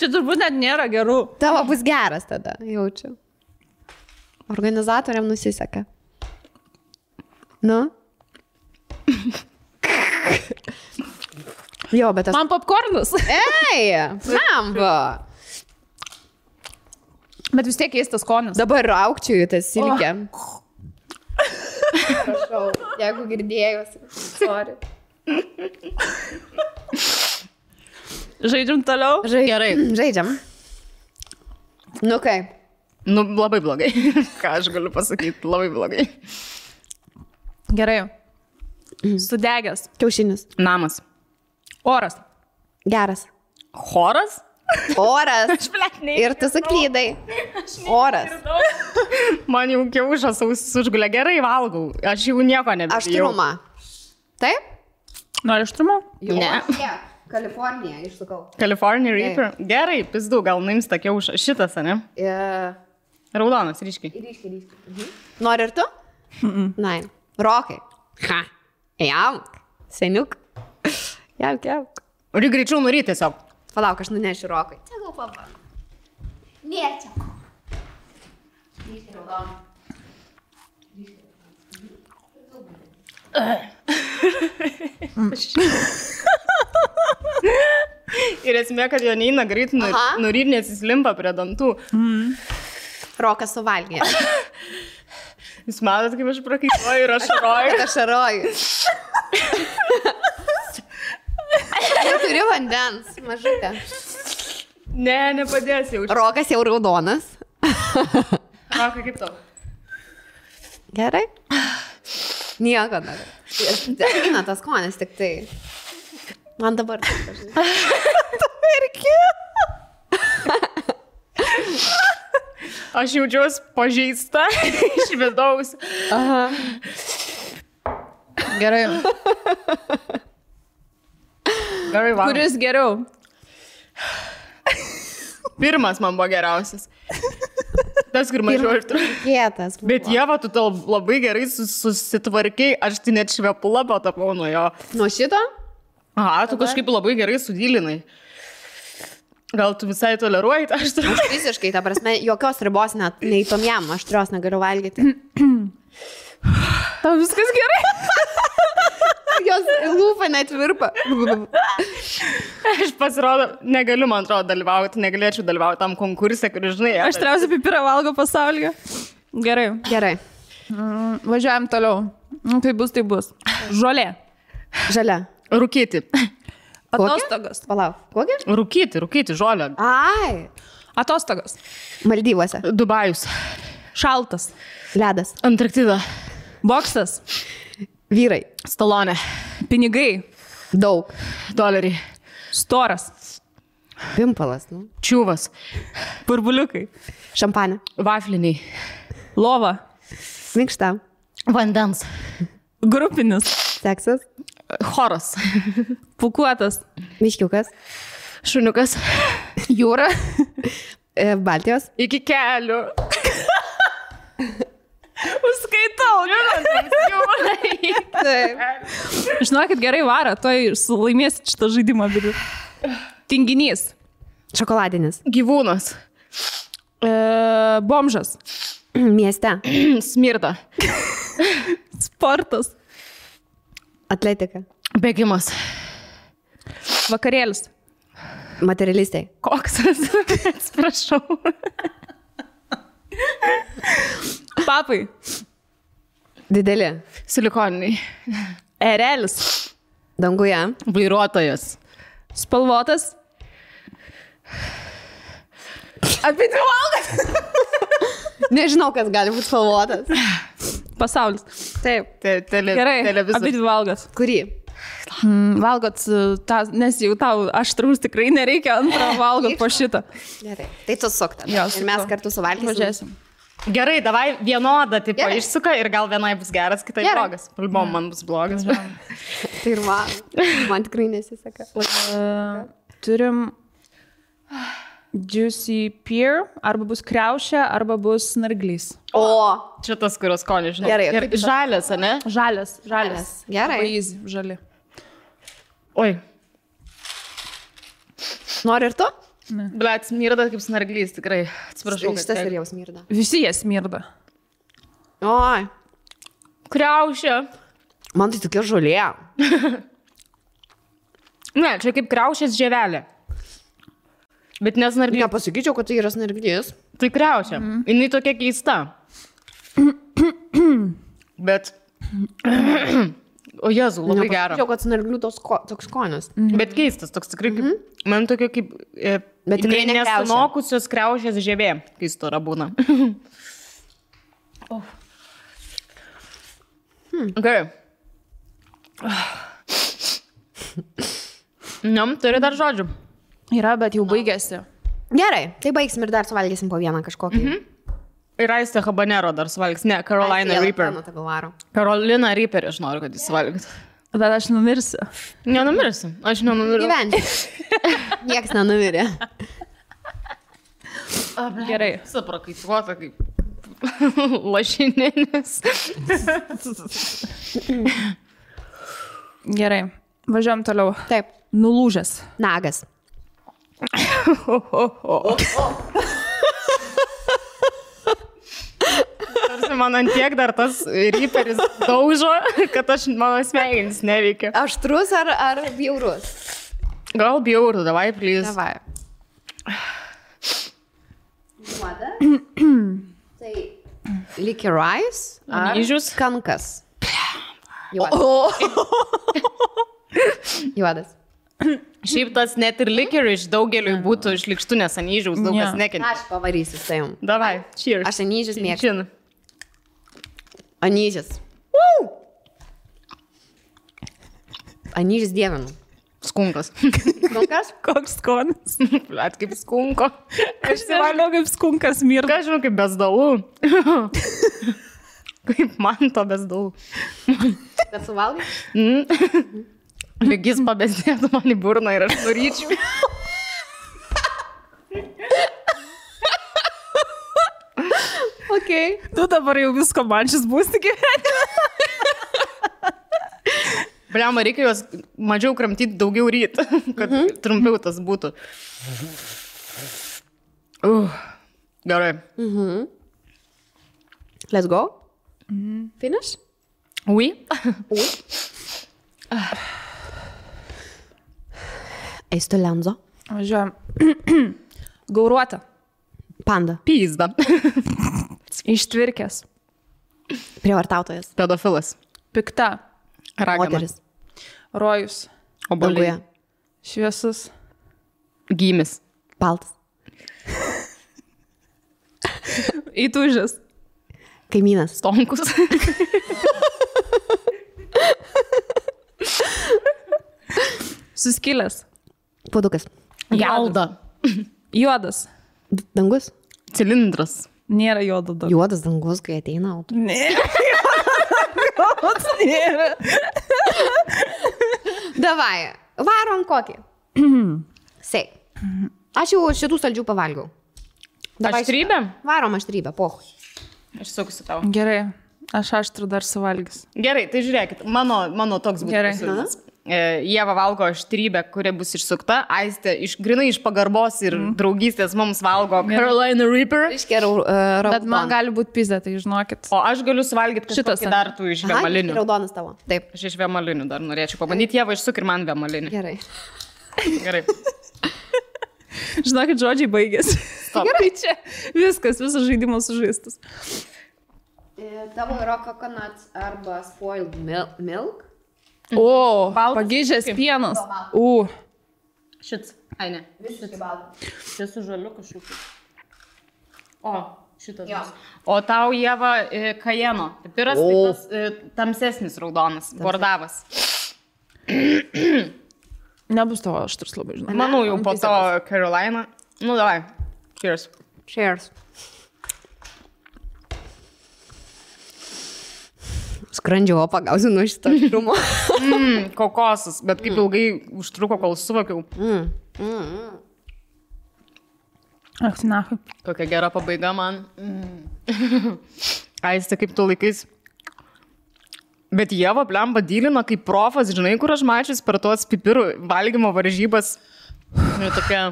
Čia turbūt net nėra gerų. Tavo bus geras tada, jaučiu. Organizatoriam nusiseka. Nu? Jo, bet aš... Man popcornas. Ei, lemba. Bet vis tiek keistas skonis. Dabar raukčiu į tą silkę. Prašau, jeigu girdėjusi. Sorry. Žaidžiam toliau. Gerai. Žaidžiam. Nu kai? Nu, labai blogai. Ką aš galiu pasakyti, labai blogai. Gerai. Sudegęs. Kiaušinis. Namas. Oras. Geras. Choras? Oras. Ir tu suklydai. Oras. Man jau kiaušas ausis užgulė. Gerai valgau. Aš jau nieko nebijau. Aštrumą. Taip? Nori aštrumo? Ne. Kalifornija, išsukau. California Reaper. Gerai, pizdu, gal nuims tą kiaušą. Šitas, ne? Raudonas, ryškiai. Ryškiai. Nori ir tu? Nein. Rokai. Ha. Jauk. Seniuk. Jauk. Uri greičiau nuri tiesiog. Palauk, aš nunešiu Rokai. Čia gal pabandau. Nė čia. Ryškiai raudoną. Ir esmė, kad jo neina greit nuryt, nes jis limpa prie dantų. Rokas suvalgė. Jūs matot, kaip aš prakaituoju ir ašaroju. Aš ašaroju. Jau turi vandens, mažutė. Ne, nepadės jau. Rokas jau raudonas. Rokai, kaip tau? Gerai? Nieko dar. Eina tas skonis tik tai. Man dabar taip dažnai. Tu irgi. Aš jaučiuosi pažeista iš vidaus. Aha. Gerai. Gerai, va. Kuris geriau? Pirmas man buvo geriausias. Tas, kur mažiau aštrus. Kietas. Bet Ieva, tu tau labai gerai susitvarkiai, aš tai net švepulą patapau nuo jo. Nuo šito? Aha, tu kažkaip labai gerai sudylinai. Gal tu visai toleruoji tą aštrumą? Aš visiškai, ta prasme, jokios ribos net nei tom jam, aštrios negaliu valgyti. Tau viskas gerai? Jos lūpa net virpa. Aš pasirodo, negaliu, man atrodo, dalyvauti, negalėčiau dalyvauti tam konkursė, kur, žinai, Aš trausiu pipirą valgo pasaulyje. Gerai. Gerai. Važiuojam toliau. Tai bus. Žolė. Žalia. Rūkyti. Atostogos. Palauk. Kokia? Rūkyti, žolę. Ai. Atostogos. Maldyvuose. Dubajus. Šaltas. Ledas. Antarktida. Boksas. Vyrai. Stalonė. Pinigai. Daug. Doleriai. Storas. Pimpalas, nu. Čiūvas. Burbuliukai. Šampanė. Vafliniai. Lova. Minkšta. Vandens. Grupinis. Seksas. Choras. Pukuotas. Miškiukas. Šuniukas. Jūra. Baltijos. Iki kelių. Užskaitau. Taip. Žinokit, gerai varo, toj laimėsit šitą žaidimą. Tinginys. Šokoladinis. Gyvūnas. Bomžas. Mieste. Smirda. Sportas. Atletika. Bėgimas. Vakarėlis. Materialistai. Koksas. Atsiprašau. Papai. Dideli. Silikoniniai. Erelis. Danguje. Vairuotojas. Spalvotas. Apie dvi valgas. Nežinau, kas gali būti spalvotas. Pasaulis. Taip. Gerai. Abi Televizorius. dvi valgas. Kurį? Valgot tą, nes jau tau aštraus tikrai nereikia antrą valgot po šitą. Gerai. Tai tu sukta. Jo, Ir mes kartu suvalgysim. Važiuosim. Gerai, davai vienodą tipą Gerai. išsuka ir gal vienai bus geras, kitai Gerai. blogas. Palbom, man bus blogas. Tai ir man tikrai nesiseka. Turim Juicy Pear, arba bus kriaušė, arba bus snarglys. O, Čia tas, kurios skonį, žinai. Gerai, Ir kaip tas? žalias, ne? Žalias. gerai. Labai easy, žali. Oi, Nori ir tu? blet, smirda kaip snarglys, tikrai. Atsiprašau. kad Šitas tiek. ir jau smirda. Visi jie smirda. Oi, Kriaušė. man tai tokia žolė. Ne, čia kaip kriaušės žievelė. Bet nesnarglys. Nepasakyčiau, kad tai yra snarglys. Tai kriaušė. Jinai tokia keista. Bet... O Jezu, labai gera. Nepasakyčiau, kad snarglių toks skonis. Bet keistas, toks tikrai kaip... Man tokia kaip... Bet tikrai ne kriaušė. nesunokusios kriaušės žievė, kai stora būna. Gerai. Turi dar žodžių. Yra, bet jau baigėsi. Gerai, tai baigsim ir dar suvalgysim po vieną kažkokį. Ir Aistė Habanero dar suvalgys. Ne, Carolina Reaper. Carolina Reaper, aš noriu, kad jis suvalgytų. Bet aš numirsiu. Nenumirsiu. Aš nenumirsiu. Gyventi. Niekas nenumirė. Gerai. Suprakaituota kaip lašininis. Gerai. Važiuojam toliau. Taip. Nulūžęs. Nagas. Tarsi man ant tiek dar tas Reaperis daužo, kad mano smegenys neveikia. Aštrus ar bjaurus? Gal bjauru, davai, please. Davai. Juoda. Tai licorice ar Anyžius. kankas. Juodas. Juodas. Šiaip tas net ir licorice daugeliui būtų šlikštų, nes anyžiaus daug kas Ne. nekenčia. Aš pavarysiu su tavim. Davai, cheers. Aš anyžius mėgstu. Čin. Anyžius. Anyžius dievinu. Skunkas. Skunkas? Koks skonis. Blet, kaip skunko. Aš įsivaizduoju, kaip skunkas mirda. Ką žinau, kaip bezdalų. Kaip man to bezdalų. Kad suvalgai? Lygis pabesdėtų man į burną ir aš nuryčiau. Ok. Tu dabar jau visko man šis būsi gyvenime. Bliama, reikia juos mažiau kramtyti, daugiau ryt, kad trumpiau tas būtų. Gerai. Let's go. Finish? Oui. Eistu lenzo. Važiuojam. Gauruota. Panda. Pyzda. Ištvirkęs. Prievartautojas. Pedofilas. Pikta. Ragana. Moteris. Rojus. Oboliai. Danguje. Šviesus. Gymis. Baltas. Įtūžęs. Kaimynas. Stonkus. Suskilęs. Puodukas. Gelda. Juodas. Dangus. Cilindras. Nėra juodo dar. Juodas dangus, kai ateina auto. Nėra. Juodas nėra. Davai, varom kokį. Sei. Aš jau šitų saldžių pavalgiau. Davai Aštrybė? šitą. Varom aštrybę, pohui. Aš suksiu tau. Gerai. Aš aštrų dar suvalgys. Gerai, tai žiūrėkit, mano toks būtų Gerai. pasiūlymas. Ieva valgo aštrybę, kuri bus išsukta, Aistė grinai iš pagarbos ir draugystės mums valgo Carolina Reaper. Bet man gali būti pizė, tai žinokit. O aš galiu suvalgyti Šitas, kažkokį dar tų iš vėmalinių. Raudonas tavo. Taip. Aš iš vėmalinių dar norėčiau pabandyti, Ieva išsuk ir man vėmalinį. Gerai. Gerai. Žinokit, žodžiai baigėsi. Gerai, čia viskas žaidimas sužaistas. Tavo yra coconut arba spoiled milk. O, pagyžęs pienas. Šits. Ai, ne. Visiškai baltas. Čia su žaliu kažkokiu. O, šitas. Jo. O tau, Ieva, kajeno. Pipiras, tai tas tamsesnis raudonas, bordavas. Nebus tavo aštrus labai, žinai. Manau, jau po to Carolina. Nu, davai. Cheers. Cheers. Skrandžio pagausiu nuo šito aštrumo. Kokosas, bet kaip ilgai užtruko, kol suvokiau. Ach, nahui. Kokia gera pabaiga man. Aistė, kaip tu laikais. Bet Ieva blemba dylina kaip profas, žinai, kur aš mačius per tuos pipirų valgymo varžybas. Ir tokia...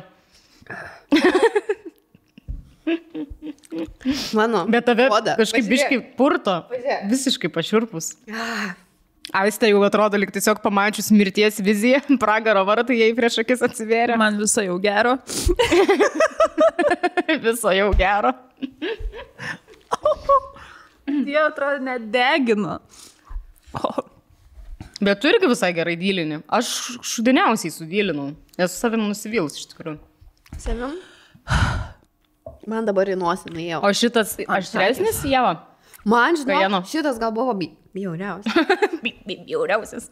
Mano. Bet tave kažkaip biškai purto. Visiškai pašiurpus. Aistė jau atrodo, lyg tiesiog pamačius mirties viziją, pragaro vartai jai prieš akis atsivėrė. Man viso jau gero. Viso jau gero. Jie atrodo nedegino. Bet tu irgi visai gerai dylini. Aš šudiniausiai sudylinau. Esu savim nusivylus iš tikrųjų. Savim? Man dabar į nosį nuėjau. O šitas aštresnis, Ieva? Man, žinau, Kajeno. šitas gal buvo bjauriausias. Bjauriausias.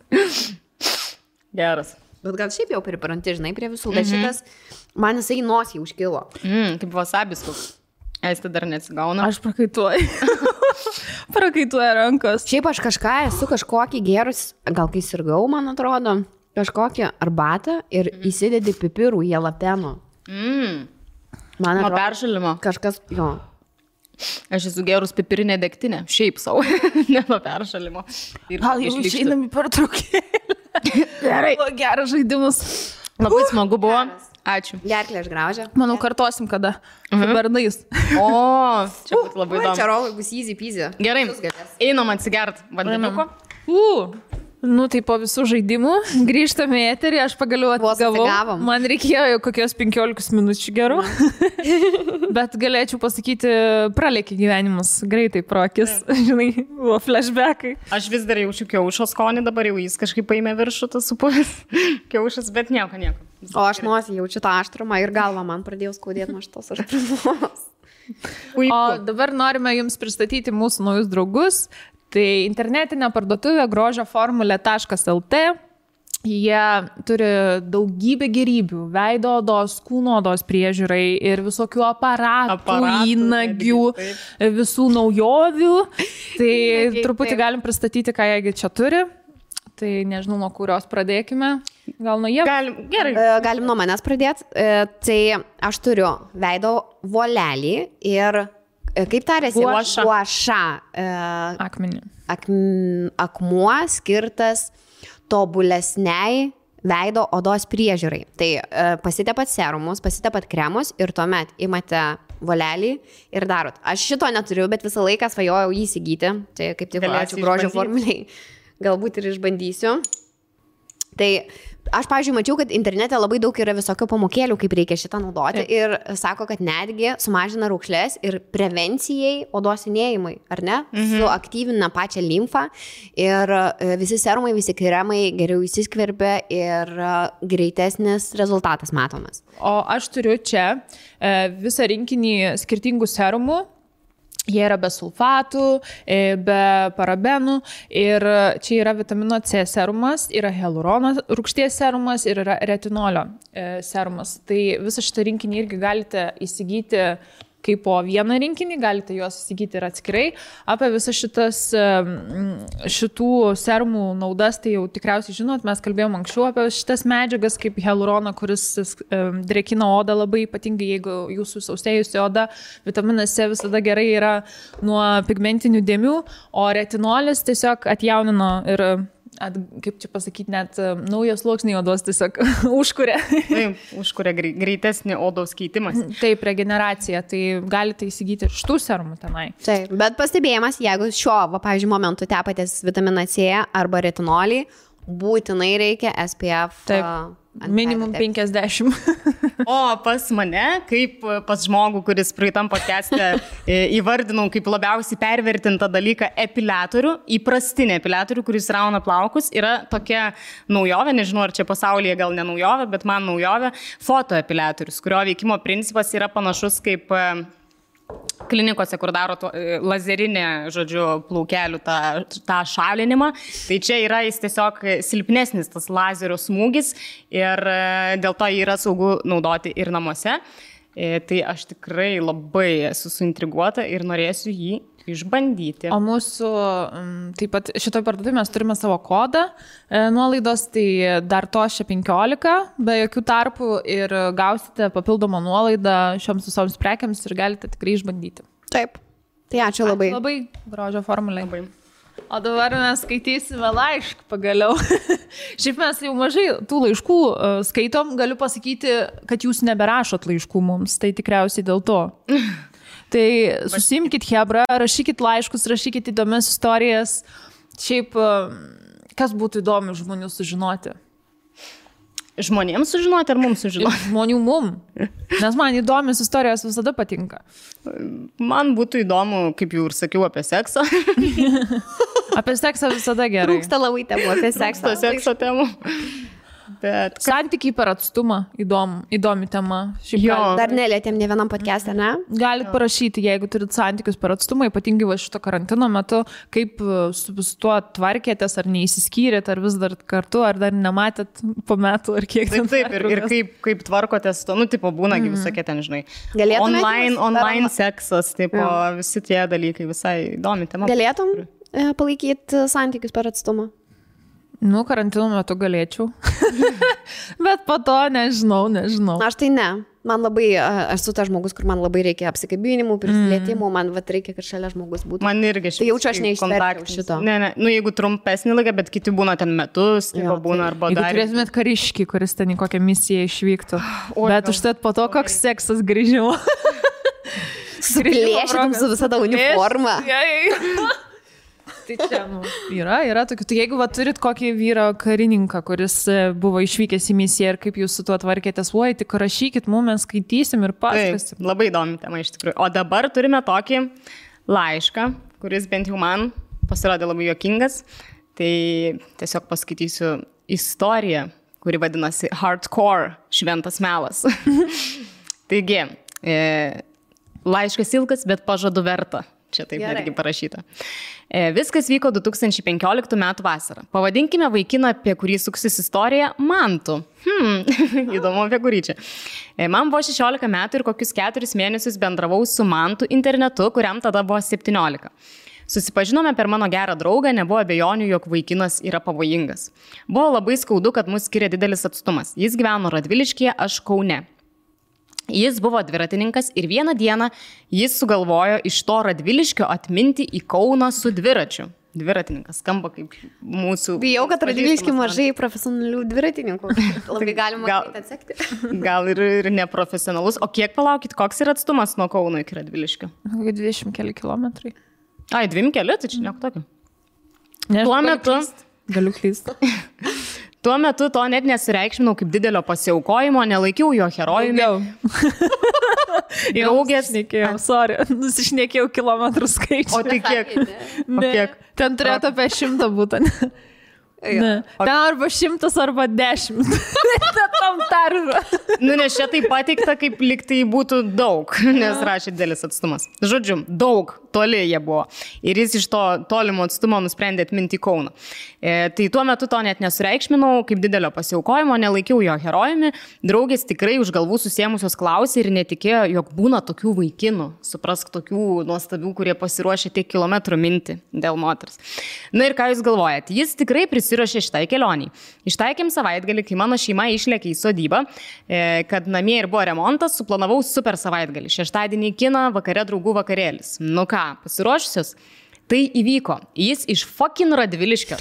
Geras. Bet gal šiaip jau pripranti, žinai, prie visų, bet šitas, man jisai nosį užkilo. Kaip wasabis koks. Aistė dar neatsigauna. Aš prakaituoju. Prakaituoja rankos. Šiaip aš esu kažkokį gerus, gal kai sirgau, man atrodo, kažkokią arbatą ir įsidedi pipirų į jalapeno. Man Nuo atrodo, peršalimo. kažkas, jo. Aš esu gerus pipirinė degtinė. Šiaip savo. Ne nuo peršalimo. Gal jau išeinam į pertraukėlę. Gerai. Geras žaidimas. Labai smagu buvo. Ačiū. Gerklė aš graužia. Manau, kartosim kada. Su bernais. O, čia būtų labai įdomu. Čia rolai bus easy peasy. Gerai, einam atsigert vandeniuko. Nu, tai po visų žaidimų grįžtame į eterį, aš pagaliau atsigavau. Man reikėjo jau kokios 15 minučių gerų. Bet galėčiau pasakyti, pralėkė gyvenimus greitai pro akis. Žinai, buvo flashbackai. Aš vis dar jaučiu kiaušo skonį, dabar jau jis kažkaip paėmė viršų tas supuvęs kiaušas, bet nieko. O aš nosį jaučiu tą aštrumą ir galvą man pradėjau skaudėti nuo šitos aštrumos. O dabar norime jums pristatyti mūsų naujus draugus. Tai internetinė parduotuvė grožioformulė.lt. Jie turi daugybę gėrybių, veido odos, kūno odos priežiūrai ir visokių aparatų įnagių, visų naujovių. Tai truputį galim pristatyti, ką jie čia turi. Tai nežinau, nuo kurios pradėkime. Gal nuo jie? Galim nuo manęs pradėti. Tai aš turiu veido volelį ir... Kaip tarėsi? Guaša. Akmenį. Akmuo skirtas tobulesniai veido odos priežiūrai. Tai pasitepat serumus, pasitepat kremus ir tuomet imate volelį ir darot. Aš šito neturiu, bet visą laiką svajojau jį įsigyti. Tai kaip tik ačiū grožio formuliai. Galbūt ir išbandysiu. Tai aš, pavyzdžiui, mačiau, kad internete labai daug yra visokio pamokėlių, kaip reikia šitą naudoti. Ir sako, kad netgi sumažina raukšlės ir prevencijai odos senėjimui, ar ne? Suaktyvina pačią limfą ir visi serumai, visi kremai geriau įsiskverbia ir greitesnis rezultatas matomas. O aš turiu čia visą rinkinį skirtingų serumų. Jie yra be sulfatų, be parabenų ir čia yra vitamino C serumas, yra hialurono rūgšties serumas ir yra retinolio serumas. Tai visą šitą rinkinį irgi galite įsigyti kaip po vieną rinkinį, galite juos įsigyti ir atskirai. Apie visas šitų serumų naudas, tai jau tikriausiai žinot, mes kalbėjom anksčiau apie šitas medžiagas, kaip hialuroną, kuris drėkina odą labai, ypatingai jeigu jūsų sausėjusi oda. Vitaminas C visada gerai yra nuo pigmentinių dėmių, o retinolis tiesiog atjaunino ir kaip čia pasakyti, net naujas sluoksniai odos tiesiog užkuria. Taip, užkuria greitesnį odos keitimas. Taip, regeneracija, tai galite įsigyti ir šitų serumų tenai. Taip, bet pastebėjimas, jeigu pavyzdžiui, momentu tepatės vitaminą C arba retinolį, būtinai reikia SPF. Taip. Minimum 50. O pas mane, kaip pas žmogų, kuris praeitam podcast'e įvardinau kaip labiausiai pervertintą dalyką epiliatorių, įprastinį epiliatorių, kuris rauna plaukus, yra tokia naujovė, nežinau, ar čia pasaulyje gal ne naujovė, bet man naujovė, fotoepiliatorius, kurio veikimo principas yra panašus kaip klinikose, kur daro lazerinę, žodžiu, plaukelių tą šalinimą. Tai čia yra jis tiesiog silpnesnis tas lazerio smūgis ir dėl to jį yra saugu naudoti ir namuose. Tai aš tikrai labai esu suintriguota ir norėsiu jį išbandyti. O mūsų, taip pat šitoj parduotuvėje mes turime savo kodą nuolaidos, tai dar to 15 be jokių tarpų ir gausite papildomą nuolaidą šioms visoms prekiams ir galite tikrai išbandyti. Taip, tai ačiū labai. Labai grožio formulė. Labai. O dabar mes skaitysime laišką pagaliau. Šiaip mes jau mažai tų laiškų skaitom, galiu pasakyti, kad jūs neberašot laiškų mums, tai tikriausiai dėl to. Tai susimkit hebra, rašykit laiškus, rašykit įdomias istorijas. Šiaip, kas būtų įdomi žmonių sužinoti? Žmonėms sužinoti ar mums sužinoti? Žmonių mum. Nes man įdomios istorijos visada patinka. Man būtų įdomu, kaip jau ir sakiau, apie seksą. Apie seksą visada gerai. Trūksta labai temų apie seksą. Sekso temų. Bet... Santykiai per atstumą, įdomi tema. Dar nelietėm ne vienam podcast'e, ne? Galit parašyti, jeigu turit santykius per atstumą, ypatingai va šito karantino metu, kaip su tuo tvarkėtės, ar neįsiskyrėt, ar vis dar kartu, ar dar nematėt po metų, ar kiek. Taip, ir kaip tvarkotės to, tipo būnagi visokie ten, žinai. Online seksas, visi tie dalykai, visai įdomi tema. Galėtum palaikyti santykius per atstumą? Karantino metu galėčiau. Bet po to nežinau. Aš tai ne. Man labai, aš esu tas žmogus, kur man labai reikia apsikabinimų, prisilietimų, man reikia, kad šalia žmogus būtų. Man irgi tai jaučiu, aš neišverčiau šito. Ne, jeigu trumpesnį laiką, bet kiti būna ten metus, būna arba dar. Jeigu turėtumėt kariškį, kuris ten į kokią misiją išvyktų. Bet užtat po to, koks seksas grįžimo. Suplėšytum su visada uniforma. Tai čia, yra tokių. Tai jeigu turit kokį vyrą karininką, kuris buvo išvykęs į misiją ir kaip jūs su tuo tvarkėtės, tik rašykit, mes skaitysim ir pasakosim. Labai įdomi tema iš tikrųjų. O dabar turime tokį laišką, kuris bent jau man pasirodė labai juokingas. Tai tiesiog paskaitysiu istoriją, kuri vadinasi Hardcore šventas melas. Taigi, laiškas ilgas, bet pažadu verta. Čia taip netgi parašyta. Viskas vyko 2015 metų vasarą. Pavadinkime vaikiną, apie kurį suksis istorija, Mantu. Įdomu apie kurį čia. Man buvo 16 metų ir kokius 4 mėnesius bendravau su Mantu internetu, kuriam tada buvo 17. Susipažinome per mano gerą draugą, nebuvo abejonių, jog vaikinas yra pavojingas. Buvo labai skaudu, kad mus skiria didelis atstumas. Jis gyveno Radviliškyje, aš Kaune. Jis buvo dviratininkas ir vieną dieną jis sugalvojo iš to Radviliškio atminti į Kauną su dviračiu. Dviratininkas skamba kaip mūsų... Bijau, kad Radvilišky mažai profesionalių dviratininkų. Labai galima atsekti. Gal ir neprofesionalus. O kiek palaukit, koks yra atstumas nuo Kauno iki Radviliškio? 20 keli kilometrai. Ai, 2 keli, tai čia nieko tokio. Tuo metu... Galiu klysti. Tuo metu to net nesireikšminau kaip didelio pasiaukojimo, nelaikiau jo herojumi. Draugės. Nusišnekėjau kilometrų skaičių. O tai kiek? Ten turėtų apie 100 būti. Ne. Ten arba 100 arba 10. Tam tarva. Nes čia tai pateikta, kaip lyg tai būtų daug, nes rašė didelis atstumas. Žodžiu, daug, toli jie buvo. Ir jis iš to tolimo atstumo nusprendė atminti Kauną. Tai tuo metu to net nesureikšminau, kaip didelio pasiaukojimo, nelaikiau jo herojumi. Draugės tikrai už galvų susėmusios klausė ir netikėjo, jog būna tokių vaikinų. Suprask, tokių nuostabių, kurie pasiruošė tiek kilometrų minti dėl moters. Na ir ką jūs galvojat? Jis tikrai prisiruošė šitai kelioniai. Ištaikėm savaitgalį, kai mano šeima išlėkė į sodybą, kad namie ir buvo remontas, suplanavau super savaitgalį. Šeštadienį kiną, vakare draugų vakarėlis. Nu ką, pasiruošusios? Tai įvyko. Jis iš fucking Radviliškio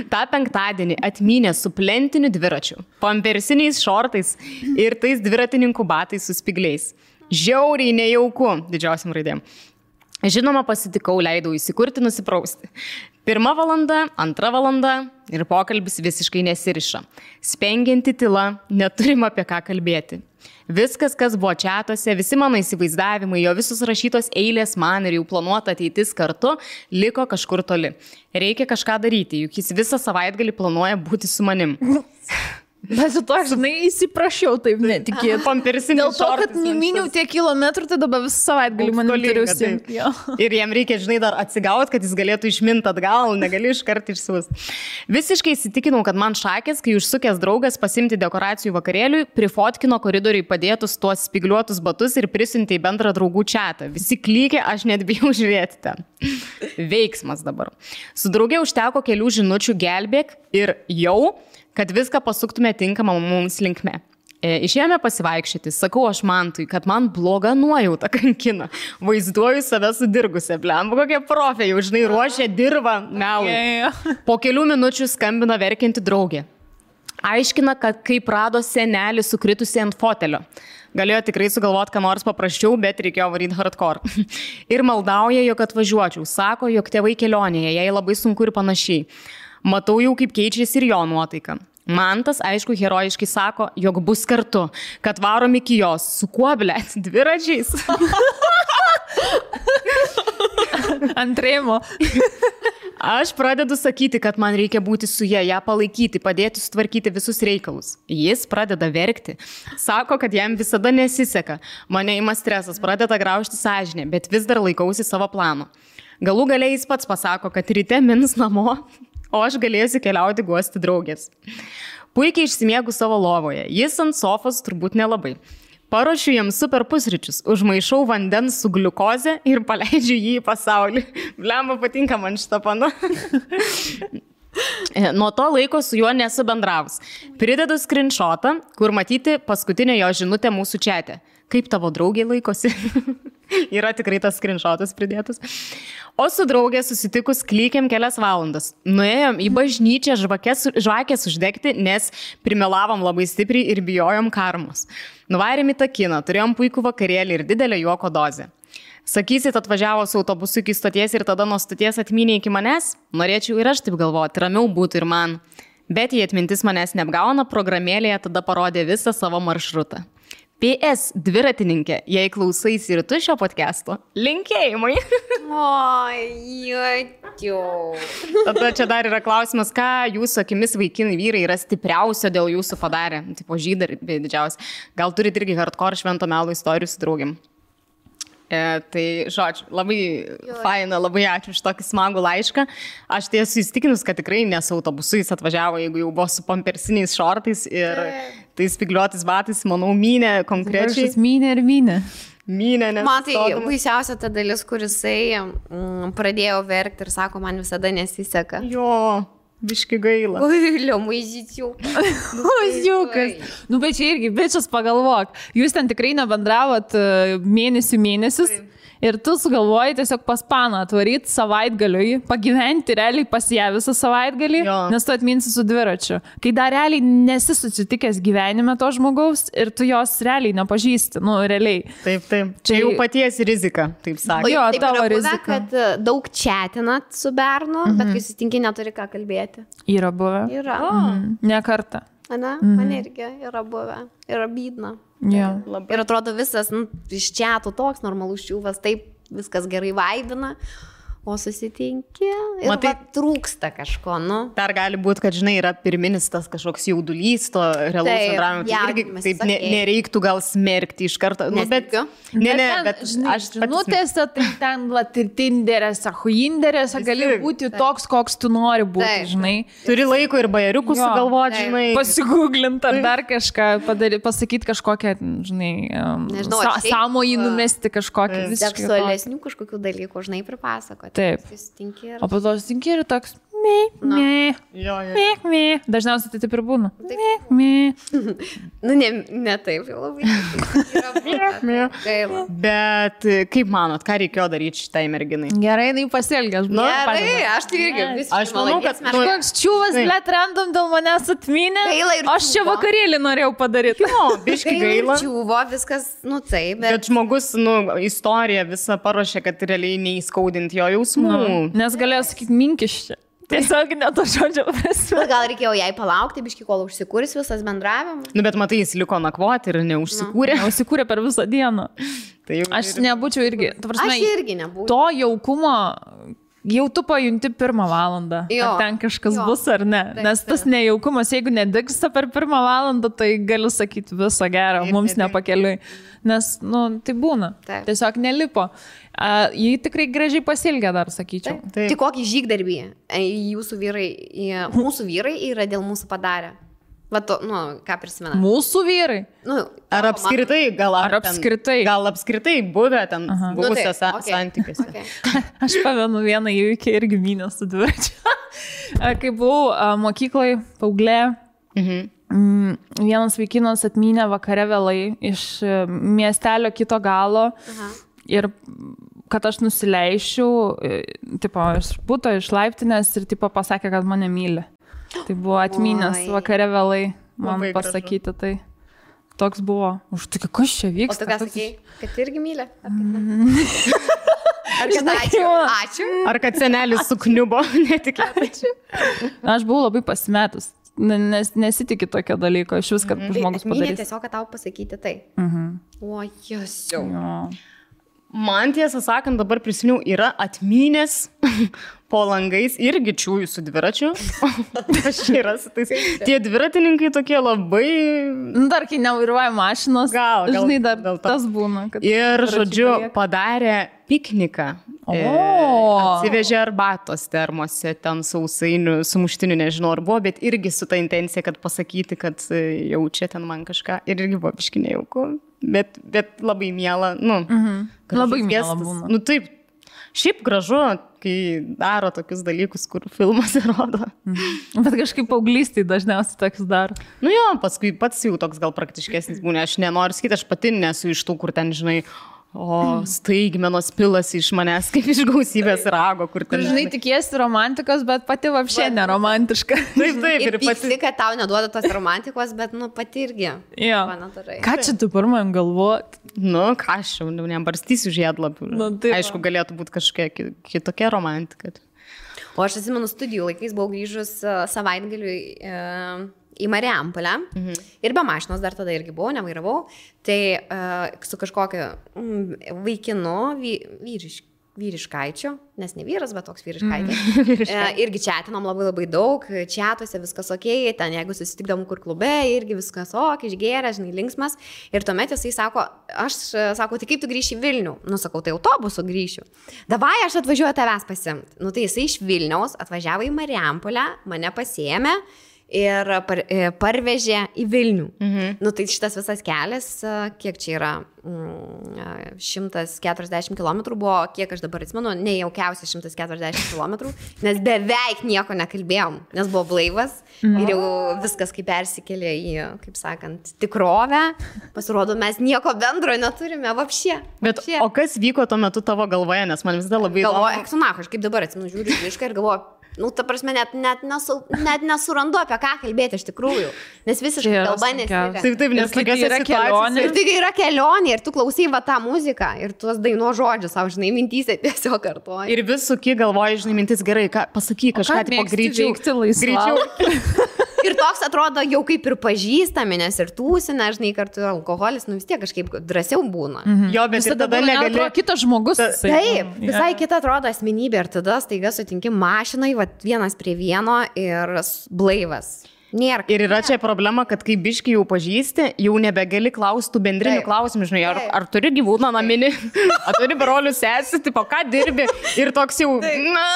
tą penktadienį atmynė su plentiniu dviračiu, pampersiniais šortais ir tais dviratininkų batais su spigliais. Žiauriai nejauku, didžiausiam raidėm. Žinoma, pasitikau, leidau įsikurti, nusiprausti. 1 valanda, 2 valanda ir pokalbis visiškai nesiriša. Spengianti tyla, neturim apie ką kalbėti. Viskas, kas buvo čatuose, visi mano įsivaizdavimai, jo visus rašytos eilės man ir jau planuota ateitis kartu, liko kažkur toli. Reikia kažką daryti, juk jis visą savaitgalį planuoja būti su manim. Bet to, žinai, įsiprašiau, taip netikėt. Pampersinis Dėl to, kad neminiau tiek kilometrų, tai dabar visą savaitgalį man turiu užsiimti. Ir jam reikia, žinai, dar atsigauti, kad jis galėtų išminti atgal, negali iškart išsiūs. Visiškai įsitikinau, kad man šakės, kai užsukęs draugas pasimti dekoracijų vakarėliui, prifotkino koridoriui padėtus tuos spigliuotus batus ir prisiuntė į bendrą draugų čatą. Visi klykė, aš net bijau žiūrėti ten. Veiksmas dabar. Su draugė užteko kelių žinučių gelbėk ir jau, kad viską pasuktume tinkamą mums linkme. Išėjome pasivaikščioti, sakau aš Mantui, kad man bloga nuojauta kankina. Vaizduoju save sudirgusią, blemba, kokie profė, jau žinai, ruošia dirvą melui. Po kelių minučių skambina verkianti draugė. Aiškina, kad kaip rado senelį sukritusi ant fotelio. Galėjo tikrai sugalvoti, ką nors paprasčiau, bet reikėjo varyti hardcore. Ir maldauja, jog atvažiuočiau. Sako, jog tėvai kelionėje, jai labai sunku ir panašiai. Matau jau, kaip keičiasi ir jo nuotaika. Mantas, aišku, herojiškai sako, jog bus kartu, kad varom iki jos. Su kuo, blėt, dviračiais? Antrėjimo. Aš pradedu sakyti, kad man reikia būti su ją palaikyti, padėti sutvarkyti visus reikalus. Jis pradeda verkti. Sako, kad jam visada nesiseka. Mane ima stresas, pradeda graužti sąžinę, bet vis dar laikausi savo plano. Galų galiai jis pats pasako, kad ryte mins namo, o aš galėsiu keliauti guosti draugės. Puikiai išsimiegu savo lovoje. Jis ant sofos turbūt nelabai. Paruošiu jam super pusryčius, užmaišau vandens su gliukoze ir paleidžiu jį į pasaulį. Blemba, patinka man šitą pana. Nuo to laiko su juo nesu bendravus. Pridedu screenshotą, kur matyti paskutinę jo žinutę mūsų čate. Kaip tavo draugė laikosi? Yra tikrai tas screenshotas pridėtas. O su draugė susitikus klykėm kelias valandas. Nuėjom į bažnyčią žvakės uždegti, nes primelavom labai stipriai ir bijojom karmos. Nuvarėm į tą kiną, turėjom puikų vakarėlį ir didelę juoko dozę. Sakysit, atvažiavo su autobusu iki stoties ir tada nuo stoties atmynė iki manęs? Norėčiau ir aš taip galvoti, ramiau būtų ir man. Bet jei atmintis manęs neapgauna, programėlėje tada parodė visą savo maršrutą. PS dviratininkė, jei klausaisi ir tu šio podcast'o, linkėjimai. Oi, jėtiau. Tada čia dar yra klausimas, ką jūsų akimis vaikinai vyrai yra stipriausio dėl jūsų padarę, tipo žydai didžiausia. Gal turit irgi hardcore švento melo istorijų su draugim. Tai, žodžiu, labai faina, labai ačiū už tokį smagų laišką. Aš tai esu įstikinus, kad tikrai nesu autobusu, jis atvažiavo, jeigu jau buvo su pampersiniais šortais ir tais spigliuotis batais, manau, mynė konkrečiai. Mynė ir mynė. Mynė, nes... Man tai baisiausia ta dalis, kur jisai pradėjo verkti ir sako, man visada nesiseka. Jo, biški gaila. Oi, liomaizyčiau. Oziukas. Nu, bet čia irgi, bičias pagalvok. Jūs ten tikrai nebendravot mėnesius. Ir tu sugalvoji tiesiog pas paną atvaryti savaitgaliui, pagyventi realiai pas ją visą savaitgalį, nes tu atminsi su dviračiu. Kai dar realiai nesi susitikęs gyvenime to žmogaus ir tu jos realiai nepažįsti, nu realiai. Taip. Čia jau paties rizika, taip sakė. Jo, taip tavo yra rizika. buvę, kad daug chatinat su bernu, bet kai susitinki, neturi ką kalbėti. Yra buvę. Yra. Ne kartą. Ane? Man irgi yra buvę. Yra bydna. Jo. Ir atrodo visas iš chatų toks normalus čiūvas, taip viskas gerai vaibina, o susitinki ir Matai, trūksta kažko, nu. Dar gali būti, kad, žinai, yra pirminis tas kažkoks jaudulys, to realaus bendravimo. Tai irgi taip nereiktų gal smerkti iš karto. Nu, bet, bet aš žinutėse, tai ten Tinderėse, Huinderėse gali būti toks, koks tu nori būti, žinai. Turi laiko ir bajeriukų sugalvoti, žinai. Pasigūglinti ar dar kažką, pasakyti kažkokią, žinai, sąmojį numesti kažkokią. Seksualesnių kažkokių dalykų, žinai, pripasakoti. Taip. O po to susitinki ir toks, Dažniausiai tai taip ir būna. Nu, ne taip jau labai. Gaila. Bet kaip manot, ką reikėjo daryti šitai merginai? Gerai, jinai pasielgė. Gerai, aš tai irgi visiškai. Aš manau, kad Koks čiūvas, blėt, random dėl manęs atminė. Gaila ir Aš čia čiūvo. vakarėlį norėjau padaryti. O, biški gaila. Čiūvo, viskas, nu taip, Bet žmogus, istoriją visą paruošė, kad realiai neįskaudinti jo jausmų. Nes galėjo sakyti minkiščią. Tiesiog ne to žodžio prasme. Gal reikėjo jai palaukti, biški, kol užsikūris visas bendravimas. Nu, bet matai, jis liko nakvoti ir neužsikūrė. Užsikūrė per visą dieną. Tai jau Aš nebūčiau irgi. Ta prasme, Aš irgi nebūčiau. To jaukumo jau tu pajunti 1 valandą. Jo. Ar ten kažkas Jo. bus ar ne. Taip, Nes tas nejaukumas, jeigu nedingsta per 1 valandą, tai galiu sakyti viso gero, Taip, mums taip, taip. nepakeliui. Nes, nu, tai būna. Taip. Tiesiog nelipo. Jį tikrai gražiai pasilgė dar, sakyčiau. Taip. Tik kokį žygdarbį jūsų vyrai, mūsų vyrai yra dėl mūsų padarę. Va to, nu, ką prisimena. Mūsų vyrai. Nu, Ar apskritai, gal Ar apskritai? Gal apskritai buvę ten buvusiose okay. santykiuose. Okay. Aš pamenu vieną įvykį irgi mynę su dviračiu. Kai buvau mokykloje, paauglė, vienas vaikinas atmynė vakare vėlai iš miestelio kito galo ir kad aš nusileišiu, tipo, iš buto, iš laiptinės ir tipo pasakė, kad mane myli. Tai buvo atmynęs vakare vėlai man Labai pasakyti tai. Toks buvo. Už tai, kas čia O vyksta? tu ką sakei, kad irgi myli? Ar kad ačiū? Ačiū. Ar kad senelis sukniubo netikėtai? Aš buvau labai pasimetus. Nes nesitikė tokio dalyko. Iš vis, kad žmogus Mylė padarys. tiesiog, kad tau pasakyti tai. O, jėsiu. Jo. Man tiesą sakant, dabar prisiminiau, yra atmynės po langais irgi čiūjų su dviračiu. Aš yra su tais. Tie dviratininkai tokie labai... Nu, dar kai nevairuoja mašinos, Gal, žinai, dar dėl to. tas būna. Kad Ir, dviračiai žodžiu, palieka. padarė pikniką. O. Atsivežė arbatos termose, ten sausainių, sumuštinių, nežinau, ar buvo, bet irgi su ta intencija, kad pasakyti, kad jaučia ten man kažką. Ir irgi buvo biški nejauku. Bet labai miela, nu. Labai gražus miela gestas. būna. Nu taip, šiaip gražu, kai daro tokius dalykus, kur filmas rodo. Bet kažkaip paauglystėje dažniausiai toks daro. Nu jo, paskui pats jau toks gal praktiškesnis būna. Aš nenoriu sakyti, aš pati nesu iš tų, kur ten, žinai, staigmenos pilasi iš manęs, kaip iš gausybės rago, kur ten. Žinai, tikiesi romantikos, bet pati vapšė neromantiška. Taip, Ir ir pati. pyksti, kad tau neduoda tos romantikos, bet, nu, pati irgi. Jo. Panatarai. Ką čia tu pirmajam galvot? Nu, ką aš jau nebarstysiu žiedlapių. Nu, taip. Aišku, galėtų būti kažkokia kitokia romantika. O aš atsimenu, studijų laikais buvau grįžus savaitgaliui į Marijampolę. Ir be mašinos dar tada irgi buvau, nevairavau. Tai su kažkokiu vaikinu, vyriškaičiu, nes ne vyras, bet toks vyriškaitis. Irgi čatinom labai daug, čatuose viskas ok, ten jeigu susitikdom kur klube, irgi viskas ok, išgėrė, žinai, linksmas. Ir tuomet jisai sako, tai kaip tu grįši į Vilnių? Nu, sakau, tai autobusu grįšiu. Davai, aš atvažiuoju tavęs pasimti. Nu, tai jisai iš Vilniaus atvažiavo į Marijampolę, mane pasiėmė ir parvežė į Vilnių. Nu, tai šitas visas kelias, kiek čia yra, 140 km buvo, kiek aš dabar atsimenu, nejaukiausia 140 km, nes beveik nieko nekalbėjom, nes buvo blaivas ir jau viskas kaip persikėlė į, kaip sakant, tikrovę. Pasirodo, mes nieko bendro neturime, vapšė. Bet o kas vyko tuo metu tavo galvoje, nes man visada labai galvoju, eksunach, aš kaip dabar atsimenu, žiūriu visiškai ir galvoju, nu, ta prasme, net nesurandu apie ką kalbėti iš tikrųjų, nes visiškai kalba nesiria. Taip, nes tokios yra kelionė. Ir tai yra kelionė, ir tu klausai va tą muziką, ir tuos daino žodžius, savo, žinai, mintyse tiesiog kartuoji. Ir vis suki galvoji, žinai, mintis gerai, pasakyk kažką, tipo greičiau. Ir toks atrodo jau kaip ir pažįstami, nes ir tūsina, žinai, kartu alkoholis, nu vis tiek kažkaip drąsiau būna. Jo, bet ir tada negali. Kitas žmogus. Taip, visai kita atrodo asmenybė ir tada staiga sutinki mašinai, va, vienas prie vieno ir blaivas. Nėra. Ir yra čia problema, kad kai biški jau pažįsti, jau nebegali klausti bendrinių klausimų, žinai, ar turi gyvūną naminį, ar turi brolių sesį, tipo, ką dirbi ir toks jau, na,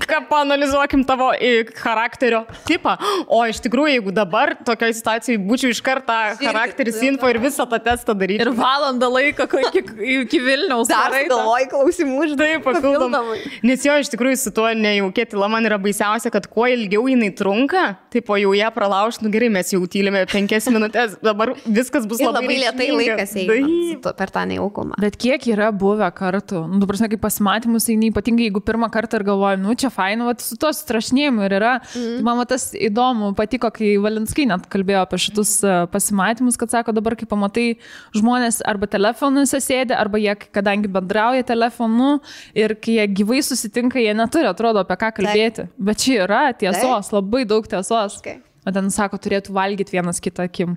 ką paanalizuokim tavo charakterio tipą. O iš tikrųjų, jeigu dabar tokioje situacijoje būčiau iš karto charakteris info ir visą tą testą daryti. Ir valandą laiko iki Vilniaus. Dar galvoju klausimų, žinai, taip, papildomai. Nes jo, iš tikrųjų, su tuo nejaukė tyla man yra baisiausia, kad kuo ilgiau jinai trunka, taip, o jau ją pralaužt, nu gerai, mes jau tylime 5 minutės, dabar viskas bus labai lėtai laikas eina per tą nejaukumą. Bet kiek yra buvę kartų, nu, prasme, kaip pasimatymus eini, ypatingai jeigu pirmą kartą ir galvoju, nu, čia fainu, su to strašnėjimu ir yra. Tai man tas įdomu patiko, kai Valinskai net kalbėjo apie šitus pasimatymus, kad sako, dabar kai pamatai žmonės arba telefonuose sėdi, arba jie, kadangi bendrauja telefonu ir kai jie gyvai susitinka, jie neturi, atrodo, apie ką kalbėti. Bet čia yra tiesos, labai daug tiesos. O ten sako, turėtų valgyti vienas kitą akim.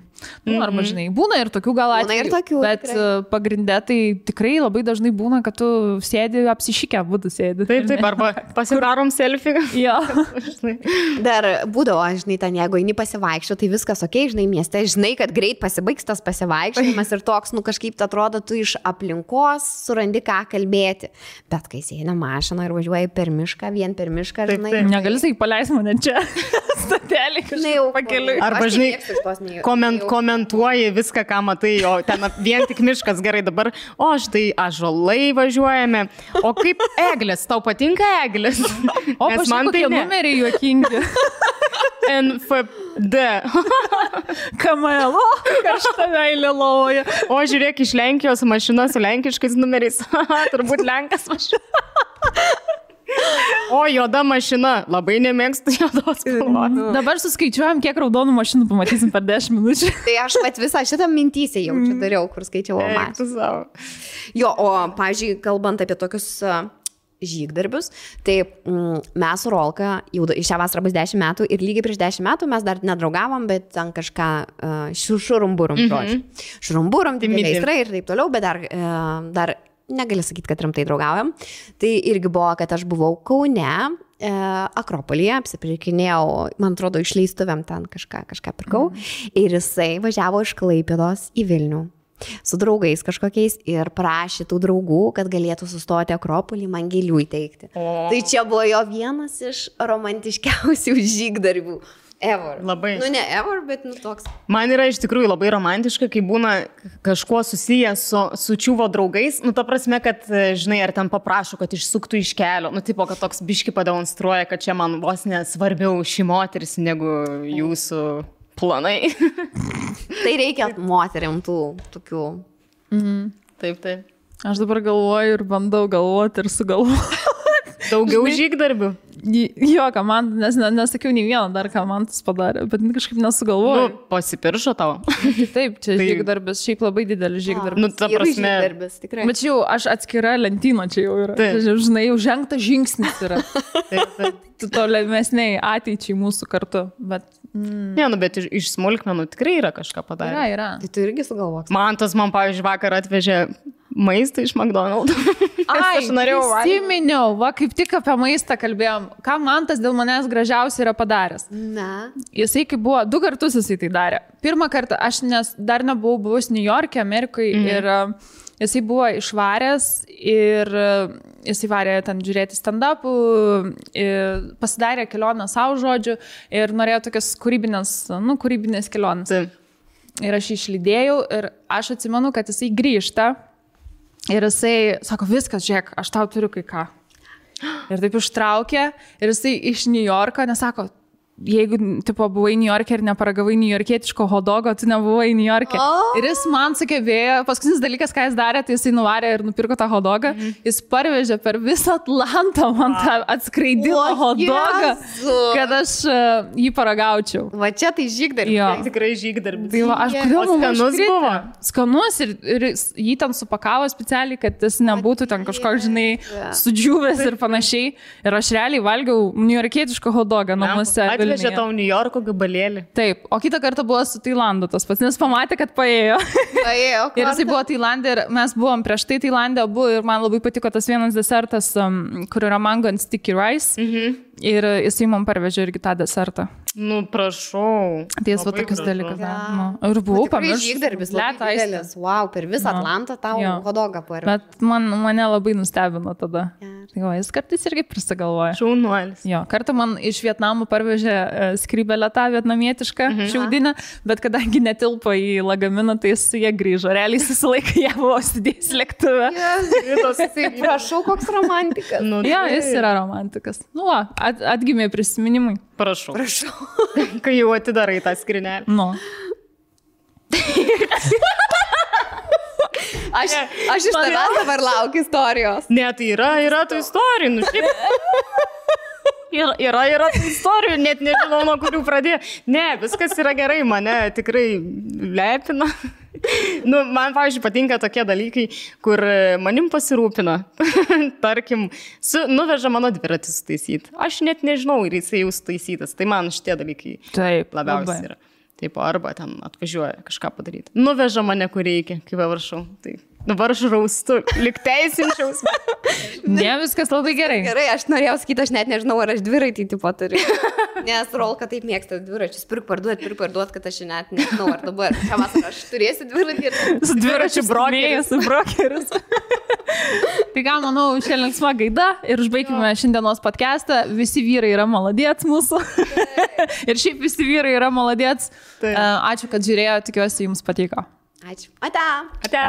Nu, arba, žinai, būna ir tokių gal atvejų, bet pagrindė tai tikrai labai dažnai būna, kad tu sėdi apsišykę, būtų sėdi. Taip, arba pasidarom selfie. Jo. Dar būdavo, žinai, ten jeigu eini pasivaikščio, tai viskas ok, žinai, mieste, žinai, kad greit pasibaigs tas pasivaikščiojimas ir toks, nu, kažkaip atrodo, tu iš aplinkos surandi ką kalbėti. Bet kai sėdi mašina ir važiuoji per mišką, vien per mišką, žinai. Negali sakai, paleis mane čia. Statelį kažkaip pakeliui. Arba, žinai, komentuoji viską, ką matai, o ten vien tik miškas, gerai, dabar, o štai ąžuolai važiuojame, o kaip eglės, tau patinka eglės? O man tai numeriai juokingi. NFD. Kamelo, kažta meilė lovoja. O žiūrėk, iš Lenkijos mašina su lenkiškais numeriais. Turbūt Lenkas mašina. O juoda mašina, labai nemėgstu juodos spalvos. Dabar suskaičiuojam, kiek raudonų mašinų pamatysim per 10 minučių. Tai aš pat visą šitą mintysę jaučiu dariau, kur skaičiavau mašinų. Jo, o, pavyzdžiui, kalbant apie tokius žygdarbius, tai mes su Rolka, jau šią vasarą bus 10 metų ir lygiai prieš 10 metų mes dar nedraugavom, bet ten kažką šurumburum, žodžiu. Šurumburum, dideliai aistrai ir taip toliau, bet dar negali sakyti, kad rimtai draugaujam. Tai irgi buvo, kad aš buvau Kaune, Akropolyje, apsipirkinėjau, man atrodo, išleistuvėm ten kažką pirkau. Ir jisai važiavo iš Klaipėdos į Vilnių su draugais kažkokiais ir prašė tų draugų, kad galėtų sustoti Akropolį, man gėlių įteikti. Tai čia buvo jo vienas iš romantiškiausių žygdarbių. Ever. Labai. Nu, ne ever, bet nu toks. Man yra iš tikrųjų labai romantiška, kai būna kažkuo susijęs su čiuvo draugais. Nu, ta prasme, kad, žinai, ar ten paprašo, kad išsuktų iš kelio. Nu, tipo, kad toks biški pademonstruoja, kad čia man vos nesvarbiau ši moteris negu jūsų planai. Tai reikia moteriam tų tokių. Taip. Aš dabar galvoju ir bandau galvoti ir sugalvoti. Daugiau žygdarbių. Jo, ką man, nesakiau nei vieną dar, ką man tas padarė, bet kažkaip nesugalvoju. Nu, pasipiršo tau. Taip, čia žygdarbis, šiaip labai didelis žygdarbis. Nu, ta prasme. Bet čia jau aš atskira lentyno čia jau yra. Tai, žinai, jau žengtas žingsnis yra. Tu tolimesniai ateičiai mūsų kartu. Bet, ne, nu, bet iš smulkmenų tikrai yra kažką padarę. Yra. Tai tu irgi sugalvok. Man, pavyzdžiui, vakar atvežė maistą iš McDonald's. Aš norėjau prisiminiau, va, kaip tik apie maistą kalbėjom. Ką man tas dėl manęs gražiausiai yra padaręs? Na. Jisai kaip buvo, 2 kartus jisai tai darė. Pirmą kartą aš dar nebuvau buvus New York'e, Amerikoje ir jisai buvo išvaręs ir jisai varė ten žiūrėti stand-upų, pasidarė kelionę savo žodžiu ir norėjo tokias kūrybinės kelionės. Ir aš išlydėjau ir aš atsimenu, kad jisai grįžta. Ir jisai sako, viskas, žiūrėk, aš tau turiu kai ką. Ir taip ištraukė ir jisai iš New Yorko, nesako, jeigu, tipo, buvai New York'e ir neparagavai niujorkietiško hodogo, tu nebuvai New York'e. Ir jis man sugebėjo, paskutinis dalykas, ką jis darė, tai jisai nuvarė ir nupirko tą hodogą. Jis parvežė per visą Atlantą man tą atskraidino hodogą, kad aš jį paragaučiau. Va čia tai žygdarbis. Tikrai žygdarbis. Tai va, aš kodėl skanus buvo? Skanus ir jį ten supakavo specialiai, kad jis nebūtų ten kažkoks, žinai, sudžiūvęs ir panašiai. Ir aš realiai valgiau niujorkietišką hodogą namuose. Atvežė tau New Yorko gabalėlį. Taip, o kitą kartą buvo su Tailandu tas pats, nes pamatė, kad paėjo. Ir jisai buvo Tailandė ir mes buvom prieš tai Tailandė abu ir man labai patiko tas vienas desertas, kur yra mango and sticky rice. Ir jisai man parvežė irgi tą desertą. Nu, prašau. Tai jis va tokius dalykus. Ir buvau pamiršęs. Žygdarbis labai didelis. Wow, per visą Atlantą tau hodogą parė. Bet mane labai nustebino tada. Tai va, jis kartais irgi prisigalvoja. Šaunuolis. Jo, kartą man iš Vietnamo parvežė skrybelę tą vietnamietišką šiaudinę, bet kadangi netilpo į lagaminą, tai su jie grįžo. Realiai susilaikė, jie buvo sudėjęs lėktuve. Prašau, koks romantikas. Nu, Jo, jis yra romantikas. Nu, va, atgimė prisiminimai. Prašau. Kai jau atidarai tą skrinelį. Nu. Aš iš tavęs dabar laukiu istorijos. Ne, tai yra tų istorijų. Nu, yra tų istorijų, net nežinau, nuo kurių pradėti. Ne, viskas yra gerai, mane tikrai lepina. Nu, man, pavyzdžiui, patinka tokie dalykai, kur manim pasirūpina. Tarkim, nuveža mano dviratį sutaisyti. Aš net nežinau, ir jisai jau sutaisytas. Tai man šitie dalykai labiausiai yra. Taip, arba ten atvažiuoja kažką padaryti. Nuveža mane, kur reikia, kaip varšau. Tai dabar aš raustu, lyg teisinčiaus. Ne, viskas labai gerai. Gerai, aš norėjau sakyti, aš net nežinau, ar aš dviratį tipo turiu. Nes Rolka taip mėgsta dviračius. Pirk parduot, kad aš net nežinau, ar dabar. Šią vasarą aš turėsiu dviratį ir... Su dviračiu brokeris. Tai ką, manau, šiandien linksma gaida ir užbaigime šiandienos podcastą. Visi vyrai yra maladėts mūsų. Ir šiaip visi vyrai yra maladėts. Ačiū, kad žiūrėjo, tikiuosi jums patiko. Ačiū. Ate. Ate.